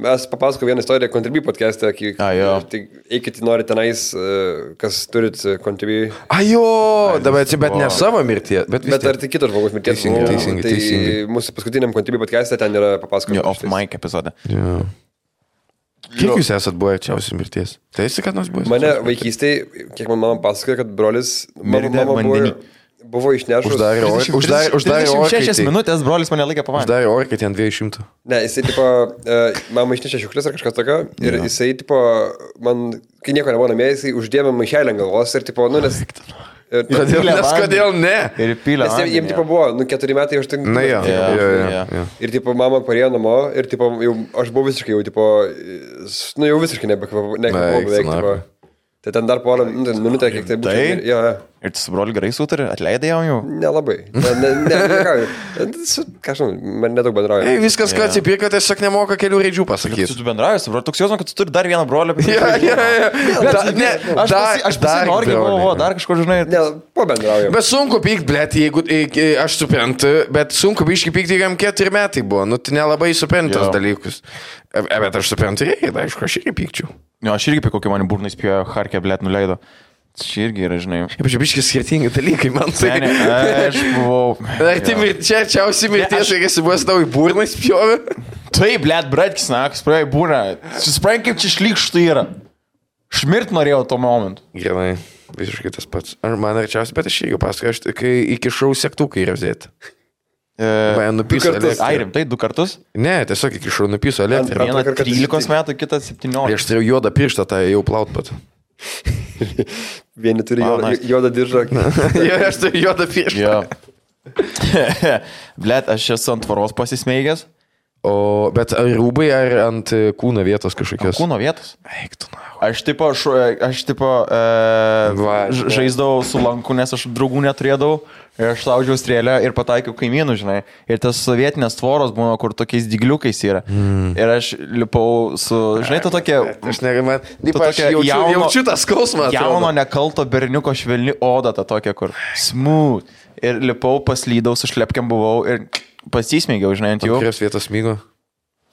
mes papasako vieną istoriją Contribui podcast'e. Tai eikit, nori tenais, kas turit Contribui. Bet ne savo mirties. Bet ar tik kitos žmogus mirties. Teisingai. Tai mūsų paskutiniam Contribui podcast'e ten yra papasakoti. Off mic epizode. Kiek jūs esat buvę arčiausiai mirties? Tai esi, kad nors buvęs? Mane vaikystėje, kiek man mama pasakoja, kad brolis buvo išnešus. Uždarė 36 minutės brolis mane laikė pavanį. Uždarė orkai ten 200. Ne, jisai, tipo, mama išnešė šiuklis ar kažkas tokio. Ir jisai, tipo, man, kai nieko nebuvo namie, jisai uždėmė maišelį ant galvos ir, tipo, nu, nes Kodėl ne? Ir pylė. Nes jiems tipo buvo, 4 metai aš tik... Na jo. Ir tipo mama parėjo namo ir tipo jau, aš buvau visiškai jau tipo, jau visiškai nekvapau beveik tipo. Tai ten dar porą minutę, kiek tai būtų. Ir tu su broliu gerai sutari, atleidai jau? Nelabai. Ką žinau, man nedaug bendrauja. Viskas, ką atsipirka, tiesiog nemoka kelių raidžių pasakyti. Tu bendrauji su broliu, toks jausmas, kad tu turi dar vieną brolį. Aš noriu, dar kažko žinai. Ne, pabendrauju. Bet sunku pykt, blėt, jeigu aš suprantu, bet sunku biškai pykti, jam 4 metai buvo. Nu, tai nelabai suprantas dalykus. Bet aš suprantu, aišku, aš irgi pykčiau. Jo, aš irgi apie kokį mane burnais pėjo, Harkė, blėt, nuleido. Čia irgi yra, žinai. Ypač biškai skirtingi dalykai, man tai. Ne, aš buvau. Ar tai čia arčiausiai mirties, kai esi buvęs tau į burną spjovė? Taip, blėt, bratkis, nakas, praėjo į burną. Susipranti, kaip čia šlykštų yra. Šmirt norėjau tuo momentu. Gerai, visiškai tas pats. Ar man arčiausiai, bet aš irgi pasakoju, kai įkišau sektuką į rozėtę. Man nupiso elektrą. Ai, rimtai, 2 kartus? Ne, tiesiog įkišau nupiso elektrą. Vieną 13 metų, kitą 17. Aš turėjau juodą pirštą, tai jau plaut pat. Vieni turi juodą diržą. Jo, aš turiu juodą pirštą. Blet, aš esu ant tvaros pasismeigęs. Bet ar rūbai, ar ant kūno vietos kažkokios? Kūno vietos? Eik tu, na. Aš žaisdavau su lanku, nes aš draugų neturėdavau. Ir aš laužiau strėlę ir pataikiau kaimynų, žinai. Ir tas sovietinės tvoros būna, kur tokiais dygliukais yra. Ir aš lipau su, žinai, tu tokia... Aš negaliu, aš jaučiu tą skausmą. Jauno nekalto berniuko švelni oda, ta tokia, kur smooth. Ir lipau, paslydau, su šlepkiam buvau ir pasismėgiau, žinai, ant jų. Kurios vietos smygo?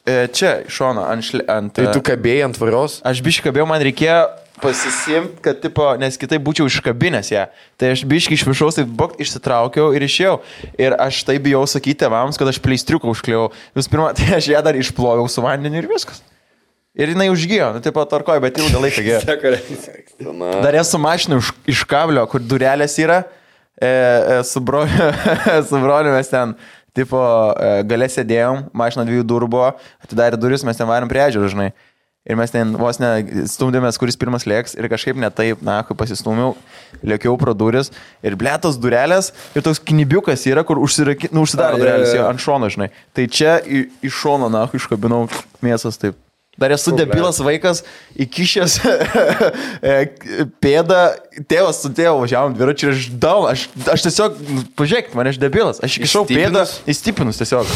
Čia, šono, ant... Tai tu kabėjai ant tvaros? Aš biškai kabėjau, man reikėjo pasisimti, kad, tipo, nes kitai būčiau iškabinęs ją. Tai aš biškai iš viršaus, taip bok, išsitraukiau ir išėjau. Ir aš tai bijau sakyti tėvams, kad aš pleistriuką užkliau. Visų pirma, tai aš ją dar išploviau su vandeniu ir viskas. Ir jinai užgijo, nu, taip pat tarkoju, bet ilgą laiką gėjo. Dar esu mašinų iš kablio, kur durelės yra. Su broliu mes ten... Tipo, gale sėdėjom, mašina 2 durų buvo, atidarė duris, mes ten varėm prie ežero, žinai. Ir mes ten vos ne stumdėmės, kuris pirmas lėks ir kažkaip ne taip, na, kai pasistūmiau, lėkiau pro duris ir blėtos durelės ir toks knibiukas yra, kur užsidaro durelės ant šono, žinai. Tai čia iš šono, na, iškabinau mėsas taip. Dar esu debilas vaikas, įkišęs pėdą, tėvas su tėvu važiavom dviračiu ir aš tiesiog, pažiūrėkit, man aš debilas, aš įkišau pėdą, įstipinus tiesiog.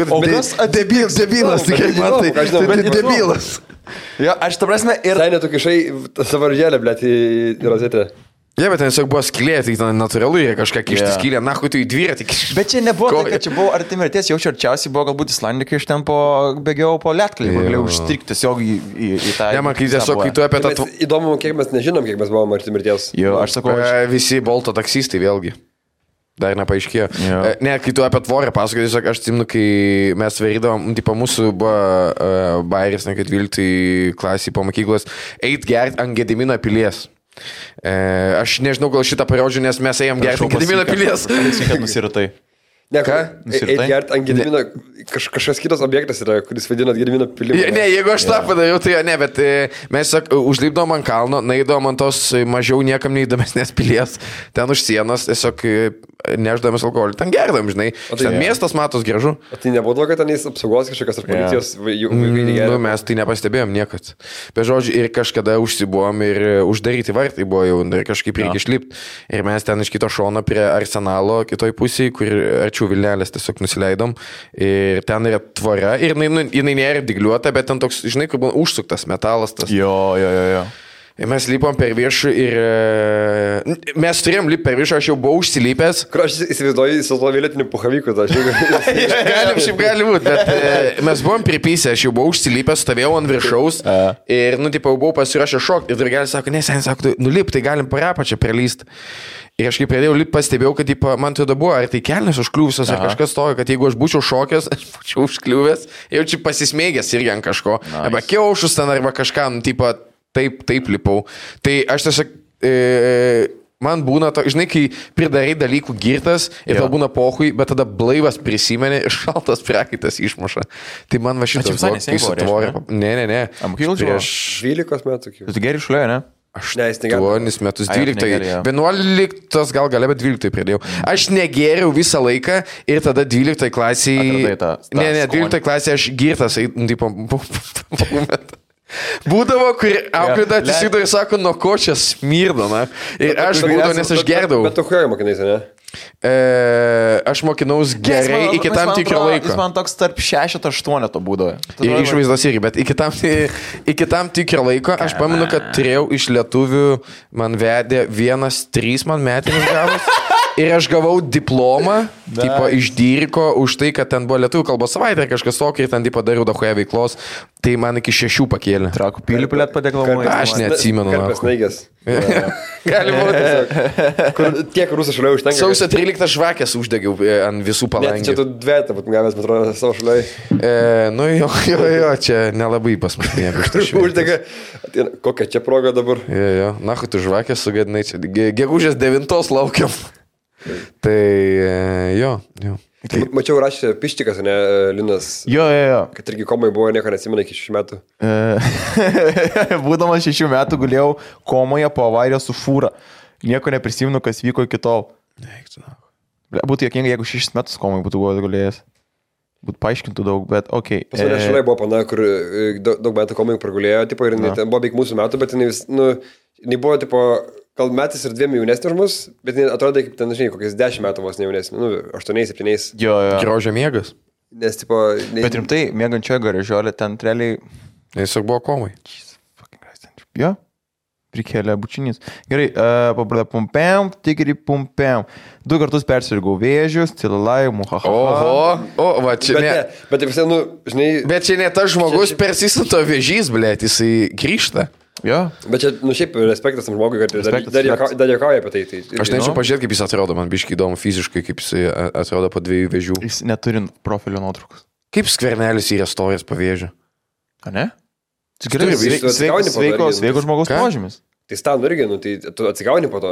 O kas debilas, tikrai man tai debilas. Jo, aš ta prasme ir... Tai netu kišai savo žėlę, blėt, į rozetę. Ne, bet ten tiesiog buvo skylė, tai ten natūralu yra kažką kišti skylę, na, tu į dviratį kišti. Bet čia nebuvo tai, kad čia buvo arti mirties, jaučiu arčiausiai buvo galbūt Islandikai, iš ten bėgiau po Lietkali, galėjau užstrikti tiesiog į tą... Ne, man kai tiesiog, kai tu apie tą... Įdomu, kiek mes nežinom, kiek mes buvom arti mirties. Jo, aš sakau... Visi Bolto taksistai vėlgi. Dar nepaaiškėjo. Ne, kai tu apie tvorę pasakai, tiesiog aš atsimenu, kai mes varydavom, tipo mūsų buvo bairis, ne, kad 12 klasį po mokyklos, eit gert ant Gedimino pilies. Aš nežinau, gal šitą parodžiu, nes mes ėjom gerti ant Gedimino pilies. Kad nusiratai. Ne, ką? Eit gerti ant Gedimino, kažkas kitas objektas yra, kuris vadinat Gedimino pilimą. Ne, jeigu aš tą padariau, tai ne, bet mes užlipdom ant kalno, naidom ant tos mažiau niekam neįdomesnės pilies, ten už sienos, tiesiog neždamas alkoholį, ten gerdam, žinai. Ten miestas matos gražu. O tai nebuvo, kad ten jis apsaugos kažkokios ar policijos vaikai negeria? Nu, mes tai nepastebėjom niekad. Bet žodžiu, ir kažkada užsibuvom ir uždaryti vartai buvo jau, ir kažkaip reikia išlipti. Ir mes ten iš kito šono prie arsenalo, kitoj pusėje, kur arčiau Vilnelės tiesiog nusileidom. Ir ten yra tvora. Ir jinai nėra dygliuota, bet ten toks, žinai, kur buvo užsuktas metalas tas. Jo. Ir mes lipom per viršų ir mes turėjom lipti per viršų, aš jau buvau užsilipęs. Kur aš įsivaizduoju su to vėlėtiniu puhaviku, tai šiaip gali būti, bet mes buvom pripysę, aš jau buvau užsilipęs, stovėjau ant viršaus ir, tipo, buvau pasirašę šokti ir draugelis sako, ne, sen, sako, nulip, tai galim parapą čia prelysti. Ir aš kai pradėjau lipti, pastebėjau, kad man tada buvo, ar tai kelnes užkliuvusios, ar kažkas tojo, kad jeigu aš būčiau šokęs, aš būčiau užkliuvęs, jau čia pasismėgęs irgi ant kažko, arba kiaušus ten, arba kažką, tipo, taip lipau. Tai aš tiesiog, man būna, žinai, kai pridarai dalykų girtas ir tau būna pohui, bet tada blaivas prisimeni ir šaltas prakaitas išmuša. Tai man va šitas buvo, kai sutvorė. Ne. Prieš 12 metų. Tu geri šliuoja, ne? 8 metus, 12. 11 gal galia, bet 12 pradėjau. Aš negėriau visą laiką ir tada 12 klasėje... Ne, 12 klasėje aš girtas, tipo... Būdavo, kur auklėda atsisidavo ir sako, nuo ko čia smirdo, na. Ir aš būdavau, nes aš gerdavau. Bet tu kuo mokinaisi, ne? Aš mokinaus gerai iki tam tikro laiko. Jis man toks tarp 6-8 to būdavo. Ir išvaizdos irgi, bet iki tam tikro laiko aš pamenu, kad turėjau iš lietuvių, man vedė 1-3 man metinis gavus. Ir aš gavau diplomą, tipo, iš Dyriko, už tai, kad ten buvo lietuvių kalbos savaitė ir kažkas tokio, ir ten tipo dariau dahoje veiklos, tai man iki 6 pakėlė. Trakų pilį pilėt padeklamuoju. Aš neatsimenu. Karpės naigės. Gali būti. Kur tiek rusų šaliai užtenka. Sausio 13 žvakės uždegiau ant visų palangių. Čia tu dvietą, bet gavęs, bet atrodo, savo šaliai. Nu jo, čia nelabai pas mus nieko. Uždega. Kokia čia proga dabar? Jo, nahu tu žvakės sugadinai čia. Gegužės 9 laukiam. Tai jo. Mačiau rašė Pištikas, ne, Linas. Jo. Kad irgi komai buvo, nieko neatsimena iki 6 metų. Būdamas 6 metų gulėjau komoje po avarijos su fūra. Nieko neprisimenu, kas vyko iki tol. Būtų jokinga, jeigu 6 metus komai būtų gulėjęs. Būtų paaiškintų daug, bet okei. Pas mane šaliai buvo pana, kur daug metų komai pragulėjo, tipo, ir ten buvo beveik mūsų metų, bet jinai buvo, tipo, gal metais ir 2 jaunesnė už mus, bet atrodo, kaip ten, žinai, kokiais 10 metų vos ne jaunesnė, 8-7. Jo. Grožio miegas. Nes, tipo... Bet rimtai, miegančioje garažiolė, ten realiai... Tiesiog buvo komai. Jo, prikėlė bučinys. Gerai, pabradė pumpiam, tikri pumpiam. 2 kartus persirgau vėžius, cilalai, muhahaha. Va, čia ne... Bet visai, žinai... Bet čia ne tas žmogus persisinto vėžys, blėt, jisai grįžta. Jo. Bet čia, šiaip respektas tam žmogui, kad dar jokauja apie tai. Aš nežinau pažiūrėti, kaip jis atrodo, man biškai įdomu fiziškai, kaip jis atrodo po 2 vėžių. Jis neturi profilio nuotraukos. Kaip Skvernelis yra stovės po vėžių? A ne? Sveikos žmogaus požymis. Tai stanų irgi, tai tu atsigauni po to.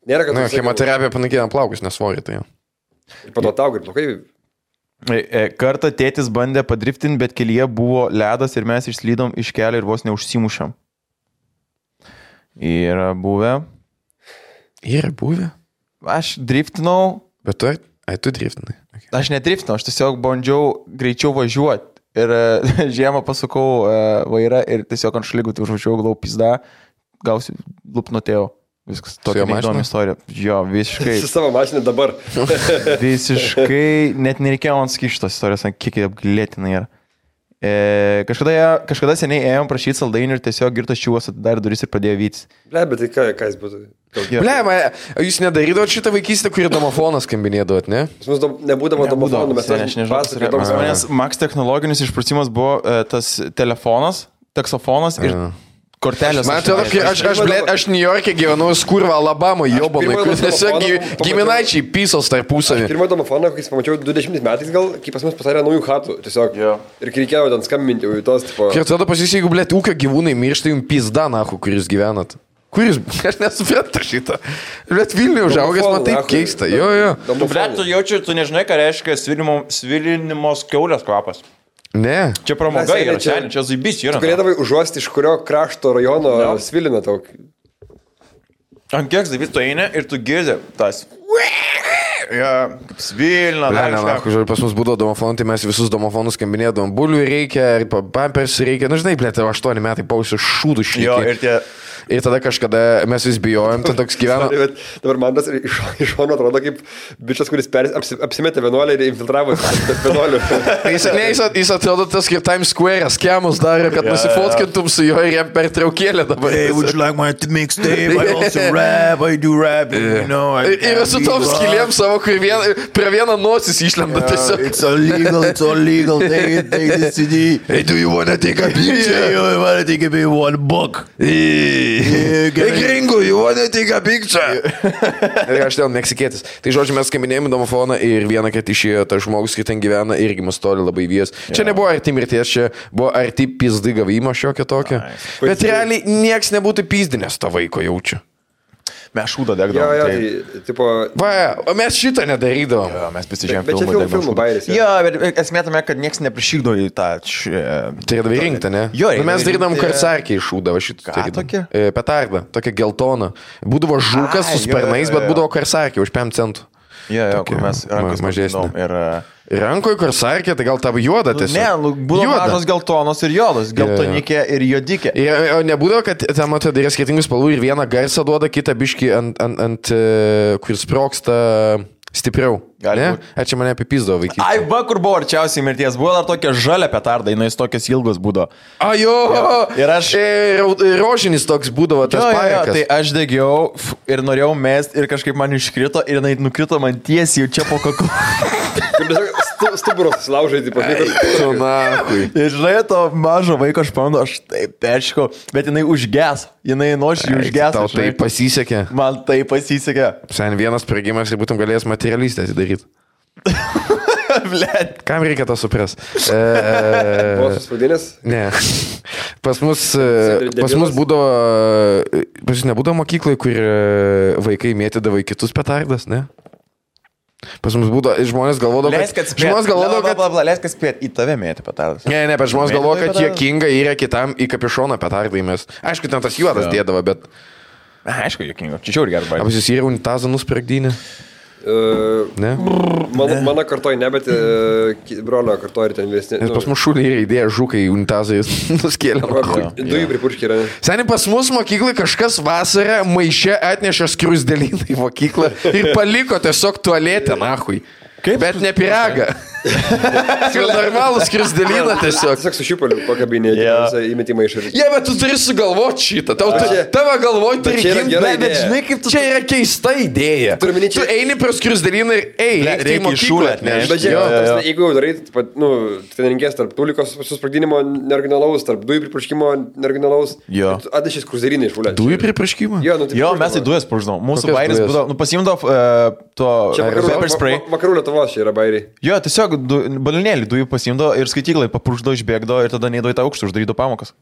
Nėra, kad... Chemoterapija panaikina plaukus, nesvorį tai jau. Ir po to tau, ir plaukai... Kartą tėtis bandė padriftinti, bet kelyje buvo ledas ir mes išslydom iš kelio ir vos neužsimušėm. Yra buvę. Aš driftinau. Bet tu driftinai. Okay. Aš nedriftinau, aš tiesiog bandžiau greičiau važiuoti. Ir žiemą pasukau vairą ir tiesiog ant šlygų užvažiavau, glau pizda, gausiu lupnutėjau. Viskas, tokia įdomi istorija. Jo, visiškai. Su savo mašinė dabar. Visiškai, net nereikėjo man sakyti šitos istorijos, kiek apgailėtinai yra. Kažkada seniai ėjom prašyti saldainių ir tiesiog girtas čiūvas atidarė duris ir pradėjo vytis. Ble, bet tai ką jis būtų? Ble, jūs nedarydavot šitą vaikystę, kurį domofoną skambinėdavot, ne? Mums nebūdavo domofonų, mes nežinau. Max technologinis išprusimas buvo tas telefonas, taksofonas ir... Kortelės. Man atrodo, aš New York'e gyvenau Skurva, Alabama, Jobonai, kur tiesiog giminaičiai pysos tarpusavį. Pirmą domofoną, kai pamačiau 20 metais gal, kai pas mus pasarė naujų chatų, tiesiog. Ir kai reikėjo ten skambinti jau į tos, tipo... Ir tada pasisi, jeigu, blėt, ūkio gyvūnai miršta, jums pizda, nahu, kur jūs gyvenat. Kur jūs... Aš nesuprantu šitą. Blėt, Vilniuje užaugęs, man taip keista. Jo. Tu, blėt, tu jaučiu, tu nežinai, ką reiškia svilinimos kiaulės kvapas. Ne. Čia pramoga yra, čia zaibys yra. Tu galėdavai užuosti, iš kurio krašto rajono svilina tau. Ant kiek zaibys tu eini ir tu girdi tas... Svilina. Pas mus būdavo domofonai, tai mes visus domofonus skambinėdavom. Bulių reikia, pampers reikia. Na, žinai, blėt, 8 metai pausiu šūdų šlykiai. Ir tada kažkada mes vis bijojom, ten toks gyveno. Dabar man tas iš šono atrodo kaip bičias, kuris apsimetė vienuolį ir infiltravo vienuolių. Jis atrodo tas kaip Times Square, skemus darė, kad nusifotkintum su juo ir jam per traukėlę dabar. Hey, would you like my mixtape? I also rap, I do rap, you know. Ir su tom skilėm savo, kur prie vieną nosis išlenda tiesiog. It's all legal, take this CD. Hey, do you wanna take a picture? Yeah, you wanna take a picture, $1. Hey, gringo, you wanna take a picture? Ir aš ten meksikėtis. Tai žodžiu, mes skambinėjom į domofoną ir vieną kartą išėjo tas žmogus, kai ten gyvena, irgi mus toli labai vyjas. Čia nebuvo arti mirties, čia buvo arti pizdai gavimo šiokio tokio. Bet realiai nieks nebūtų pizdinės to vaiko jaučiu. Mes šūdą Jo, degdavom. tai, tipo... Va, o mes šitą nedarydavom. Jo, mes pasižiūrėjom Bet čia filmų bairis. Jo, bet esmė tame, kad niekas neprišykdo į tą... Tai davai rinkti, ne? Jo, nu, mes darydavom rinkti- karsarkiai šūdą, va šitą. Ką tokia? Petardą, tokia geltona. Būdavo žukas su jo, sparnais, jo, bet jo. būdavo karsarkiai už 5 centų. Jo, Tokia kur mes rankos mažesnė. mažesnė. Ir... Rankoje karsarkė, tai gal tavo juoda tiesiog. Ne, būdavo mažos geltonos ir juodos. Geltonikė ir juodikė. O nebūdavo, kad ten matai, yra skirtingų spalvų ir vieną garsą duoda, kitą biškį ant kur sproksta stipriau. Gali Ne? būt. Ar čia mane apipizdavo vaikystė? Ai, va, kur buvo arčiausiai mirties. Buvo dar tokia žalia petarda, jinai tokios ilgos būdavo. Ajo! Ir aš- Rožinis toks būdavo tas pajakas. Tai aš degiau ir norėjau mest ir kažkaip man iškrito ir jinai nukrito man tiesiai jau čia po kaklu. Stuburos laužai, tipo, Tu nahui. Ir žinai, to mažo vaiko aš pamenu, aš taip peršikau, bet jinai užges. Jinai nuoširdžiai užges. Tau tai pasisekė. Man tai pasisekė. Sen vienas sprogimas ir būtum galėjęs materialistę atidaryti. Blet. Kam reikia to supras? Buvo suspaudinės. Ne. Pas mus Debilas. būdavo, pas jūs nebūdavo mokykloje, kur vaikai mėtydavo į kitus petardas, ne? Pas mus būdavo, žmonės galvodavo, Leisk atspėt. žmonės galvodavo, kad... Leisk atspėt, į tave mėtė petardas. Ne, bet žmonės Mėtydavo galvoja, į kad petardą? juokinga yra kitam į kapišoną petardai mes. Aišku, ten tas juodas Jo. dėdavo, bet... Aišku, jokinga. Čia žiauri gerai. Ar jūs yra unitazą nuspragdynį? Ne? Mano kartoj ne, bet brolio kartoj ir ten vyresni. Nes pas mus šulį yra idėja žukai unitazai nuskėlė. Dujų pripurškį yra. Seniai pas mus mokyklai kažkas vasarą maiše atnešė skruzdėlyną į mokyklą ir paliko tiesiog tualetę, nahui. Kaip? Bet ne piragą. Normalų skruzdėlyną tiesiog. Tiesiog su šiupaliu pakabinėti, Jo. įmetimą iš ir... Jie, bet tu turi sugalvoti šitą. Čia- Tavo galvoj turi čia yra gimt, gera bet idėja. žinai, kaip tu... Čia yra keista idėja. Turiu omeny, Tu čia- eini prie skruzdėlyną ir Reikia reikia į mokyklą šūlę atnešti. Bet Jo, žiūrėk, jo, jo. jeigu jau darai, ten renkės tarp tulikos susprogdinimo neoriginalaus, tarp dujų pripurškimo neoriginalaus, Jo. atnešės kruzerinį iš vulę. Dujų pripraškimą? Jo, nu, tai Jo, pripurškimo. mes į dujas purždavom. Mūsų Kokias bairis dujas? būdavo, pasimdavo to Čia pepper spray. vakarų Lietuvos čia yra bairiai. Jo, tiesiog balionėlį dujų pasimdavo ir skaityklai papurždavo, išbėgdavo ir tada neįdavo į tą aukštą, uždarydavo pamokas.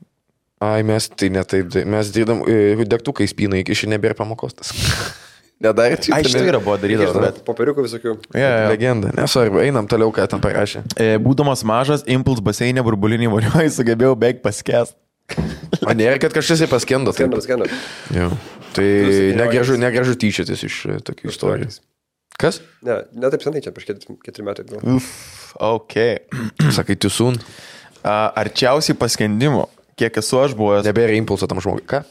Ai, mes tai ne taip. Mes dėdam degtukai spynai, iki šiandien nebėra pamokos tas. Nedarė čia. Ai, štai yra buvo darydavo, bet... Popieriukų visokių. Legenda. Nesvarbu, einam toliau, ką ten parašė. Būdamas mažas, impuls baseinė burbulinį vonioje sugebėjau beveik paskęst. O nėra, kad kažkas į paskendo. taip? Skendas. Jo. Tai negražu tyčiotis iš tokių istorijų. Kas? Ne taip senai čia, prieš 4 metai. gal. Uff, ok. Sakai, tu sun. Arčiausiai paskendimo, kiek esu aš buvęs. Nebėra impulso tam žmogui. Ką?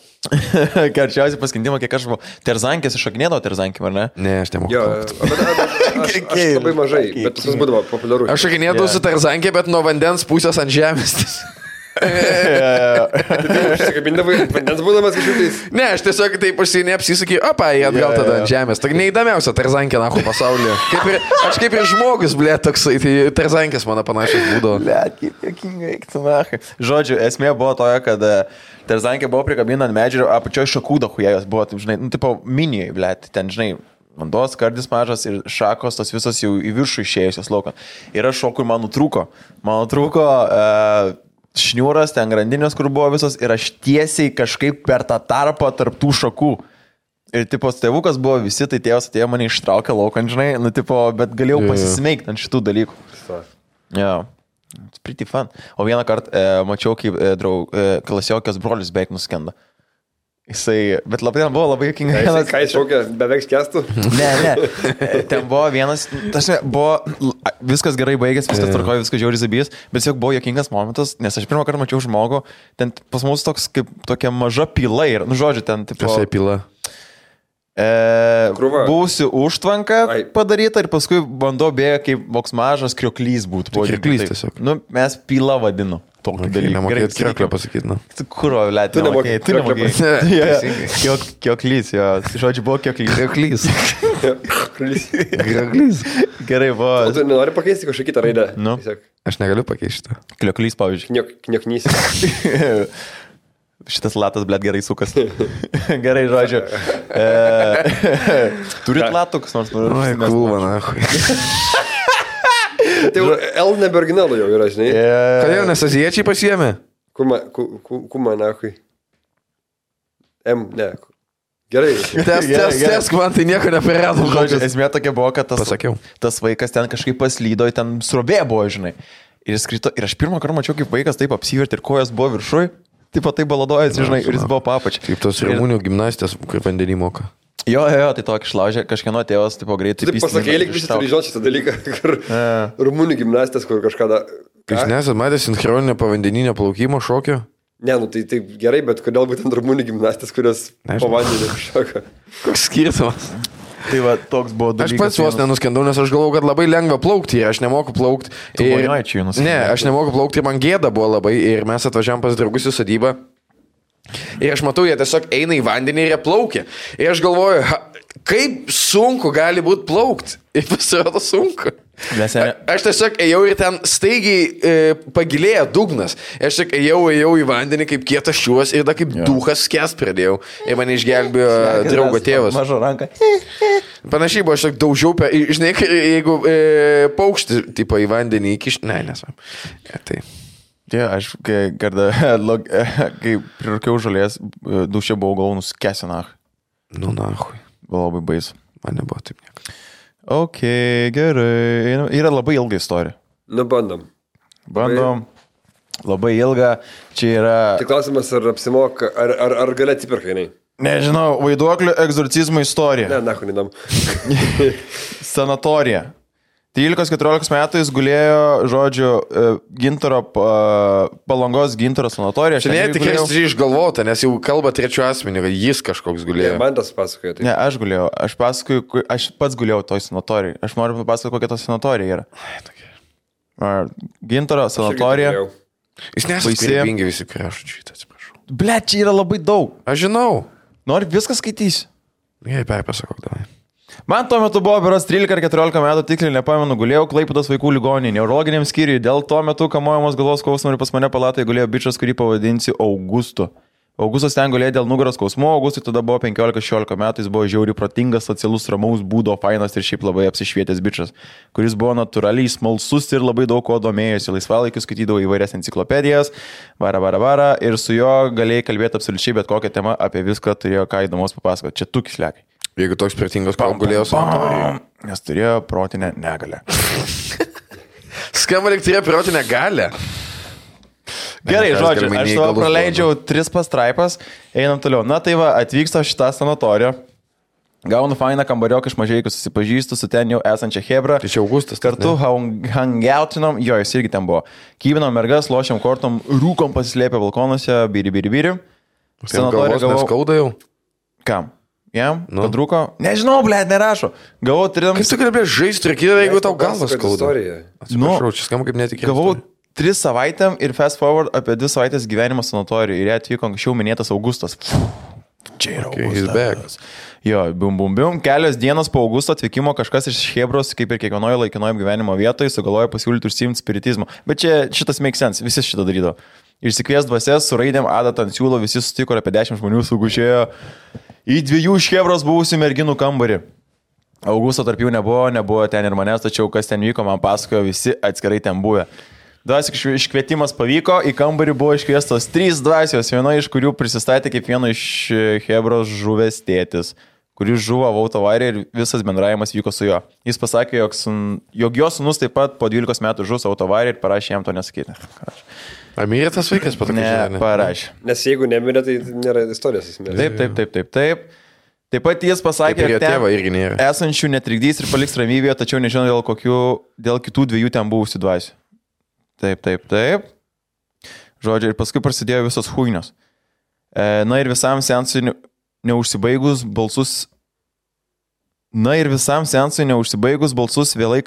Arčiausiai paskendimo, kiek aš buvau. Terzankės iššaknėdavo terzankėm, ar ne? Ne, aš nemoku. Jo, aš labai mažai, bet tas būdavo populiaru. Aš šakinėdavau su tarzankė, bet nuo vandens pusės ant žemės. Užsikabindavai, vandens būdamas kažkokiais. Ne, aš tiesiog taip neapsisakė, opa, jie atgal Jo, tada jo. ant žemės. Tai neįdomiausia tarzankė, nahu, pasaulyje. Aš kaip ir žmogus, blė, toksai, tai tarzankės mano panašios būdavo. Blet, kaip jokinga, eik tu nachai. Žodžiu, esmė buvo toja, kad terzankė buvo prikabinta ant medžio, apačioje šakų dahujėjos buvo, taip, žinai, nu, tipo, minijai, blet, ten, žinai, vandos kardis mažas ir šakos, tos visos jau į viršų išėjusios laukan. Ir aš šokui man nutrūko. Man nutrūko šniūras, ten grandinės, kur buvo visos, ir aš tiesiai kažkaip per tą tarpą tarp tų šakų. Ir, tipo, tėvukas buvo visi, tai tėvas atėjo mane ištraukė laukan, žinai, nu, tipo, bet galėjau pasismeigti ant šitų dalykų. Yeah. It's pretty fun. O vieną kartą mačiau, kaip klasiokės brolius beveik nuskenda. Jisai, bet labai buvo labai juokinga. Ką jis šaukia, beveik skęstų? Ne. Ten buvo vienas, tarsi, buvo viskas gerai baigęs, viskas tvarkoja, viskas žiauriai zabijęs, bet tiesiog buvo juokingas momentas, nes aš pirmą kartą mačiau žmogų, ten pas mus toks kaip tokia maža pila ir, nu žodžiu, ten tipo... Kas pila? Krūva. Buvusi užtvanka padaryta ir paskui bandau bėga kaip voks mažas krioklys būtų. Tai krioklys tiesiog. Nu, mes pila vadinu. Tokį dalyką. Nemokėt krioklio pasakyti, nu. Kuro, lėt, Tu nemokėjai. Tu nemokėjai nemokėjai. Kioklys, jo. Žodžiu, buvo kioklys. Krioklys. Krioklys. Gerai, O buvo. tu nenori pakeisti kažkokią kitą raidę? Nu. Tiesiog Aš negaliu pakeisti šitą. Klioklys, pavyzdžiui. Knioknys. Šitas latas, blėt, gerai sukas. Gerai, žodžiu. Turit latukus, nors noriu. Oi, kulva, nahui. Tai jau L nebe originalų jau yra, žinai. Kodėl, nes azijiečiai pasiėmė? Kuma, nahui. M, ne. Gerai. Tesk, man tai nieko nepriradom. Žodžiu, esmė tokia buvo, kad Pasakiau. tas vaikas ten kažkaip paslydo, ten srovė buvo, žinai. Ir jis krito, ir aš pirmą kartą mačiau, kaip vaikas taip apsivertė ir kojas buvo viršui, taip pat taip baladojasi, žinai, ir jis buvo papač. Kaip tos Rumunių gimnastės, kaip vandenį moka. Jo, tai tokį išlaužė, kažkieno tėvas, taip greitai. Taip pasakė, lyg visi turi žinoti šitą dalyką, kur Rumunių gimnastės, kur kažkada... Jūs nesat matę sinchroninio povandeninio plaukimo šokio? Ne, nu tai taip gerai, bet kodėl būtent Rumunių gimnastės, kurios po vandenį šoka? Koks skirtumas? Tai va, toks buvo dalykas. Aš pats vos nenuskendau, nes aš galvau, kad labai lengva plaukti ir aš nemoku plaukti. Ne, aš nemoku plaukti ir man gėda buvo labai ir mes atvažiavam pas draugus į sodybą. Ir aš matau, jie tiesiog eina į vandenį ir jie plaukia. Ir aš galvoju, kaip sunku gali būti plaukti. Ir pasirodo sunku. Aš tiesiog ėjau ir ten staigiai pagilėjo dugnas. Aš tik ėjau į vandenį kaip kietas šiuos ir da kaip duhas skęs pradėjau. Ir mane išgelbėjo draugo tėvas. Mažo ranką. Panašiai buvo, aš tik daužiau, žinai, jeigu paukštį tipo į vandenį įkiš... Ne, nesam. Tai... Aš kai prirūkiau žolės, dušė buvau galvų nuskęsi nach. Nu, nahui. Buvo labai baisu. Man nebuvo taip nieko. Ok, gerai. Yra labai ilga istorija. Nu, bandom. Labai ilga. Čia yra... Tik klausimas, ar apsimoka, ar gali atsipirka, jinai? Nežinau, vaiduoklio egzorcizmo istorija. Ne, nahu, nedam. Sanatorija. 13-14 metų jis gulėjo, žodžiu, Gintaro, Palangos Gintaro sanatorija. Čia ne, tikrai išgalvota, nes jau kalba trečiu asmeniu, kad jis kažkoks gulėjo. Ne, man tas pasakoja. Ne, aš gulėjau. Aš pats gulėjau toj sanatorijai. Aš noriu papasakoti, kokia ta sanatorija yra. Gintaro sanatorija. Jis nesakybingi visi kraščiai, atsiprašau. Ble, čia yra labai daug. Aš žinau. Nori viską skaitysi? Gerai, perpasakok davai. Man tuo metu buvo beros 13 ar 14 metų, tiksliai nepamenu, gulėjau Klaipėdos vaikų ligoninėje, neurologiniam skyriui. Dėl to metu kamuojamos galvos skausmo ir pas mane palatoje gulėjo bičas, kurį pavadinsi Augustu. Augustas ten gulėjo dėl nugaros skausmo, Augustui tada buvo 15-16 metų, jis buvo žiauri protingas, socialus, ramaus būdo, fainas ir šiaip labai apsišvietęs bičas, kuris buvo natūraliai smalsus ir labai daug ko domėjosi, laisvalaikiu skaitydavo įvairias enciklopedijas, vara, ir su juo galėjai kalbėti absoliučiai bet kokią temą, apie viską turėjo ką įdomus papasakoti. Čia tu kislekai. Jeigu toks protingas, ką gulėjo sanatorijoje. Nes turėjo protinę negalę. Skamba lyg turėjo protinę galę. Gerai, žodžiu, aš savo praleidžiau 3 pastraipas, einam toliau. Na tai va, atvyksta šitą sanatoriją, gaunu fainą kambarioką iš Mažeikių, susipažįstu su ten jau esančia Hebra. Tai čia Augustas. Kartu hangoutinom, jo, jis irgi ten buvo. Kyvinom mergas, lošiam kortom, rūkom pasislėpę balkonuose, biri. Sanatoriją gavau. Skauda jau? Kam? Jam? Nu. Padrūko? Nežinau, blėt, nerašo. Gavau 3... Kaip tu kalbėjai žaisti, jeigu tau galvas skauda? Atsiprašau, čia skamba kaip netikėtas. Gavau 3 savaitėm ir fast forward apie 2 savaitės gyvenimo sanatorijoje. Ir jie atvyko anksčiau minėtas Augustas. Čia yra Augustas. Jo, bum. Kelios dienos po Augusto atvykimo kažkas iš Hebros, kaip ir kiekvienoje laikinoje gyvenimo vietoje, sugalvojo pasiūlyti užsiimti spiritizmą. Bet čia šitas make sense, visi šitą darydavo. Išsikvies dvasias, su raidėm adatą ant siūlo, visi sutiko ir apie 10 žmonių sugužėjo į 2 iš Hebros buvusių merginų kambarį. Augusto tarp jų nebuvo ten ir manęs, tačiau kas ten vyko, man pasakojo, visi atskirai ten buvę. Dvasios iškvietimas pavyko, į kambarį buvo iškviestos 3 dvasios, viena iš kurių prisistatė kaip vieno iš Hebros žuvęs tėtis, kuris žuvo autoavarija ir visas bendravimas vyko su juo. Jis pasakė, jog jo sūnus taip pat po 12 metų žus autoavarija ir parašė jam to nesakyti. Ar mirė tas vaikas patokį? Ne, parašė. Nes jeigu nemirė, tai nėra istorijos. Taip. Taip pat jis pasakė, kad ten esančių netrikdys ir paliks ramybėje, tačiau nežinau dėl kitų 2 ten buvusių dvasių. Taip. Žodžiu, ir paskui prasidėjo visos huinios. Na ir visam seansui neužsibaigus balsus vėlai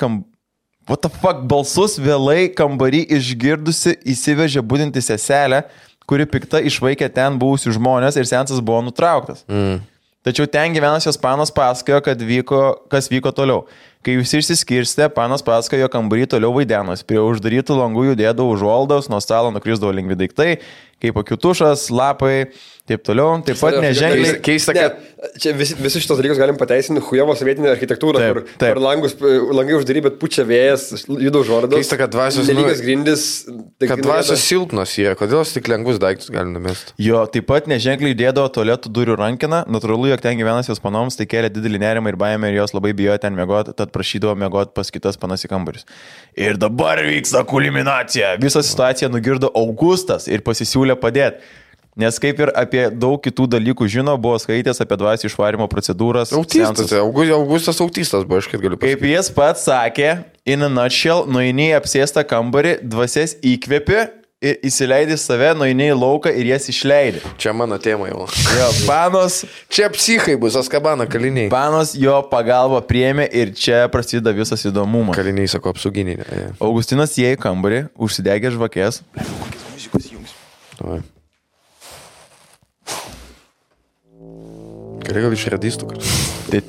balsus vėlai kambarį išgirdusi įsivežė budinti seselę, kuri pikta išvaikė ten buvusių žmonės ir seansas buvo nutrauktas. Tačiau ten gyvenasios panos pasakojo, kas vyko toliau. Kai visi išsiskirstė, panas pasakojo, jo kambarį toliau vaidenos. Prie uždarytų langų judėdavo užuoldos, nuo stalo nukrisdavo lengvi daiktai, kaip akiutušas, lapai, taip toliau. Taip pat neženkliai. Keista, kad čia visi šitos dalykus galim pateisinti hujevo sovietinę architektūrą, kur langai uždary, bet pučia vėjas, juda užuoldos. Keista, kad dvasios nelygios grindis. Kad dvasios silpnos yra, kodėl tik lengvus daiktus galim numesti. Jo, taip pat neženkliai dėdavo tualetų durų rankiną. Natūralu, jog ten gyvenas jos panoms, tai kėlė didelį nerimą ir baimę ir jos labai bijojo ten miegoti, tad prašydavo miegoti pas kitas panas į kambarius. Ir dabar vyksta kulminacija. Visą situaciją nugirdo Augustas ir pasisiūlė padėti. Nes kaip ir apie daug kitų dalykų žino, buvo skaitęs apie dvasių išvarimo procedūras. Augustas autistas buvo, aš kaip galiu pasakyti. Kaip jis pats sakė, in a nutshell, nueini į apsėstą kambarį, dvasias įkvėpi ir įsileidai save, nueini į lauką ir jas išleidai. Čia mano tema jau. Jo, panos. Čia psichai bus, Azkabano kaliniai. Panos jo pagalbą priėmė ir čia prasideda visas įdomumas. Kaliniai, sako, apsauginiai. Ne. Augustinas įėjo į kambarį, užsidegė žvakės. Gal iš radistų kartu. Net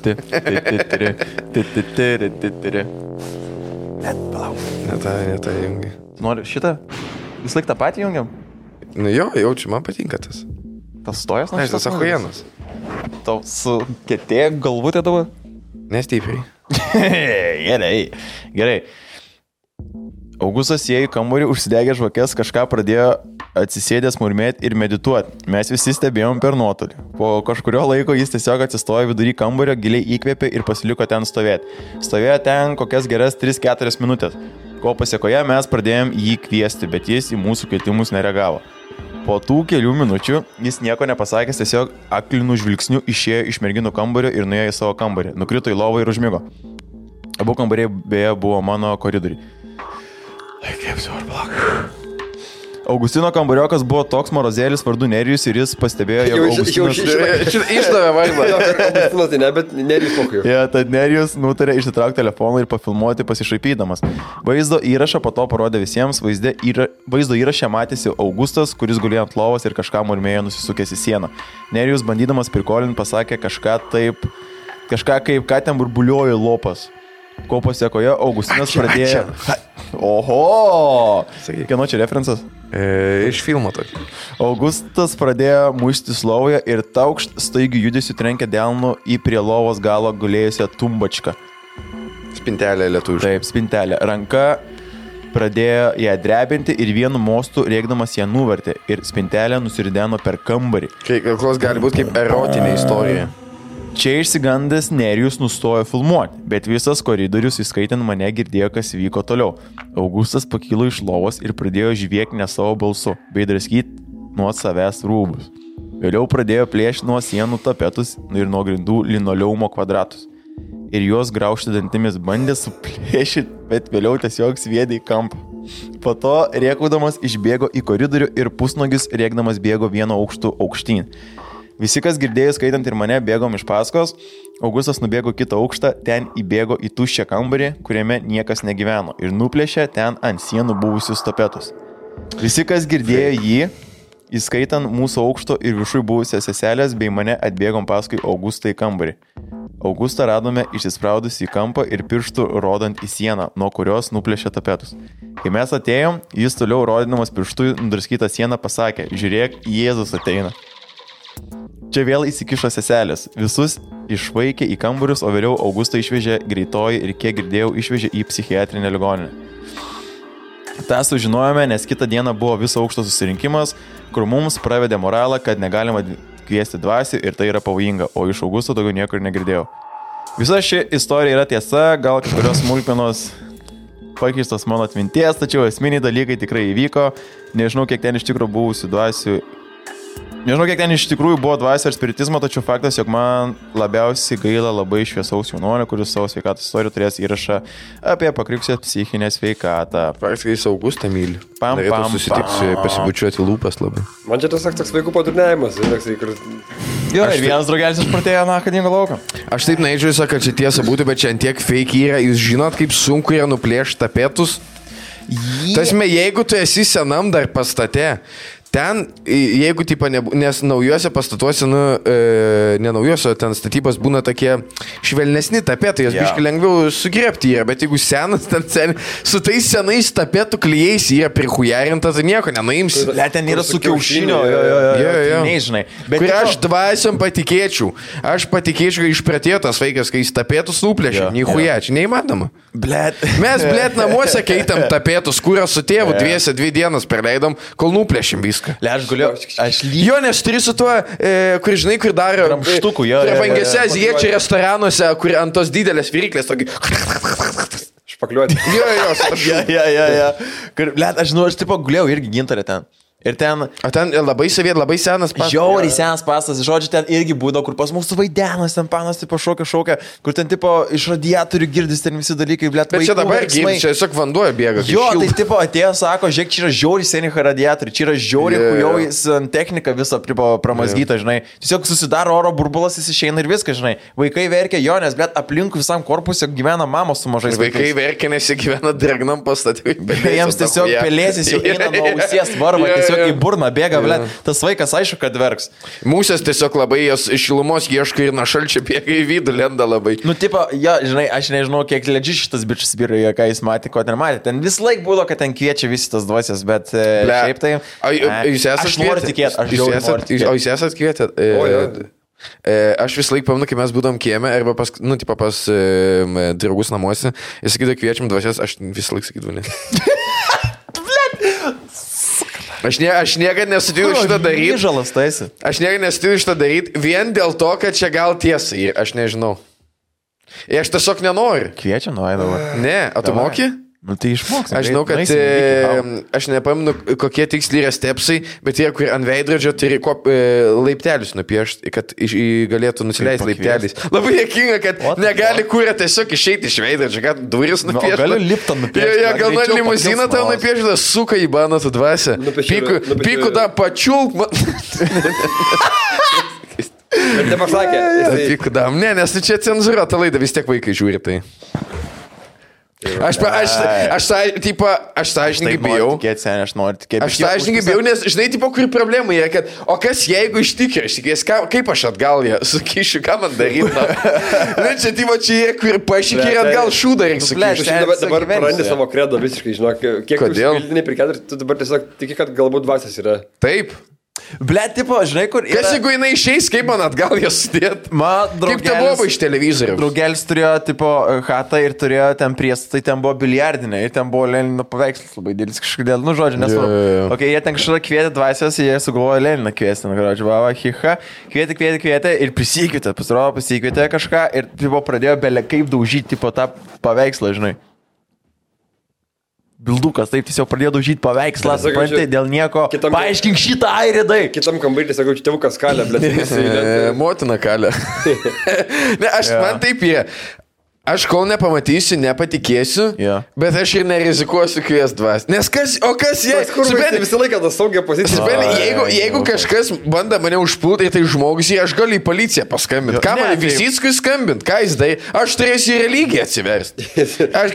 palauk. Ne tą jungi. Nori šitą? Vis laik tą patį jungiam? Nu jo, jaučiu, man patinka tas. Tas stojas? Ne, tas ahujenas. Tau su ketė galvutė dabar? Nestipriai. Gerai. Augustas įėjo į kambarį, užsidegė žvakės, kažką pradėjo atsisėdęs murmėti ir medituoti. Mes visi stebėjom per nuotolį. Po kažkurio laiko jis tiesiog atsistojo vidury kambario, giliai įkvėpė ir pasiliko ten stovėti. Stovėjo ten kokias geras 3-4 minutės. Ko pasiekoje mes pradėjom jį kviesti, bet jis į mūsų kvietimus nereagavo. Po tų kelių minučių jis nieko nepasakęs, tiesiog aklinų žvilgsnių išėjo iš merginų kambario ir nuėjo į savo kambarį. Nukrito į lovą ir užmigo. Abu kambariai beje buvo mano koridoriai. Augustino kambariokas buvo toks morozėlis vardu Nerijus ir jis pastebėjo, jog Augustinas... Išdavė vaizdą. Augustinas tai ne, bet Nerijus mokėjo. Ja, tad Nerijus nutarė išsitraukti telefoną ir pafilmuoti pasišaipydamas. Vaizdo įrašą po to parodė visiems, vaizdo įrašę matėsi Augustas, kuris gulėjo ant lovos ir kažką murmėjo nusisukęs į sieną. Nerijus bandydamas prikolinti pasakė kažką kaip, ką ten burbuliojo lopas. Ko pasiekoje Augustinas pradėjo... Oho! Kieno čia referencas? Iš filmo tokį. Augustas pradėjo muštis lovoje ir taukšt staigių judesių trenkė delnu į prie lovos galo gulėjusią tumbačką. Spintelė lietuviškai. Taip, spintelė. Ranka pradėjo ją drebinti ir vienu mostu rėkdamas ją nuvertė ir spintelė nusirideno per kambarį. Klos gali būti kaip erotinė istorija. Čia išsigandęs Nerijus nustojo filmuoti, bet visas koridorius, įskaitant mane, girdėjo, kas vyko toliau. Augustas pakilo iš lovos ir pradėjo žviekti ne savo balsu, bei draskyti nuo savęs rūbus. Vėliau pradėjo plėšti nuo sienų tapetus ir nuo grindų linoleumo kvadratus. Ir juos graužti dantimis bandė suplėšyti, bet vėliau tiesiog sviedė į kampą. Po to rėkaudamas išbėgo į koridorių ir pusnogis rėkdamas bėgo vieno aukštu aukštyn. Visi, kas girdėjo, skaitant ir mane, bėgom iš paskos. Augustas nubėgo kitą aukštą, ten įbėgo į tuščią kambarį, kuriame niekas negyveno ir nuplėšė ten ant sienų buvusius tapetus. Visi, kas girdėjo jį, įskaitant mūsų aukšto ir viršui buvusias seselės, bei mane atbėgom paskui Augustą į kambarį. Augustą radome išsispraudus į kampą ir pirštų rodant į sieną, nuo kurios nuplėšė tapetus. Kai mes atėjom, jis toliau rodydamas pirštų nudraskytą sieną pasakė: žiūrėk, Jėzus ateina. Čia vėl įsikišo seselės. Visus išvaikė į kambarius, o vėliau Augustą išvežė greitoji ir, kiek girdėjau, išvežė į psichiatrinę ligoninę. Ta sužinojome, nes kitą dieną buvo viso aukšto susirinkimas, kur mums pravedė moralą, kad negalima kviesti dvasių ir tai yra pavojinga, o iš Augusto daugiau niekur negirdėjau. Visa ši istorija yra tiesa, gal kažkurios smulkmenos pakeistos mano atminties, tačiau esminiai dalykai tikrai įvyko. Nežinau, kiek ten iš tikrųjų buvusių dvasių. Nežinau, kiek ten iš tikrųjų buvo dvasio ir spiritizmo, tačiau faktas, jog man labiausiai gaila labai šviesaus jaunuolio, kuris savo sveikatos istoriją turės įrašą apie pakriusią psichinę sveikatą. Praktiškai jis Augustą myli. Norėtų susitikti, pasibučiuoti lūpas labai. Man čia tas toks vaikų padurniavimas. Jo, ir vienas draugelis išpratėjo akadingo lauką. Aš taip neįdžiu, kad čia tiesa būtų, bet čia antiek fake yra. Jūs žinot, kaip sunku yra nuplėšti tapetus? Tasme, jeigu tu esi senam dar pastate, ten, jeigu tipo, nes naujuose pastatuose, ne naujuose, ten statybos būna tokie švelnesni tapetai, jas biškai lengviau sugrėpti yra, bet jeigu senas, ten su tais senais tapetų klijais yra prihujarinta, tai nieko nenuimsi. Ten yra su kiaušinio, nežinai. Bet kur aš dvasiom patikėčiau. Aš patikėčiau, kad išpratėjo tas vaikas, kai jis tapetus nuplėšė. Nichuja, čia neįmanoma. Mes, namuose keitam tapetus, kurios su tėvu 2 dienas praleidom, kol nuplėšim viską. Jo, nes turi su tuo, kur žinai, kur daro ramštukų, prabangėse azijiečių restoranuose, kur ant tos didelės viryklės tokį špakliuoti. Jo. Aš žinau, aš tipo gulėjau irgi gintarė ten. Ir ten labai senas pastas. Žiauriai senas pastas, žodžiu, ten irgi būdavo, kur pas mūsų vaidenas, ten panas, tipo šokia, kur ten, tipo, iš radiatorių girdis ten visi dalykai, blėt, bet čia dabar girdis, čia tiesiog vanduo bėga. Jo, tai, tipo, atėjo, sako, žiūrėk, čia yra žiauriai seni radiatoriai, čia yra žiauriai kujaujas technika visą, tipo, pramazgyta, žinai. Tiesiog susidaro oro burbulas, jis išeina ir viskas, žinai. Vaikai verkia, jo, nes, blėt, aplinkui visam korpuse gyvena mamos su mažais vaikais. Vaikai verkia, nes jie gyvena dragnam pastatui. Jiems tiesiog pelėsis jau eina nuo ausies varva, tiesiog į burną bėga, blėt, tas vaikas aišku, kad verks. Mūsės tiesiog labai jos šilumos ieško ir nuo šalčio bėga į vidų, lenda labai. Nu, tipo, jo, žinai, aš nežinau, kiek ledži šitas bičias vyroje, ką jis matė, ko ten matė. Ten vis laik būdavo, kad ten kviečia visi tas dvasias, bet šiaip tai... Jūs esate aš noriu tikėti, aš žiauriai noriu tikėti. O jūs esate kvietę? Aš vis laik pamenu, kai mes būdom kieme, arba pas draugus namuose, jis sakydavo, kviečiam dvasias, aš vis laik sakydavau, ne. Aš niekada nesutikiu šitą daryti. Žalas taisi. Aš niekada nesutikiu šitą daryti vien dėl to, kad čia gal tiesa ir aš nežinau. Ir aš tiesiog nenoriu. Kviečia, nuėdavo. Ne, o tu moki? Nu, tai išmoks. Aš žinau, kad aš nepamenu, kokie tiksliai yra stepsai, bet jie, kur ant veidrodžio turi laiptelius nupiešti, kad galėtų nusileisti laipteliais. Labai dėkinga, kad negali kūrė tiesiog išeiti iš veidrodžio, kad duris nupiešti. Gali liptą nupiešti. Jo, gal man limuziną tau nupiešti, suka į baną tu dvasę. Pikų tą pačiulk. Bet nepasakė. Pikų dam. Ne, nes čia cenzūruota laida, vis tiek vaikai žiūri tai. Aš sąžininkai bijau. Aš sąžininkai bijau, nes žinai, tipo, kur problema yra, kad o kas jeigu iš tikrųjų, aš tikės, kaip aš atgal ją sukišiu, ką man daryti. Na, čia, tipo, čia jie, kur pašykė ir atgal šūdą reikia sukišiu. Dabar prarandi savo kredą visiškai, žinok, kiek tu užpildinai per 4, tu dabar tiesiog tiki, kad galbūt dvasias yra. Taip. Blet, tipo, žinai, kur... Kas jeigu jinai išeis, kaip man atgal jas sudėt? Kaip te buvo iš televizorių? Draugelis turėjo, tipo, chatą ir turėjo ten priestatai, ten buvo biliardinė ir ten buvo Lenino paveikslas labai didelis kažkodėl, nu, žodžiu, nesvarbu. Ok, jie ten kažką kvietė dvasios, jie sugalvojo Leniną kviesti, nu, žodžiu, vava, hiha, kvietė ir prisikvietė, pasirodo, prisikvietė kažką ir, tipo, pradėjo belė kaip daužyti, tipo, tą paveikslą, žinai. Bildukas, taip, tiesiog pradėjo daužyti paveikslą, suprantate, dėl nieko. Paaiškink šitą airidai. Kitam kambarį, sakau, čia tėvukas kalė, blėt. Motina kalė. Ne, man taip yra. Aš kol nepamatysiu, nepatikėsiu, bet aš ir nerizikuosiu kvies dvas. Nes kas jei... Visą laiką tą saugią poziciją. Jeigu kažkas bando mane užpulti, tai žmogus, aš galiu į policiją paskambinti. Ką man Visickui skambinti? Ką jis dai? Aš turėsiu į religiją atsiversti.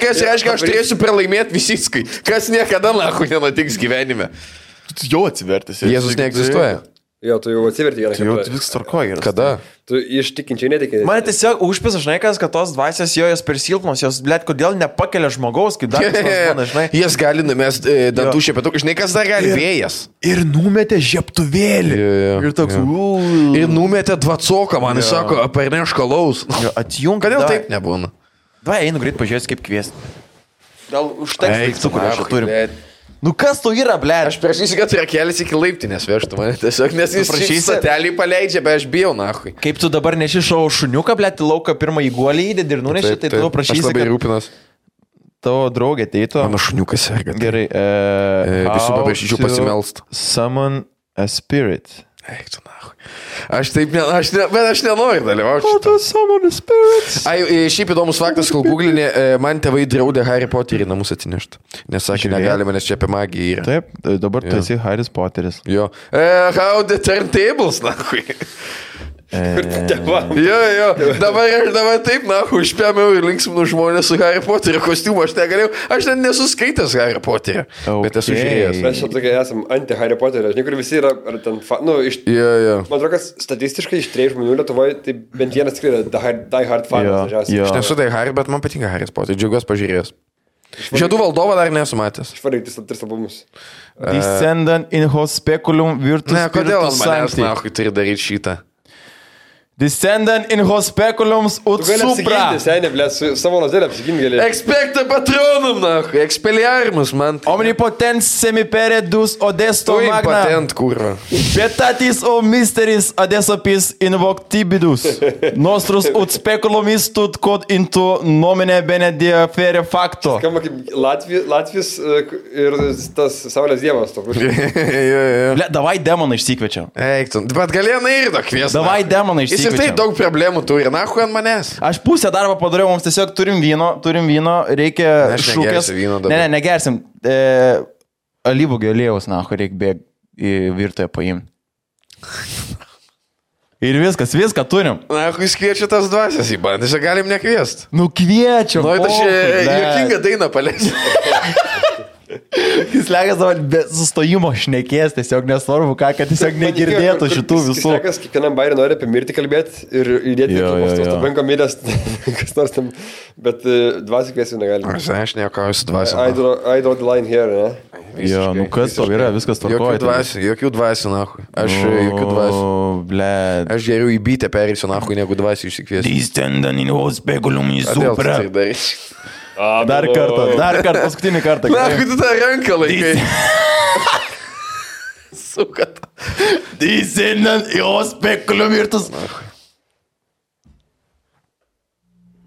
Kas reiškia, aš turėsiu pralaimėti Visickui. Kas niekada nahu nenutiks gyvenime. Tu jau atsivertis. Jėzus neegzistuoja. Jo, tu jau atsiverti vieną kartą. Tu viskas tvarkoji. Kada? Tu iš tikinčiai netikai. Man tiesiog užpisa, žinai, kad tos dvasios jos per silpnos, jos, blėt, kodėl nepakelia žmogaus, kaip dar kažkas, žinai. Jas gali numest dantų šepetukų, žinai, kas dar gali vėjas. Ir numetė žieptuvėlį. Ir toks, ir numetė dvacoką, man jis sako, aperneš kalaus. Atjunk. Kodėl taip nebūna? Vai, einu greit pažiūrėti, kaip kviesti. Gal užteks cukrų, aš turim. Nu kas tu yra, ble? Aš prašysiu, kad rakelis iki laiptinės vežtų mane tiesiog, nes jis statelį paleidžia, bet aš bijau, nahui. Kaip tu dabar neši šau šuniuką, ble, į lauką pirmą įguolį įdėdį ir nuneši, tai tu prašysi, aš labai rūpinas. Tavo draugė ateitų. Mano šuniukas serga. Gerai. Visų paprašyčiau pasimelst. Summon a spirit. Eik tu, nahui. Aš taip, bet aš nenoriu dalyvauti. O tas summon a spirit. Šiaip įdomus faktas, kol googlinė, man tėvai draudė Harry Potterį namus atsinešti. Nes sakė, negalima, nes čia apie magiją yra. Taip, dabar tu esi Harry Potteris. Jo. How the turntables, nahui. Jo, dabar taip, užpėmiau ir linksminu žmonės su Harry Potterio kostiumu, aš negalėjau, aš net nesuskaitęs Harry Potterio, bet esu žiūrėjęs. Mes čia tokie esam anti Harry Potterio, žinai, kur visi yra, ar ten, man atrodo, kad statistiškai iš 3 žmonių Lietuvoje, tai bent vienas tikrai yra die hard fanas. Aš nesu die Harry, bet man patinka Harry Potteris, džiaugiuosi pažiūrėjęs. Žiedų valdovą dar nesu matęs. Išvaryti 3 albumus. Descendant in Hospiculum Virtus Ne, kodėl Spiritus manęs, Sancti. turi daryti šitą? Descendant in Hospiculums ut Tu gali supra. apsiginti, senė, blė, su savo lazėlę apsiginti gali. Expecta patronum, expelliarmus, man. Omnipotens semiperedus odesto Tu magna. impatent, kurva. Betatis o mysteris adesopis invoctibidus. Nostrus ut speculum istut quod into nomine benedie fere facto. Skamba kaip Latvijos ir tas Saulės dievas. Ble, davai demoną išsikviečiam. Eik, tu, bet galėjai ir to kviesti. Davai demoną Jis ir išsikviečiam. tai daug problemų turi, nahu ant manęs. Aš pusę darbą padariau, mums tiesiog turim vyno, reikia Aš šūkės. negersiu vyno dabar. Ne, negersim. Alyvogio aliejaus, nahu, reikia bėgti į virtuę paimti. Ir viską turim. Nahu, jis kviečia tas dvasias į bandą, čia galim nekviesti. Nu kviečiam. Nu, aš juokingą dainą paleisiu. Jis legas dabar be sustojimo šnekės, tiesiog nesvarbu ką, kad tiesiog negirdėtų šitų visų. Kas kiekvienam bairį nori apie mirtį kalbėti ir įdėti į banko miręs, kas nors tam, bet dvasiai kviesiu negalime. Aš nekauju su dvasiu. I draw the line here, ne? Jo, nu kas to yra, viskas tvarkoja. Jokių dvasių, nahu. Aš jokių dvasių. Bled. Aš geriau į bytę perėsiu, nahu, negu dvasių išsikviesiu. Descendant in hospiculum in Kodėl tu supra. tai darysi? Dar kartą, paskutinį kartą. Nahu, tu tą ranką laikai. Sukat. Descendant in hospiculum virtus.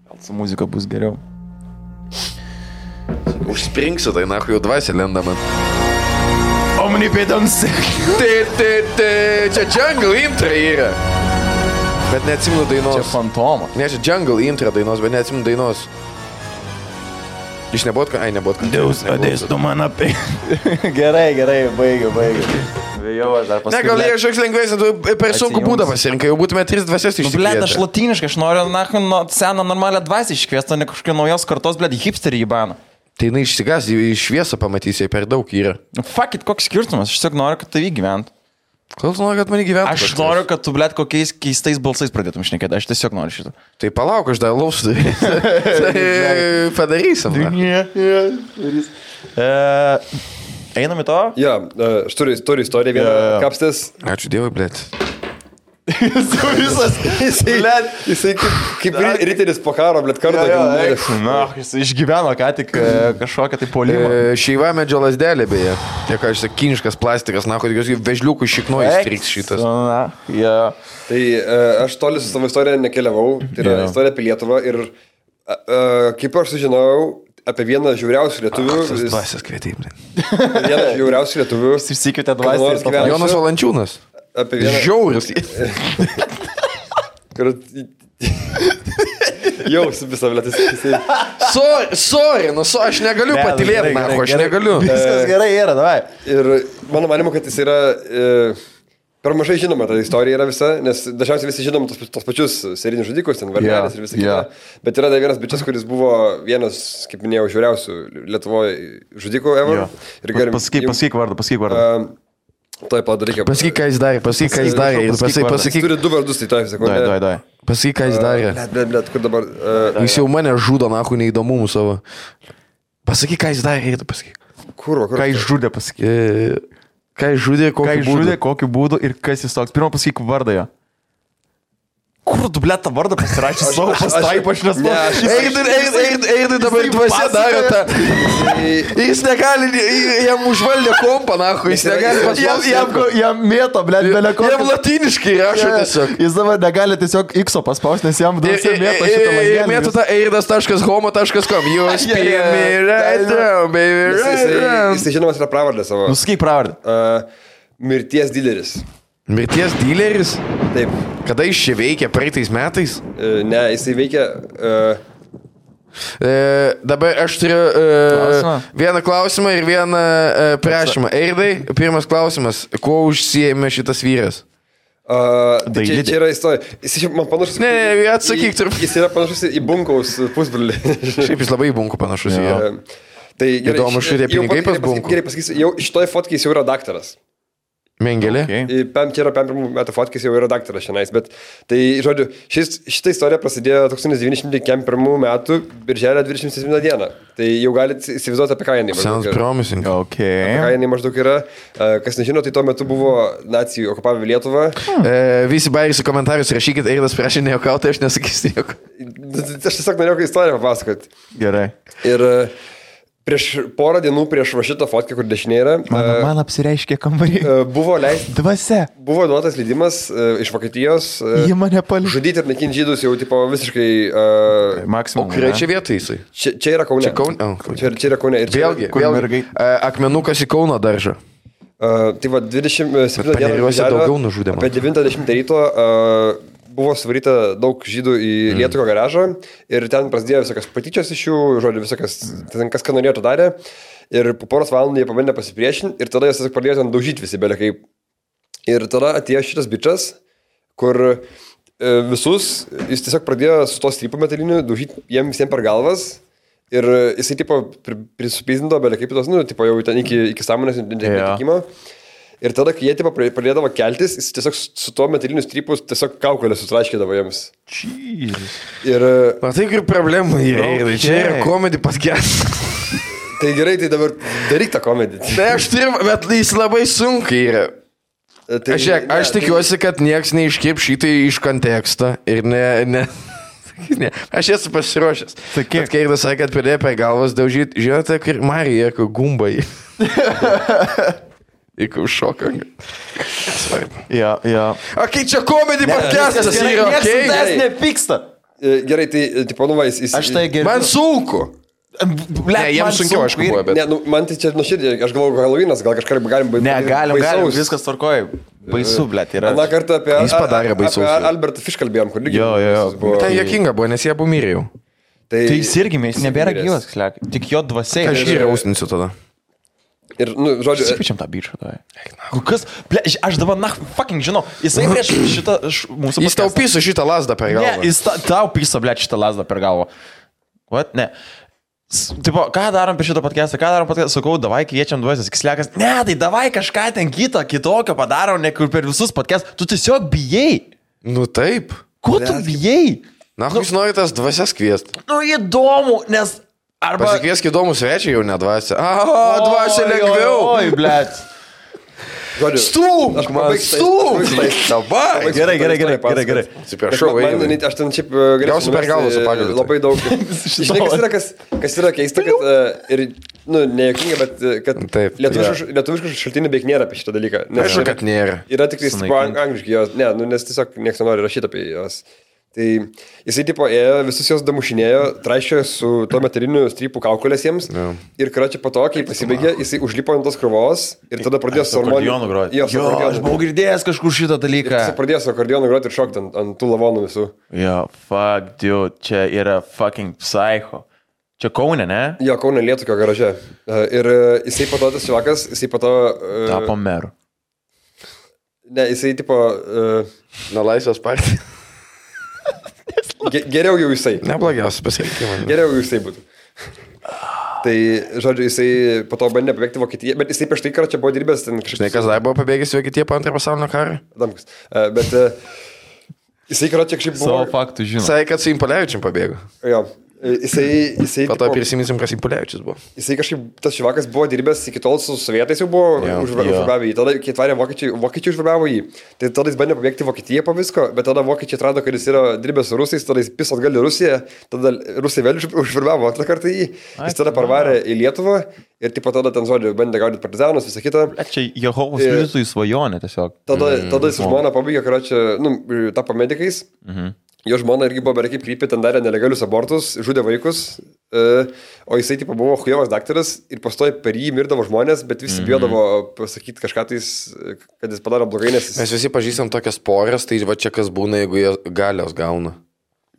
Gal su muzika bus geriau. Užspringsiu, tai nahu, jau dvasia lenda man. Omnipotens. Čia Jungle intro yra. Bet neatsimenu dainos. Čia fantomas. Ne, čia Jungle intro dainos, bet neatsimenu dainos. Iš nebūtų, ai nebūtų. Deus adestu man apie. Gerai, baigiu. Vėjau, aš dar Ne, gal jie kažkoks lengvesnis, tu per sunku būdą pasirinkai, jau būtume 3 dvasias Bled, išsikvietę. aš latiniškai, aš noriu seną normalią dvasį iškviesti, ne kažkokią naujos kartos, bled, hipsterį į baną. Tai jinai išsigas, į šviesą pamatysi, jai per daug yra. Fuck it, koks skirtumas, aš tiesiog noriu, kad tavį gyventų. Kol nori, kad mane gyventų? Aš noriu, kad tu, bled, kokiais keistais balsais pradėtum šnekėti, aš tiesiog noriu šitą. Tai palauk, aš dar lausiu. Tai padarysim. Einam į to? Jo, aš turiu istoriją vieną kapstės. Ačiū Dievui, blėt. Jisai kaip riteris po karo, blėt, kartą. Jis išgyveno ką tik kažkokią tai polimą. Šeiva medžio lasdelė, beje. Tiek, aš sakai, kiniškas plastikas, na, kad jos vežliukų šiknojas striks šitas. Tai aš toli su savo istorija nekeliavau, tai yra istorija apie Lietuvą ir kaip aš sužinojau apie vieną žiauriausių lietuvių. Tas dvasias kvietė, blėt. Vieną žiauriausių lietuvių. Jis išsikvietė dvasį. Jonas Valančiūnas. Apie vieną. Žiauris. Jau visą vėlėtis. Sorry, aš negaliu patilėti, aš negaliu. Viskas gerai yra, davai. Ir mano manimu, kad jis yra per mažai žinoma ta istorija yra visa, nes dažniausiai visi žinom tos pačius serinius žudikus, ten Varnelis ir visa kita. Bet yra dar vienas bičias, kuris buvo vienas, kaip minėjau, žiauriausių Lietuvoje žudikų ever. Pasakyk vardą. Tuoj padaryk. Pasakyk, ką jis darė. Jis turi 2 vardus, tai tuoj sekundę. Dai. Pasakyk, ką jis darė. Blet, kur dabar... Jis jau mane žudo, nahu, neįdomumų savo. Pasakyk, ką jis darė, pasakyk. Kur? Ką jis žudė, pasakyk. Ką jis žudė, kokiu būdu ir kas jis toks. Pirmą pasakyk vardą jo. Kur tu, blėt, tą vardą pasirašė savo pastraipą, aš nesuprantu. Eidai dabar dvasia daro tą. Jis negali, jam užvaldė kompą, nahu, jis negali paspausti. Jam mėto, blėt, beleko. Jam latiniškai rašo tiesiog. Jis dabar negali tiesiog X-o paspausti, nes jam dvasia mėto šitą langelį. Mėto tą eidas.homo.com. Jūs pėjami right now, baby, right now. Jis žinomas yra pravardę savo. Nusakyk pravardę. Mirties dileris. Mirties dileris? Taip. Kada jis čia veikia, praeitais metais? Ne, jisai veikia... Dabar aš turiu vieną klausimą ir vieną prašymą. Eidai, pirmas klausimas. Kuo užsiėmė šitas vyras? Tai čia yra istorija. Jis man panašus... Ne, atsakyk turbūt. Jis yra panašus į Bunkaus pusbrolį. Šiaip jis labai į Bunkų panašus. Tai gerai, įdomu, šitie pinigai pas Bunkų. Gerai pasakysiu, jau šitoj fotkėj jis jau yra daktaras. Mengelė? Okay. Čia yra 5 metų fotkės, jau yra daktaras šiandien, bet tai, žodžiu, šitą istoriją prasidėjo 1901 metų birželio 27 dieną. Tai jau galite įsivaizduoti, apie ką jinai maždaug Sounds promising. Okay. Apie ką jinai maždaug yra. Kas nežino, tai tuo metu buvo nacijų okupavę Lietuvą. Visi bairisi komentarus rašykit, Eilas prašė nejuokauti, aš nesakysiu nieko. Aš tiesiog norėjau istoriją papasakoti. Gerai. Ir... Prieš porą dienų prieš va šitą fotkę, kur dešinė yra. Man apsireiškė kambarį. Buvo duotas leidimas iš Vokietijos. Jie mane paliko. Žudyti ir naikinti žydus jau tipo visiškai... Maksimum. O kuriai čia vietoj jisai? Čia yra Kaune. Čia yra Kaune. Vėlgi, akmenukas į Kauno daržą. Tai va 27 dieną daugiau nužudė. Apie 90 ryto buvo suvaryta daug žydų į Lietuvos garažą ir ten prasidėjo visokios patyčios iš jų, žodžiu, visokios, ten kas ką norėjo, to darė. Ir po poros valandų jie pabandė pasipriešinti ir tada jie tiesiog pradėjo ten daužyti visi belekai. Ir tada atėjo šitas bičas, kur visus, jis tiesiog pradėjo su to strypu metaliniu daužyti jiems visiems per galvas. Ir jisai tipo prisupizdindo belekai pitos, nu, tipo jau ten iki sąmonės netikimo. Ir tada, kai jie tipo pradėdavo keltis, jis tiesiog su tuo metaliniu strypu tiesiog kaukolę sutraškydavo jiems. Jeez. Ir... Matai, kur problemų yra. Čia yra komedi podcast. Tai gerai, tai dabar daryk tą komedį. Tai aš turiu, bet jis labai sunkiai yra. Tai, aš tikiuosi, kad nieks neiškirp šitai iš konteksto ir ne. Aš esu pasiruošęs. Bet kai Eilas sakė, kad pradėjo per galvas daužyti, žinote, kur Marija, kur gumbai. Įkau šoką. Svarbu. Ja. Okei, čia komedi podcastas yra, okei? Niekas nepyksta. Gerai, tai, tipo, nu va, jis... Aš tai gerbiu. Man sunku. Ne, jiems sunkiau, aišku, buvo, bet... Ne, nu, man tai čia nuoširdžiai, aš galvoju, Halloweenas, gal kažką galim baigti. Ne, galim, viskas tvarkoja. Baisu, blėt, yra. Na, kartą apie... Jis padarė baisaus. Apie Albertą Fish kalbėjom, kur lygiai. Jo. Tai jokinga buvo, nes jie abu mirė jau. Tai jis irgi, jis nebėra gyvas, tik jo dvasiai. Aš jį rausninsiu tada. Ir, nu, žodžiu... Susipičiam tą bičą, tai. Kas? Ble, aš dabar, fucking žinau, jisai prieš šitą mūsų... Jis tau pyso šitą lasdą per galvą. Ne, jis tau pyso, ble, šitą lasdą per galvą. What? Ne. Tipo, ką darom per šitą podcastą? Ką darom podcastą? Sakau, davai kviečiam dvasias, kislekas. Ne, tai davai kažką ten kitokio padarom, ne kur per visus podcastus. Tu tiesiog bijai. Nu taip. Ko tu bijai? Na, jūs norite tas dvasias kviesti. Nu, įdomu, nes... Arba... Pasikviesk įdomų svečią jau nedvasia. Dvasia lengviau. Oi, blėt. Stūk, man stūk. Dabar. Gerai. Atsiprašau, aš ten šiaip galiausiai per galvą su pagaliu. Labai daug. Žinai, kas yra keista, kad ir, nu, nejuokinga, bet kad lietuviškų šaltinių beveik nėra apie šitą dalyką. Aišku, kad nėra. Yra tik angliškai jos, ne, nu, nes tiesiog niekas nenori rašyti apie jos. Tai jisai tipo ėjo, visus jos damušinėjo, traišėjo su to metaliniu strypų kaukolės jiems. Yeah. Ir karočią po to, kai pasibaigė, jisai užlipo ant tos krūvos ir tada pradėjo su akordeonu groti. Jo, aš buvau girdėjęs kažkur šitą dalyką. Jisai pradėjo su akordeonu groti ir šokti ant tų lavonų visų. Jo, fuck, dude, čia yra fucking psycho. Čia Kaune, ne? Jo, Kaune Lietuvio garaže. Ir jisai po to tas čivakas, jisai po to... Tapo meru. Ne, jisai tipo... Na, Laisvės partija. Geriau jau jisai. Neblogiausias pasirinkimas. Geriau jau jisai būtų. Tai, žodžiu, jisai po to bandė pabėgti Vokietiją, bet jisai prieš tai karą čia buvo dirbęs ten kažkaip... Žinai, kas dar buvo pabėgęs Vokietiją po antrą pasaulinio karą? Adamkus. Bet jisai karą čia kažkaip buvo... Savo faktų žinau. Sakė, kad su Impolevičium pabėgo. Jo. Jisai po to prisiminsim, kas Impolevičius buvo. Jisai kažkaip, tas šivakas buvo dirbęs iki tol su sovietais jau buvo užverbavo jį. Tada, kai atvarė vokiečiai užverbavo jį, tai tada jis bandė pabėgti Vokietiją po visko, bet tada vokiečiai atrado, kad jis yra dirbęs su rusais, tada jis pis atgal į Rusiją, tada rusai vėl užverbavo antrą kartą jį, jis tada parvarė į Lietuvą ir tipo tada ten, žodžiu, bandė gaudyti partizanus, visą kitą. Čia Jehovos liudytojų svajonė tiesiog. Tada jis žmona pabaigė, karočią, tapo medikais. Jo žmona irgi buvo beveik krypė, ten darė nelegalius abortus, žudė vaikus, o jisai tipo buvo chujovas daktaras ir pastoja per jį mirdavo žmonės, bet visi bijodavo pasakyti kažką tais, kad jis padaro blogai, nes jis... Mes visi pažįstam tokias porės, tai va čia kas būna, jeigu jie galios gauna.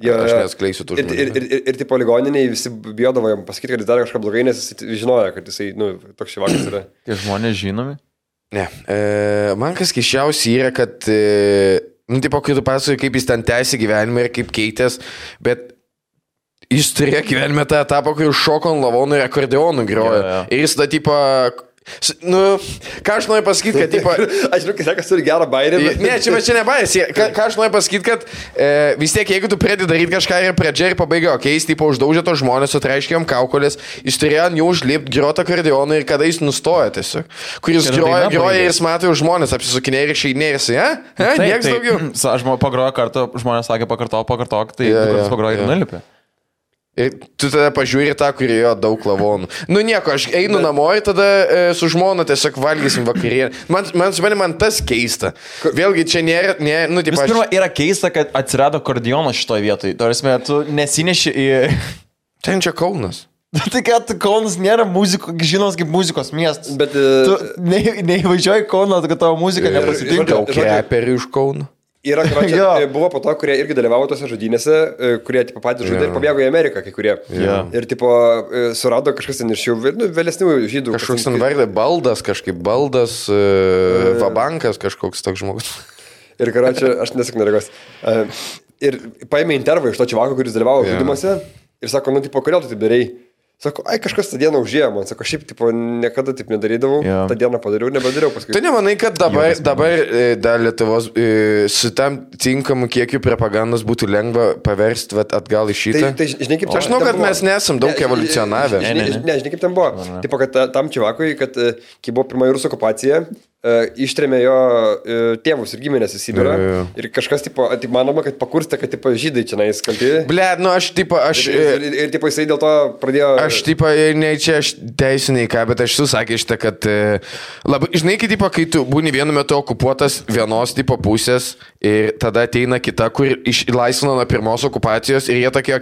Aš neatskleisiu tų žmonių. Ir tipo ligoniniai visi bijodavo jam pasakyti, kad jis darė kažką blogai, nes jis žinojo, kad jisai, toks šivakas yra. Tie žmonės žinomi? Ne. Man kas keiščiausia yra, kad, tipo, kai tu pasakoji, kaip jis ten tęsi gyvenimą ir kaip keitės, bet jis turėjo gyvenime tą etapą, kur šoko ant lavonų ir akordeonų grojo. Ir jis tada, tipo, ką aš noriu pasakyti, kad, tipo... Aš žinau, kad turi gerą bairį. Ne, čia ne bairis. Ką aš noriu pasakyti, kad vis tiek, jeigu tu pradedi daryti kažką ir pradžia ir pabaiga, jis, tipo, uždaužė to žmonės, sutraiškėjom kaukolės, jis turėjo ant jų užlipti, groti akordeoną ir kada jis nustojo tiesiog. Kur jis groja ir jis mato žmonės, apsisukinė ir išeidinė ir jisai, nieks daugiau. Aš pagroju kartą, žmonės sakė pakartok, tai pagroju ir nulipė. Ir tu tada pažiūri tą, kurioje daug lavonų. Nieko, aš einu namo ir tada su žmona tiesiog valgysim vakarienę. Man tas keista. Vėlgi čia nėra... Vis pirma, yra keista, kad atsirado akordeonas šitoje vietoje. Tarsi, tu nesineši į... Ten čia Kaunas. Tai kad Kaunas nėra žinos kaip muzikos miestas. Bet... Tu neįvažiuoji Kauną, kad tavo muzika nepasitinka. Daug reperių iš Kauno. Yra, buvo po to, kurie irgi dalyvavo tose žudynėse, kurie tipo, patys žudė ir pabėgo į Ameriką, kai kurie. Ir tipo, surado kažkas ten iš jų vėlesnių žydų. Kažkoks ten vardė Baldas, Vabankas kažkoks toks žmogus. Ir karočią, aš nesakau neregos. Ir paėmė intervą iš to čivako, kuris dalyvavo žudymuose ir sako, tipo, kodėl tu taip darei? Sako, kažkas tą dieną užėjo man, sako, šiaip, tipo, niekada taip nedarydavau, tą dieną padariau, nebedariau paskui. Tu nemanai, kad dabar dar Lietuvos su tam tinkamu kiekiu propagandos būtų lengva paversti atgal į šitą? Tai žinai, kaip aš žinau, kad mes nesam daug evoliucionavę. Žinai, kaip ten buvo. Tipo, kad tam čivakui, kad kai buvo pirmoji rusų okupacija, ištrėmė jo tėvus ir giminės į Sibirą. Ir kažkas, tipo, manoma, kad pakurstė, kad, tipo, žydai čia nais kalti. Blet, Ir, tipo, jisai dėl to pradėjo... Aš, tipo, ne čia aš teisiniai ką, bet aš susakė šitą, kad labai, žinai, kai tu būni vienu metu okupuotas vienos, tipo, pusės ir tada ateina kita, kur išlaisvino nuo pirmos okupacijos ir jie tokie,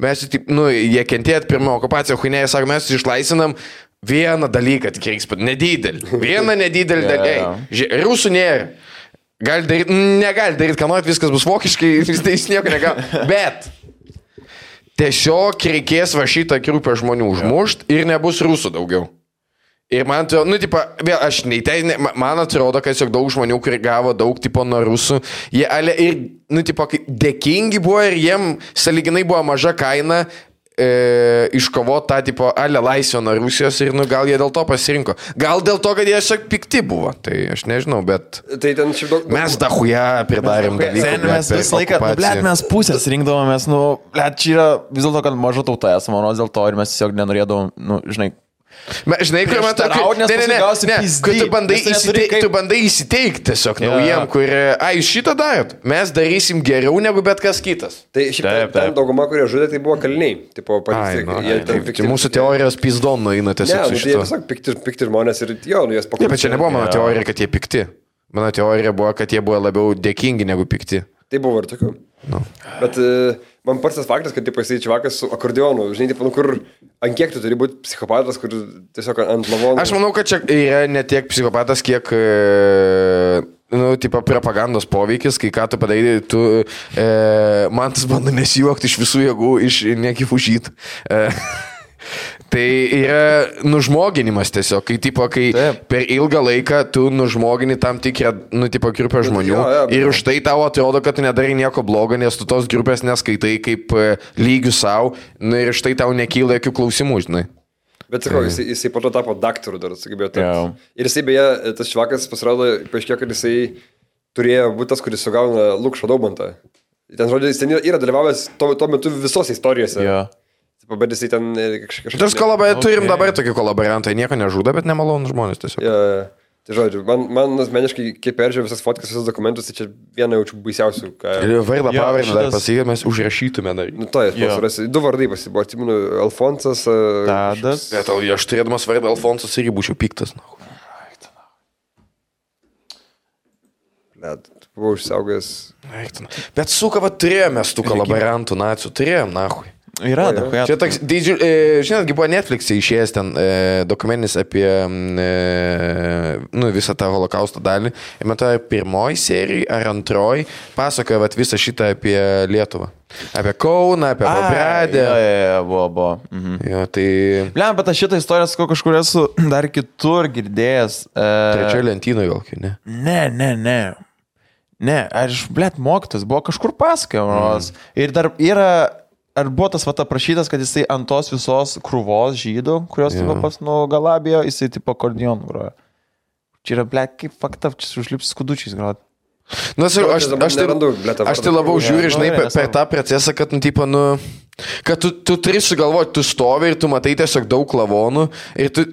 mes, jie kentėt pirmą okupaciją, huinėje, sako, mes išlaisvinam vieną dalyką, tik reiks pat, nedidelį. Vieną nedidelį dalyką. Rusų nėra. Negali daryti, ką norit, viskas bus vokiškai, jis nieko negali. Bet tiesiog reikės va šitą grupę žmonių užmušt ir nebus rusų daugiau. Ir man atrodo, vėl aš man atrodo, kad tiesiog daug žmonių, kurie gavo daug, nuo rusų, jie ir, dėkingi buvo ir jiem saliginai buvo maža kaina iškovot tą, laisvę nuo Rusijos ir, gal jie dėl to pasirinko. Gal dėl to, kad jie tiesiog pikti buvo. Tai aš nežinau, bet tai ten šiaip mes dahuja pridarėm dalykų. Mes visą laiką, mes pusės rinkdavomės, čia yra vis dėlto, kad maža tauta esame, manos dėl to ir mes tiesiog nenorėdavom, žinai, žinai, kur man tu bandai įsiteikti tiesiog naujiem, kur, jūs šitą darot, mes darysim geriau negu bet kas kitas. Tai šiaip ten dauguma, kurie žudė, tai buvo kaliniai. Tai mūsų teorijos pizdon nueina tiesiog su šito. Ne, tai pikti žmonės ir jas pakuoja. Bet čia nebuvo mano teorija, kad jie pikti. Mano teorija buvo, kad jie buvo labiau dėkingi negu pikti. Tai buvo ir tokių. Bet man pats tas faktas, kad jisai čivakas su akordeonu, žinai, kur ant kiek tu turi būti psichopatas, kur tiesiog ant lavonų. Aš manau, kad čia yra ne tiek psichopatas, kiek propagandos poveikis, kai ką tu padarai, man tas bando nesijuokti iš visų jėgų, iš nekifužyt. Tai yra nužmoginimas tiesiog, kai per ilgą laiką tu nužmogini tam tikrą, grupę žmonių ir už tai tau atrodo, kad tu nedarai nieko blogo, nes tu tos grupės neskaitai kaip lygių savo ir už tai tau nekyla jokių klausimų, žinai. Bet sakau, jisai po to tapo daktaru dar, sugebėjo tapti. Ir jisai beje, tas švakas pasirodo, paaiškėjo, kad jisai turėjo būti tas, kuris sugauna Lukšo Daubantą. Ten žodžiu, jis ten yra dalyvavęs tuo metu visose istorijose. Bet jisai ten kažkaip... Turim dabar tokį kolaborantą, nieko nežudo, bet nemalonus žmonės tiesiog. Tai žodžiu, man asmeniškai, kai peržiūrėjau visas fotkas, visus dokumentus, tai čia viena jaučiu baisiausių. Vardą pavardę dar pasakyti, mes užrašytume dar. Du vardai pasibuvo, atsimenu, Alfonsas. Tadas. Aš turėdamas vardą Alfonsas irgi būčiau piktas. Buvau išsaugęs. Bet suka, turėjome tų kolaborantų nacių, turėjom, nahui. Yra, dabar. Čia toks, žinotgi buvo Netflix'e išėjęs ten dokumentinis apie visą tą holokausto dalį. Ir man to pirmoji serija ar antroji pasakoja visą šitą apie Lietuvą. Apie Kauną, apie Pabradę. Buvo. Jo, tai... Bliam, bet aš šitą istoriją sakau kažkur esu dar kitur girdėjęs. Trečioje lentynoje gal, ne? Ne, aš, mokytas, buvo kažkur pasakojamas. Ir dar yra... Ar buvo tas aprašytas, kad jisai ant tos visos krūvos žydų, kurios pas nugalabijo, jisai tipo akordeoną grojo. Čia yra, kaip fakta, čia užlips skudučiais grot. Aš tai labiau žiūriu, žinai, per tą procesą, kad, kad tu turi sugalvoti, tu stovi ir tu matai tiesiog daug lavonų ir tu...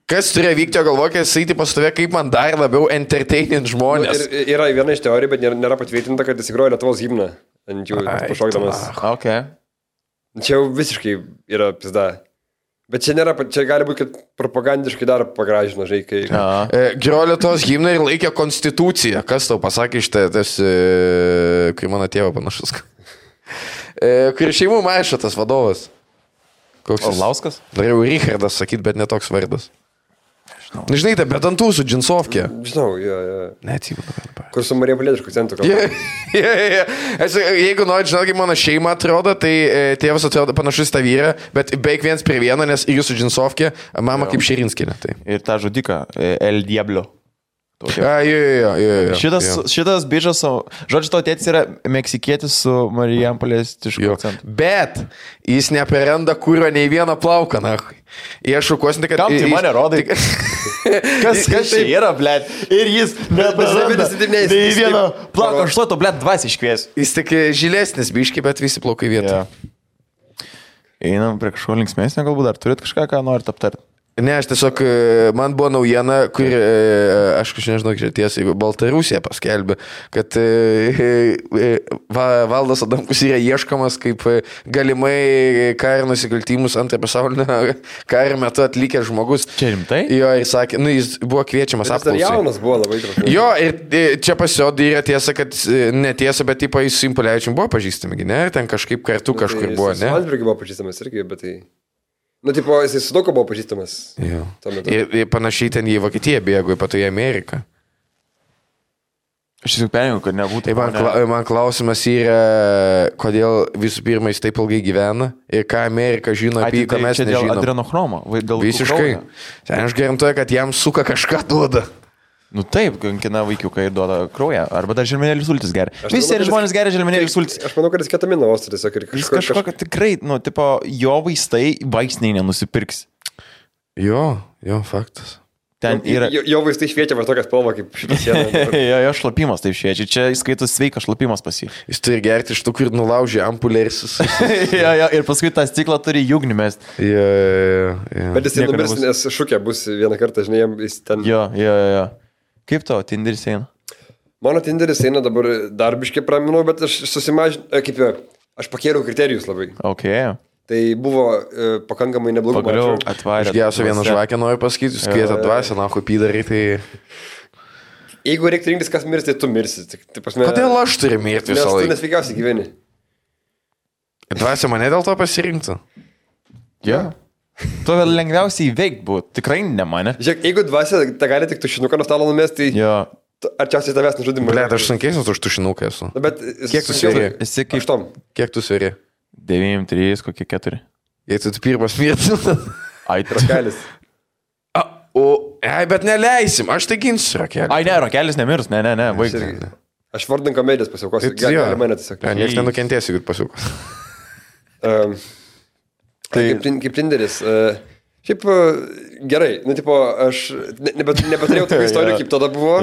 Kas turėjo vykti, galvoju, kad jisai pas tave kaip man dar labiau entertainint žmonės. Yra viena iš teorijų, bet nėra patvirtinta, kad jis įgrojo Lietuvos himną. Ant jų pašokdamas. Okay. Čia jau visiškai yra pizda. Bet čia gali būti, kad propagandiškai dar pagražino, žinai, kai... Grojo Lietuvos himną ir laikė konstituciją. Kas tau pasakė iš tas, kai mano tėvo panašus. Kur šeimų maišo tas vadovas. Orlauskas? Norėjau Richardas sakyti, bet netoks vardas. Žinai, tai bet ant tūsų džinsovkė. Žinau, Neatsimenu. Kur su Marija Palietiškų centru. Jeigu nori, žinot, kaip mano šeima atrodo, tai tėvas atrodo panašus tą vyrą, bet beveik viens prie vieno, nes jūsų džinsovkė, mama kaip Širinskinė. Tai. Ir tą žudiką, El Diablo. Šitas bičas, žodžiu, tavo tėtis yra meksikietis su Marijampolėstišku akcentu. Bet jis neperenda kūrio nei vieną plauką, nahui. Jie šukuosinti, kad... Kam tai mane rodai? Kas čia yra, blėt? Ir jis neperenda nei vieną plauką. Aš to, blėt, dvasiai iškviesiu. Jis tik žilesnis biški, bet visi plaukai vietą. Einam prie kažko linksmesnio, galbūt dar turit kažką, ką norit aptarti. Ne, aš tiesiog, man buvo naujiena, kur, aš nežinau, kiek tiesiai, Baltarusija paskelbė, kad Valdas Adamkus yra ieškomas kaip galimai kario nusikaltimus antrojo pasaulinio kario metu atlikęs žmogus. Čia rimtai? Jo, ir sakė, jis buvo kviečiamas apklausai. Jis jaunas buvo labai trumpai. Jo, ir čia pasirodė yra tiesa, kad netiesa, bet tipo jis su Impulevičium buvo pažįstami, ne? Ten kažkaip kartu kažkur buvo, ne? Landsbergį buvo pažįstamas irgi, bet tai... tipo, jisai su daug buvo pažįstamas. Ir panašiai ten į Vokietiją bėgo, po to į Ameriką. Aš tiesiog perėjau, kad nebūtų. Tai man klausimas yra, kodėl visų pirma jis taip ilgai gyvena ir ką Amerika žino apie jį, ką mes nežinom. Dėl adrenochromo. Visiškai. Aš garantuoju, kad jam suka kažką duoda. Nu taip, kankina vaikiukai ir duoda kraują. Arba dar želmenėlių sultis geria. Visi žmonės geria želmenėlių sultis. Aš manau, kad jis ketamino osto tiesiog ir kažko, tikrai, tipo, jo vaistai vaistiniai nenusipirks. Jo, faktas. Ten yra... Jo vaistai šviečia va tokią spalvą kaip šitą sieną. Jo šlapimas taip šviečia. Čia įskaitus sveikas šlapimas pas jį. Jis turi gerti iš tų, kur nulaužė ampulę ir ir paskui tą stiklą turi jūgnį mest. Bet jis numirs, nes šukė bus vieną kartą, žinai, jis ten... Jo. Kaip tavo Tinderis eina? Mano Tinderis eina dabar darbiškai praminau, bet aš susimažinau, aš pakėliau kriterijus labai. Okay. Tai buvo pakankamai neblogų mačų. Atvarė. Išgėsiu vieną žvakę, noriu pasakyti, jūs kvietė dvasę, na, kopį darai, tai... Jeigu reikia rinktis, kas mirsi, tai tu mirsi. Kodėl aš turiu mirti visą laiką? Nes tu nesveikiausiai gyveni. Dvasė mane dėl to pasirinktų. Jo. Tu lengviausiai įveikti būtų, tikrai ne mane. Žiūrėk, jeigu dvasia, tai gali tik tušinuką nuo stalo numesti, tai arčiausiai tavęs nužudimą. Blet, aš sunkesnis už tušinuką esu. Bet kiek tu sveri? Esi kaip... Aštom. Kiek tu sveri? 9, 3, kokie 4. Jei tu pirmas mirti. Ai, Rakelis. Bet neleisim, aš tai ginsiu Rakelį. Ai, ne, Rakelis nemirs, ne, baig. Aš vardan komedijos pasiaukosiu. Gali mane tiesiog. Niekas nenukentės, jeigu pasiaukos. Kaip Tinderis. Šiaip gerai, tipo, aš nebeturėjau tokių istorijų, kaip tada buvo.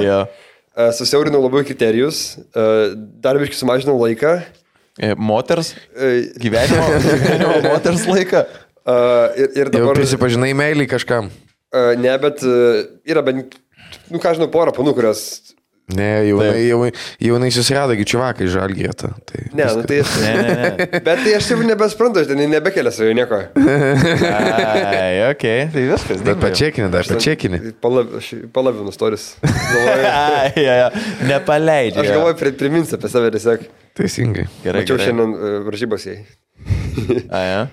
Susiaurinau labai kriterijus, dar biškai sumažinau laiką. Moters gyvenimo moters laiką. Ir dabar... Jau prisipažinai meilį kažkam? Ne, bet yra bent, žinau, porą panų, kurios... Ne, jaunai susirado, čiuvakai žalgėta. Ne. Bet tai aš jau nebesprantu, aš ten nebekelia savo nieko. Ai, okei, tai viskas. Bet pačekinį. Palavinu storis. Nepaleidžiu. Aš galvoju, priminsiu apie save tiesiog. Teisingai. Mačiau šiandien varžybos jai. Ja.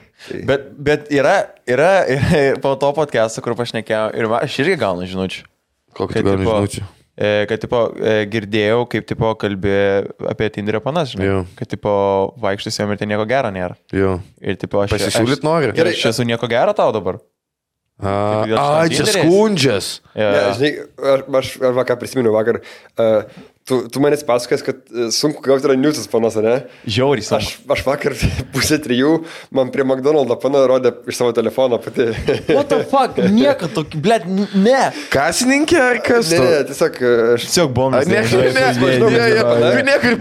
Bet yra po to podcast'o, kur pašnekėjau, ir aš irgi gaunu žinučių. Kokią gauni žinučių? Kad, tipo, girdėjau, kaip, tipo, kalbė apie Tinderio panas, žinai. Jo. Kad, tipo, vaikštis jom ir ten nieko gero nėra. Jo. Ir, tipo, Pasisiūlyt nori? Gerai, aš esu nieko gero tau dabar. Čia skundžias. Ja, žinai, aš vakar prisiminiau vakar. Tu manęs pasakės, kad sunku gauti yra newsas panas, ne? Žiauriai sunku. Aš vakar 2:30 man prie McDonald's pana rodė iš savo telefono pati. What the fuck? Nieko tokį, blėt, ne. Kasininkė ar kas? Ne, tiesiog aš... Tiesiog bombas. Niekur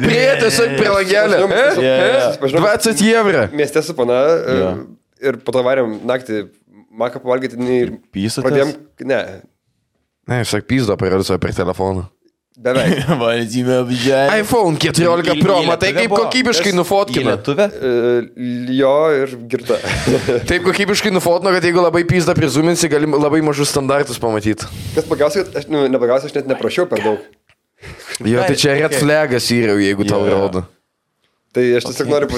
prie, tiesiog prie langelio. 20 eurų. Mieste su pana ir po to varėm naktį maką pavalgyti ir pradėjom... Ne. Ne, sak pizdo parodys per telefoną. Beveik. iPhone 14 Pro, matai kaip kokybiškai nufotkina. Lietuvė? Jo ir girta. Taip kokybiškai nufotino, kad jeigu labai pizdą prizuminsi, gali labai mažus standartus pamatyti. Kas pagausia, kad aš net neprašiau per daug. Jo, tai čia red flagas yra, jeigu tau rodo. Tai aš tiesiog noriu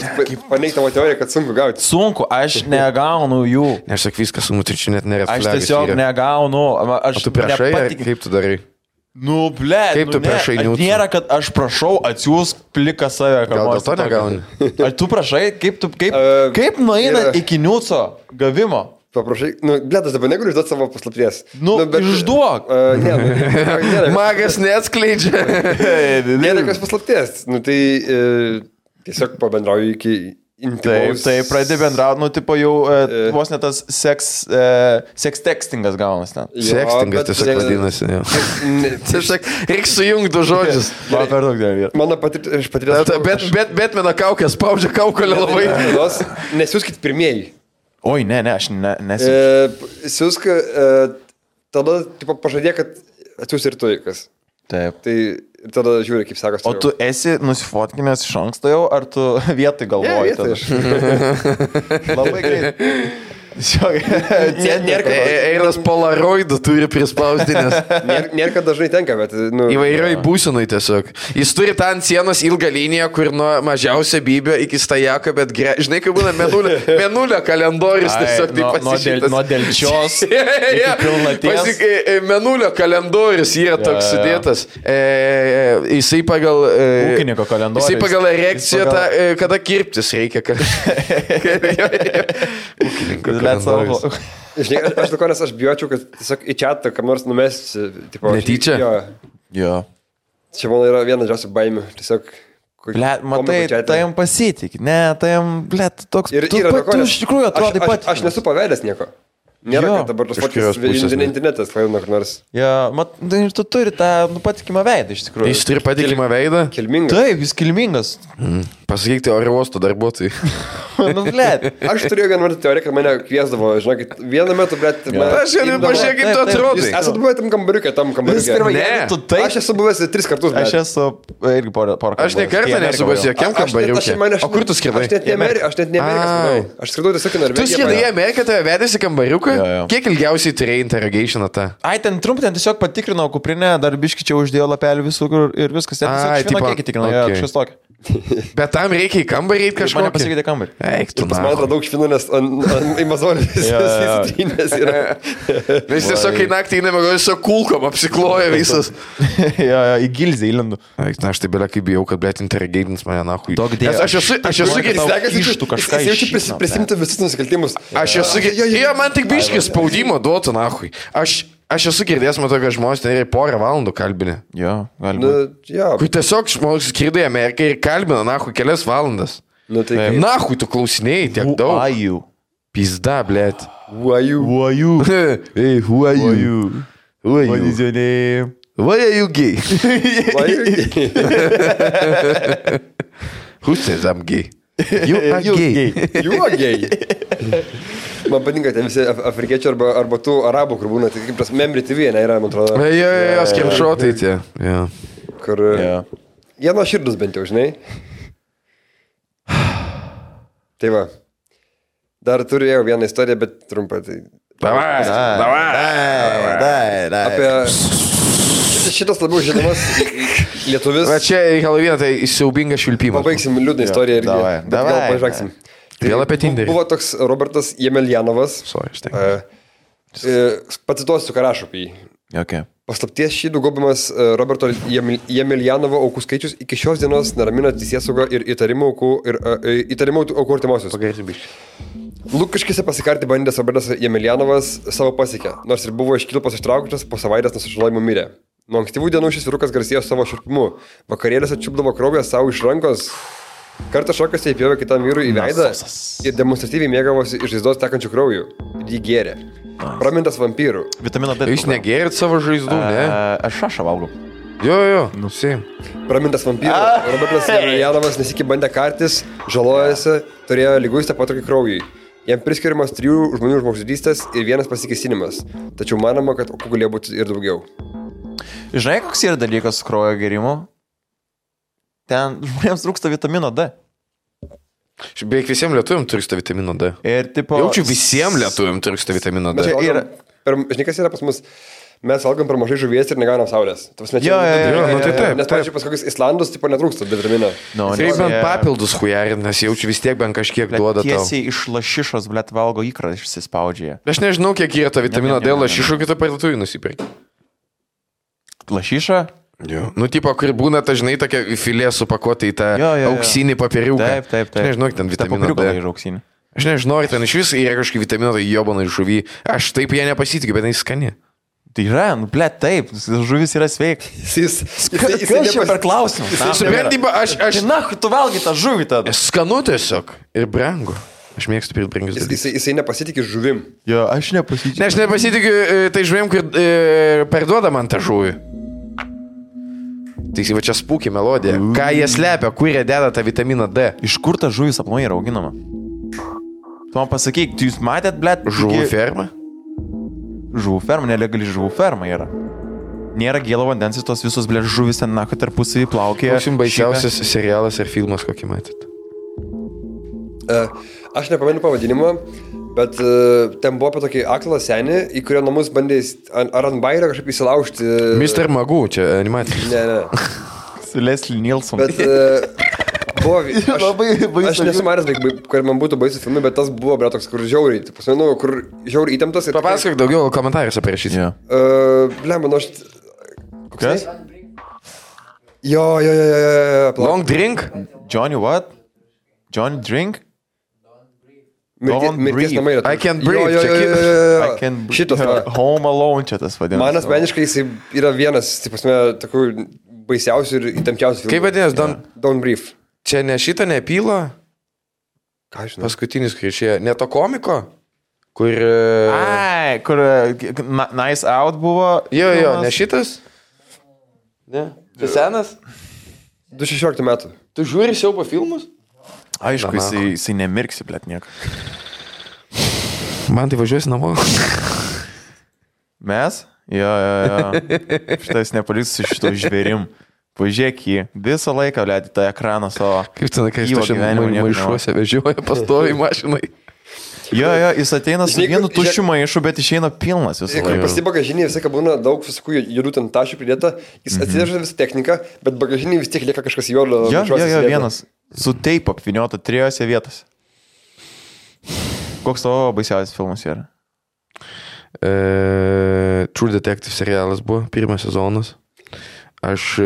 paneigti tavo teoriją, kad sunku gauti. Sunku, aš negaunu jų. Aš sak viskas sunku, tai čia net nėra red flagas. Aš tiesiog negaunu. O tu prašai, kaip tu darai? Nu, blė, kaip tu prašai niūtų? Nėra, kad aš prašau atsiųsk pliką save. Gal dėl to negauni? Ar tu prašai, kaip nueina iki niūco gavimo? Paprašai, blėt, aš dabar negaliu išduoti savo paslapties. Išduok. Magas neatskleidžia. Nėra kas paslapties. Tai tiesiog pabendrauju iki... Taip, pradė bendrauti, tipo jau vos net tas sex textingas gaunas ten. Sextingas tiesiog vadinasi. Tiesiog reikia sujungti du žodžius. Man per daug dėl vietų. Mano patirties... Betmeno kaukė spaudžia kaukolę labai. Nesiūskit pirmieji. Oi, ne, aš nesiūsiu. Siūsk, tada pažadė, kad atsiūs ir tu kas. Taip. Tai tada žiūri, kaip sakas. O tu esi nusifotkinęs iš anksto jau, ar tu vietoj galvoji? Labai greit. Eilas polaroidų turi prispausdinės. Nėra, kad dažnai tenka, bet... Įvairioj būsenui tiesiog. Jis turi tą ant sienos ilgą liniją, kur nuo mažiausio bybio iki stajako, bet žinai, kaip būna menulio kalendorius tiesiog taip pasišytas. Nuo delčios iki pilnaties. Menulio kalendorius yra toks sudėtas. Jisai pagal... Ūkininko kalendorius. Jisai pagal erekciją, kada kirptis reikia. Ūkininko. Žinai, aš dukonės, aš bijočiau, kad tiesiog į čatą kam nors numesti. Netyčia? Jo. Čia man yra viena džiausių baimių. Tiesiog... Blet, matai, tai jam pasitik. Ne, tai jam, blet, toks... Tu iš tikrųjų atrodai pat. Aš nesu pavedęs nieko. Nėra, kad dabar tos fotkės internetas paėmė kur nors. Ja, ir tu turi tą patikimą veidą iš tikrųjų. Jis turi patikimą veidą? Kilmingas. Taip, jis kilmingas. Pasakykite oro uosto darbuotojai. Nu, blėt. Aš turėjau vieną teoriją, kad mane kviesdavo, žinokit, vieną metu, blėt... Aš jau pažiūrėjau, kaip tu atrodai. Jūs esate buvę tam kambariukė. Ne. Aš esu buvęs 3 kartus, blėt. Aš esu irgi porą kartų. Aš ne kartą nesu buvęs jokiam kambariukė. O kur tu skridai? Aš net ne Ameriką skridau. Aš skridau tiesiog į Norvegiją. Tu skridai į Ameriką, tave vedėsi kambariuką? Kiek ilgiausiai turėjai interrogationą tą? Ai, ten trumpai, ten tiesiog patikrinau kuprinę, dar biški čia uždėjo lapelį visur ir viskas. Ten tiesiog švieno kiekį tikrinau, kažkas tokio. Bet tam reikia į kambarį eiti kažko. Mane pasikeitė kambarį. Eik, tu man atrodo daug švinų, nes į mazolį įsitrynės yra. Nes tiesiog kai naktį įnėmė, gal tiesiog kulkom apsikloja visas. Į gilzę įlendu. Eik, na, aš tai belia kaip bijau, kad blėt interrogatins mane nahui. Aš esu girdėjęs. Prisimti visus nusikaltimus. Aš esu girdėjęs. Man tik biškis spaudimo duotų nahui. Aš esu girdėjęs, matau, kad žmonės ten yra porą valandų kalbinę. Jo, galima. Kai tiesiog žmonės skridai į Ameriką ir kalbina, nahui, kelias valandas. Nahui, tu klausinėjai tiek daug. Who are you? Pizda, blėt. Who are you? Who are you? Hey, who are you? Who are you? What is your name? Why are you gay? Why are you gay? Who says I'm gay? You are gay. You are gay. Man patinka tie visi afrikiečiai arba tų arabų, kur būna, tai kaip tas Memory TV, ne, yra, man atrodo. Jo, skrimšotai tie. Kur... Jie nuo širdus bent jau, žinai. Tai va. Dar turėjau vieną istoriją, bet trumpą. Davai. Apie... Šitas labiau žinomas lietuvis. Va čia Halloween, tai siaubinga švilpimas. Pabaigsim liūdną istoriją irgi. Davai. Gal pažaksim. Vėl apie Tinderį. Buvo toks Robertas Jemeljanovas. Pacituosiu, ką rašo apie jį. Okay. Paslapties šydų gaubimas Roberto Jemeljanovo aukų skaičius iki šios dienos neramina teisėsaugą ir įtarimų aukų artimosius. Lukiškėse pasikarti bandęs Robertas Jemeljanovas savo pasiekė, nors ir buvo iš kilpos ištrauktas, po savaitės nuo sužalojimo mirė. Nuo ankstyvų dienų šis vyrukas garsėjo savo širpimu. Vakarėlėse čiupdavo kraują savo iš rankos. Kartą šokasi įpjovė kitam vyrui į veidą ir demonstratyviai mėgavosi iš žaizdos tekančių kraujų. Ir jį gėrė. Pramintas vampyrų. Vitamino D. Jūs negėrit savo žaizdų, ne? Aš šašą valgau. Jo, nusim. Pramintas vampyrų. Robertas Jemeljanovas nesikį bandė kartis, žalojasi, turėjo lyguistą potraukį kraujui. Jam priskiriamas 3 žmonių žmogžudystės ir 1 pasikėsinimas. Tačiau manoma, kad aukų galėjo būti ir daugiau. Žinai, koks yra dalykas su kraujo gėrimu? Ten žmonėms trūksta vitamino D. Beveik visiems lietuviam trūksta vitamino D. Ir tipo... Jaučiu visiems lietuviam trūksta vitamino D. Žinai, kas yra pas mus? Mes valgom per mažai žuvies ir negaunam saulės. Nes, pavyzdžiui, pas kokius Islandus tipo netrūksta D vitamino. Taip bent papildus hujarin, nes jaučiu vis tiek bent kažkiek duoda tau. Tiesiai iš lašišos, blet, valgo įkrą išsispaudžia. Aš nežinau, kiek yra to vitamino D lašišų, kitą parduotuvį nusipirkti. Lašiša? Jo. Nu, tipo, kur būna, ta, žinai, tokia filė supakuota į tą auksinį papiriuką. Taip. Aš nežinau, ten vitamino D. Aš nežinau, ar ten iš vis yra kažkokį vitamino D jobana iš žuvį. Aš taip ją nepasitikiu, bet jis skani. Tai yra, nu, blet, taip, žuvis yra sveik. Jis čia per klausimą. Suprantyba, aš... Na, tu valgai tą žuvį tada. Skanu tiesiog ir brangu. Aš mėgstu pirkti brangius dalykus. Jisai nepasitikė žuvim. Jo, aš nepasitikiu. Ne, aš nepasitikiu tai žuvim, kur perduoda man tą žuvį. Tai va čia spūki melodija. Ką jie slepia, kur jie deda tą vitaminą D? Iš kur ta žuvis aplamai yra auginama? Tu man pasakyk, jūs matėt, blet? Žuvų ferma? Žuvų ferma, nelegali žuvų ferma yra. Nėra gėlo vandens, tos visos, blet, žuvis ten nako tarpusavį plaukė. Koks jums baisiausias serialas ar filmas, kokį matėt? Aš nepamenu pavadinimo, bet ten buvo apie tokį aklą senį, į kurio namus bandė ar ant bairio kažkaip įsilaužti. Mr. Magoo, čia animacija. Ne. Su Leslie Nielsen. Bet buvo... Aš nesu manęs, kur man būtų baisus filmai, bet tas buvo, bre, toks, kur žiauriai. Kur žiauriai įtemptas. Papasakok daugiau komentarus apie rašyti. Blemba, nu aš... Kas? Jo. Long drink? Johnny what? Johnny drink? Mirties namai yra. I can't breathe. Šitas. Home Alone čia tas vadinamas. Man asmeniškai jis yra vienas, taip pasme, tokių baisiausių ir įtempčiausių filmų. Kaip vadinasi? Don't Breathe. Čia ne šitą nepylo? Ką žinau? Paskutinis, kai išėjo. Ne to komiko? Kur... Ai, kur Nice Out buvo. Jo, ne šitas? Ne. Tai senas? 2016 metų. Tu žiūri siaubo filmus? Aišku, jisai nemirksi, blet, nieko. Man tai važiuosi namo. Mes? Jo. Šitas nepaliks su šito žvėrim. Pažiūrėk jį. Visą laiką, blet, į tą ekraną savo. Kaip ten, kai jis maišuose vežioja pastoviai mašinai. Jo, jis ateina su vienu tuščiu maišu, bet išeina pilnas visą laiką. Pas į bagažinį visą, kad būna daug visokių judų ten tašių pridėta, jis atsiveža visą techniką, bet bagažinį vis tiek lieka kažkas juodo. Jo, vienas. Su teipu apviniota 3 vietose. Koks tavo baisiausias filmas yra? True Detective serialas buvo, 1 sezonas. Aš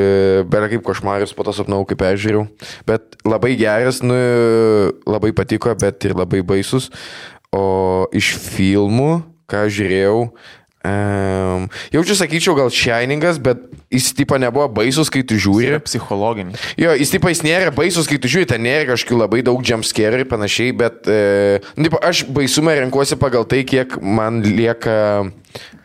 beveik kaip košmarius po to sapnau, kaip peržiūrėjau. Bet labai geras, labai patiko, bet ir labai baisus. O iš filmų, ką žiūrėjau, jaučiu, sakyčiau, gal Shiningas, bet jis tipo nebuvo baisus, kai tu žiūri. Jis yra psichologinis. Jo, jis nėra baisus, kai tu žiūri, ten nėra kažkokių labai daug jumpscare ir panašiai, bet aš baisumą renkuosi pagal tai, kiek man lieka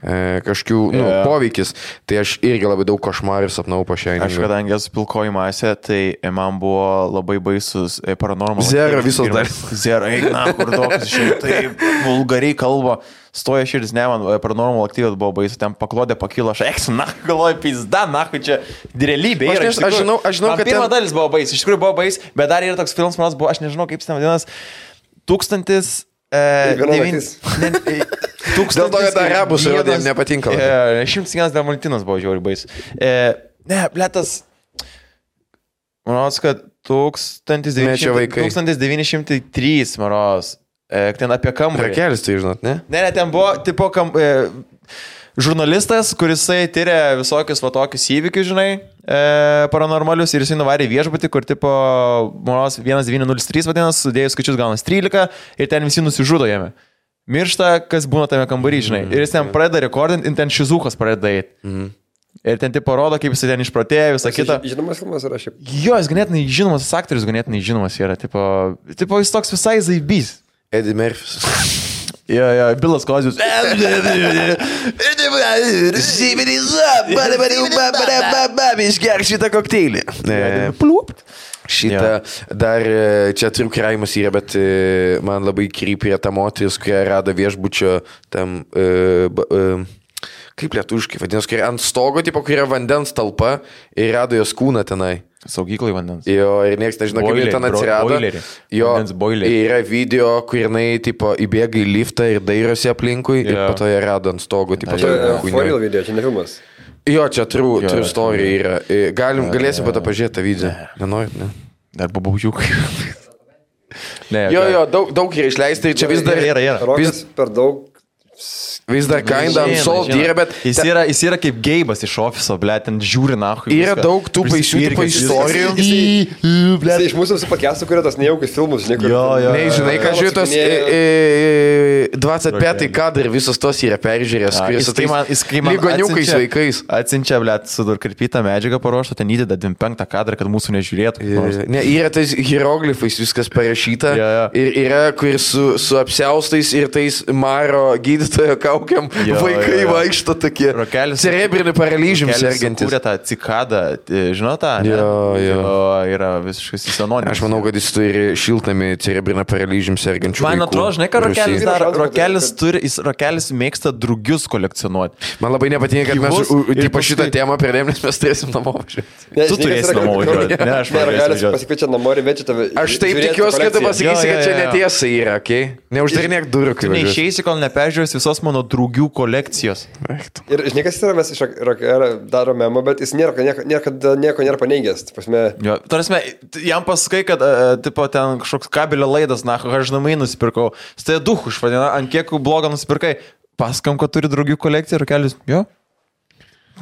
kažkokių poveikis. Tai aš irgi labai daug košmarų sapnau po Shiningą. Aš kadangi esu pilkoji masė, tai man buvo labai baisus Paranormal. Zero visos dar. Zero, eina, kur dokas išėjo, taip vulgariai kalba. Stoja širdis, ne, man Paranormal Activity buvo baisu, ten paklodė pakilo, aš eksiu, galvoju, pizda, čia realybė yra. Aš žinau, kad pirma dalis buvo baisu, iš tikrųjų buvo baisu, bet dar yra toks filmas, manas buvo, aš nežinau, kaip jis ten vadinas, 1000... Dėl to, kad arabus rodėm nepatinka. 101 Dalmatinas buvo žiauriai baisu. Ne, bletas, manau, kad 1903, maros. Ten apie kambarį. Rakelis, tai žinot, ne? Ne, ten buvo, tipo, žurnalistas, kuris tyria visokius va tokius įvykius, žinai, paranormalius ir jisai nuvarė viešbutį, kur, tipo, maros 1903 vadinasi, sudėjus skaičius gaunas 13 ir ten visi nusižudo jame. Miršta, kas būna tame kambarį, žinai. Ir jis ten pradeda rekordinti, ir ten Šizukas pradeda eiti. Ir ten tipo rodo, kaip jis ten išprotėjo, visą kitą. Žinomas filmas yra šiaip. Jo, jis ganėtinai žinomas, aktorius ganėtinai žinomas yra, tipo jis toks visai zaibys. Eddie Murphys. Jo, Bilas Kozijus. Išgerk šitą kokteilį. Šitą dar čia turiu kraimas yra, bet man labai krypė ta moteris, kurie rado viešbučio tam... Kaip lietuviškai vadinasi, kai ant stogo, tipo, kai yra vandens talpa ir rado jos kūną tenai. Saugyklai vandens. Jo, ir nieks nežino, kaip jie ten atsirado. Jo, yra video, kur jinai, tipo, įbėga į liftą ir dairosi aplinkui ir po to jie rado ant stogo, tipo, Foril video, čia ne filmas. Jo, čia true story yra. Galėsim pat pažiūrėti tą video. Nenorit, ne? Dar babaužiukai. Jo, daug yra išleista ir čia vis dar... Rokas per daug... Vis dar kinda ant sol yra, bet... Jis yra kaip geibas iš ofiso, ble, ten žiūri nahui. Yra daug tų baisių tipo istorijų. Jis iš mūsų visų pakestų, kurio tas nejaukius filmus, žinai, kur... Ne, žinai, ką žiūrė tos 25 kadrai, visos tos yra peržiūrės, kuris su tais lygoniukais vaikais. Atsinčia, ble, sudurkarpytą medžiagą paruoštą, ten įdeda 25 kadrą, kad mūsų nežiūrėtų. Ne, yra tais hieroglifais viskas parašyta. Ir yra, kur su apsiaustais ir tais Maro gydytojo kaukiam vaikai vaikšto tokie. Cerebrinį paralyžium sergantis. Kūrė tą cikadą, žinau tą? Jo. Yra visiškai senoninis. Aš manau, kad jis turi šiltami cerebrinį paralyžium sergančių vaikų. Man atrodo, žinai, ką Rokelis daro? Rokelis mėgsta drugius kolekcionuoti. Man labai nepatinka, kad mes šitą temą pridėm, nes mes turėsim namo važiuoti. Tu turėsi namo važiuoti. Ne, aš Rokelis pasikviečia namo ir večia tave. Aš taip tikiuosi, kad tu pasakysi, kad čia netiesa yra, okei? Neuždarinėk durų, kai važiuosi. Neišeisi, kol neperžiūrės visos mano draugių kolekcijos. Ir žinai, kas yra, mes iš daro memą, bet jis nieko nėra paneigęs. Tarasme, jam pasakai, kad tipo, ten kažkoks kabelio laidas, na, aš namai nusipirkau. Stai duch užvadina, ant kiek blogą nusipirkai. Pasakam, kad turi draugių kolekciją ir Rokelis. Jo.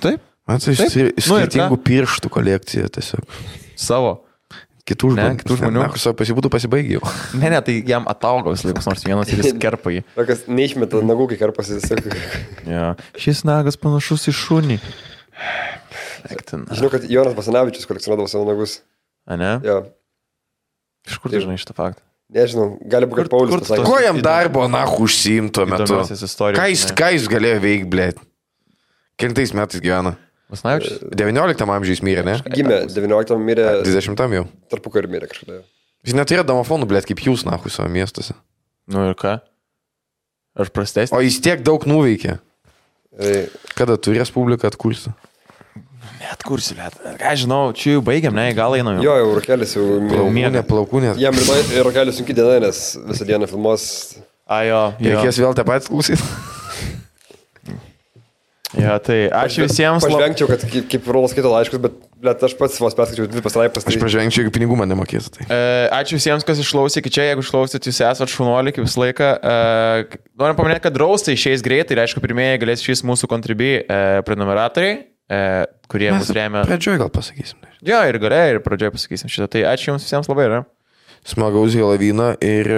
Taip. Man tai skirtingų pirštų kolekcija tiesiog. Savo. Kitų žmonių. Pasibūtų pasibaigėjau. Ne, tai jam atauga vis laikus nors vienas ir jis kerpa jį. Tokas neišmeta nagų, kai kerpasi tiesiog. Ja. Šis nagas panašus į šunį. Žinau, kad Jonas Basanavičius kolekcionuodavo savo nagus. A ne? Jo. Iš kur tu žinai šitą faktą? Nežinau, gali būti, kad Paulius pasakė. Ko jam darbo nahu užsiimto metu? Ką jis galėjo veikti, blėt? Kelintais metais gyvena? Basanavičius? 19 amžiais mirė, ne? Gimė, 19 mirė. 20 jau. Tarpukarį mirė kažkada. Jis neturėjo domofonų, blėt, kaip jūs nahu savo miestuose. Nu ir ką? Aš prastesnis. O jis tiek daug nuveikė. Kada tu Respubliką atkursi? Neatkursi, blėt. Ką žinau, čia jau baigiam, ne, gal einam jau. Jo, Rokelis jau... Plaukūnė. Jam Rokelis sunki diena, nes visą dieną filmuos. Jo. Reikės vėl tą patį klausyti. Ja, tai ačiū visiems. Pažvengčiau, kad kaip Rolas skaito laiškus, bet aš pats vos perskaičiau 2 pastraipas. Aš pažvengčiau, jeigu pinigų man nemokės. Tai. Ačiū visiems, kas išklausė iki čia. Jeigu išklausėt, jūs esat šunuoliai kaip visą laiką. Norim paminėti, kad draustai išeis greitai ir aišku, pirmieji galės išeis mūsų Contribui prenumeratoriai, kurie mus remia. Pradžioj gal pasakysim. Jo, ir gale, ir pradžioj pasakysim šitą. Tai ačiū jums visiems labai, yra. Smagaus Helovyną ir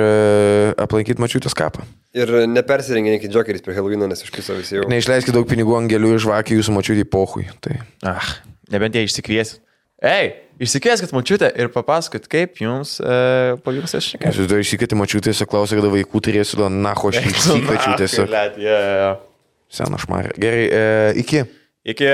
aplankyti Mačiutės kapą. Ir nepersirenginkit džokeriais prie Helovyno, nes išpiso visi jau. Neišleiskit daug pinigų angelių ir žvakių jūsų Mačiutį pohui. Tai. Nebent jie išsikviesit. Išsikvieskit Mačiutę ir papasakot, kaip jums pavyks aš šiek tiek. Jūs dar išsikvieti Mačiutės ir klausė, kada vaikų turėsiu, naho aš išsikviečiu tiesiog. Sena šmarė. Gerai, iki. Iki.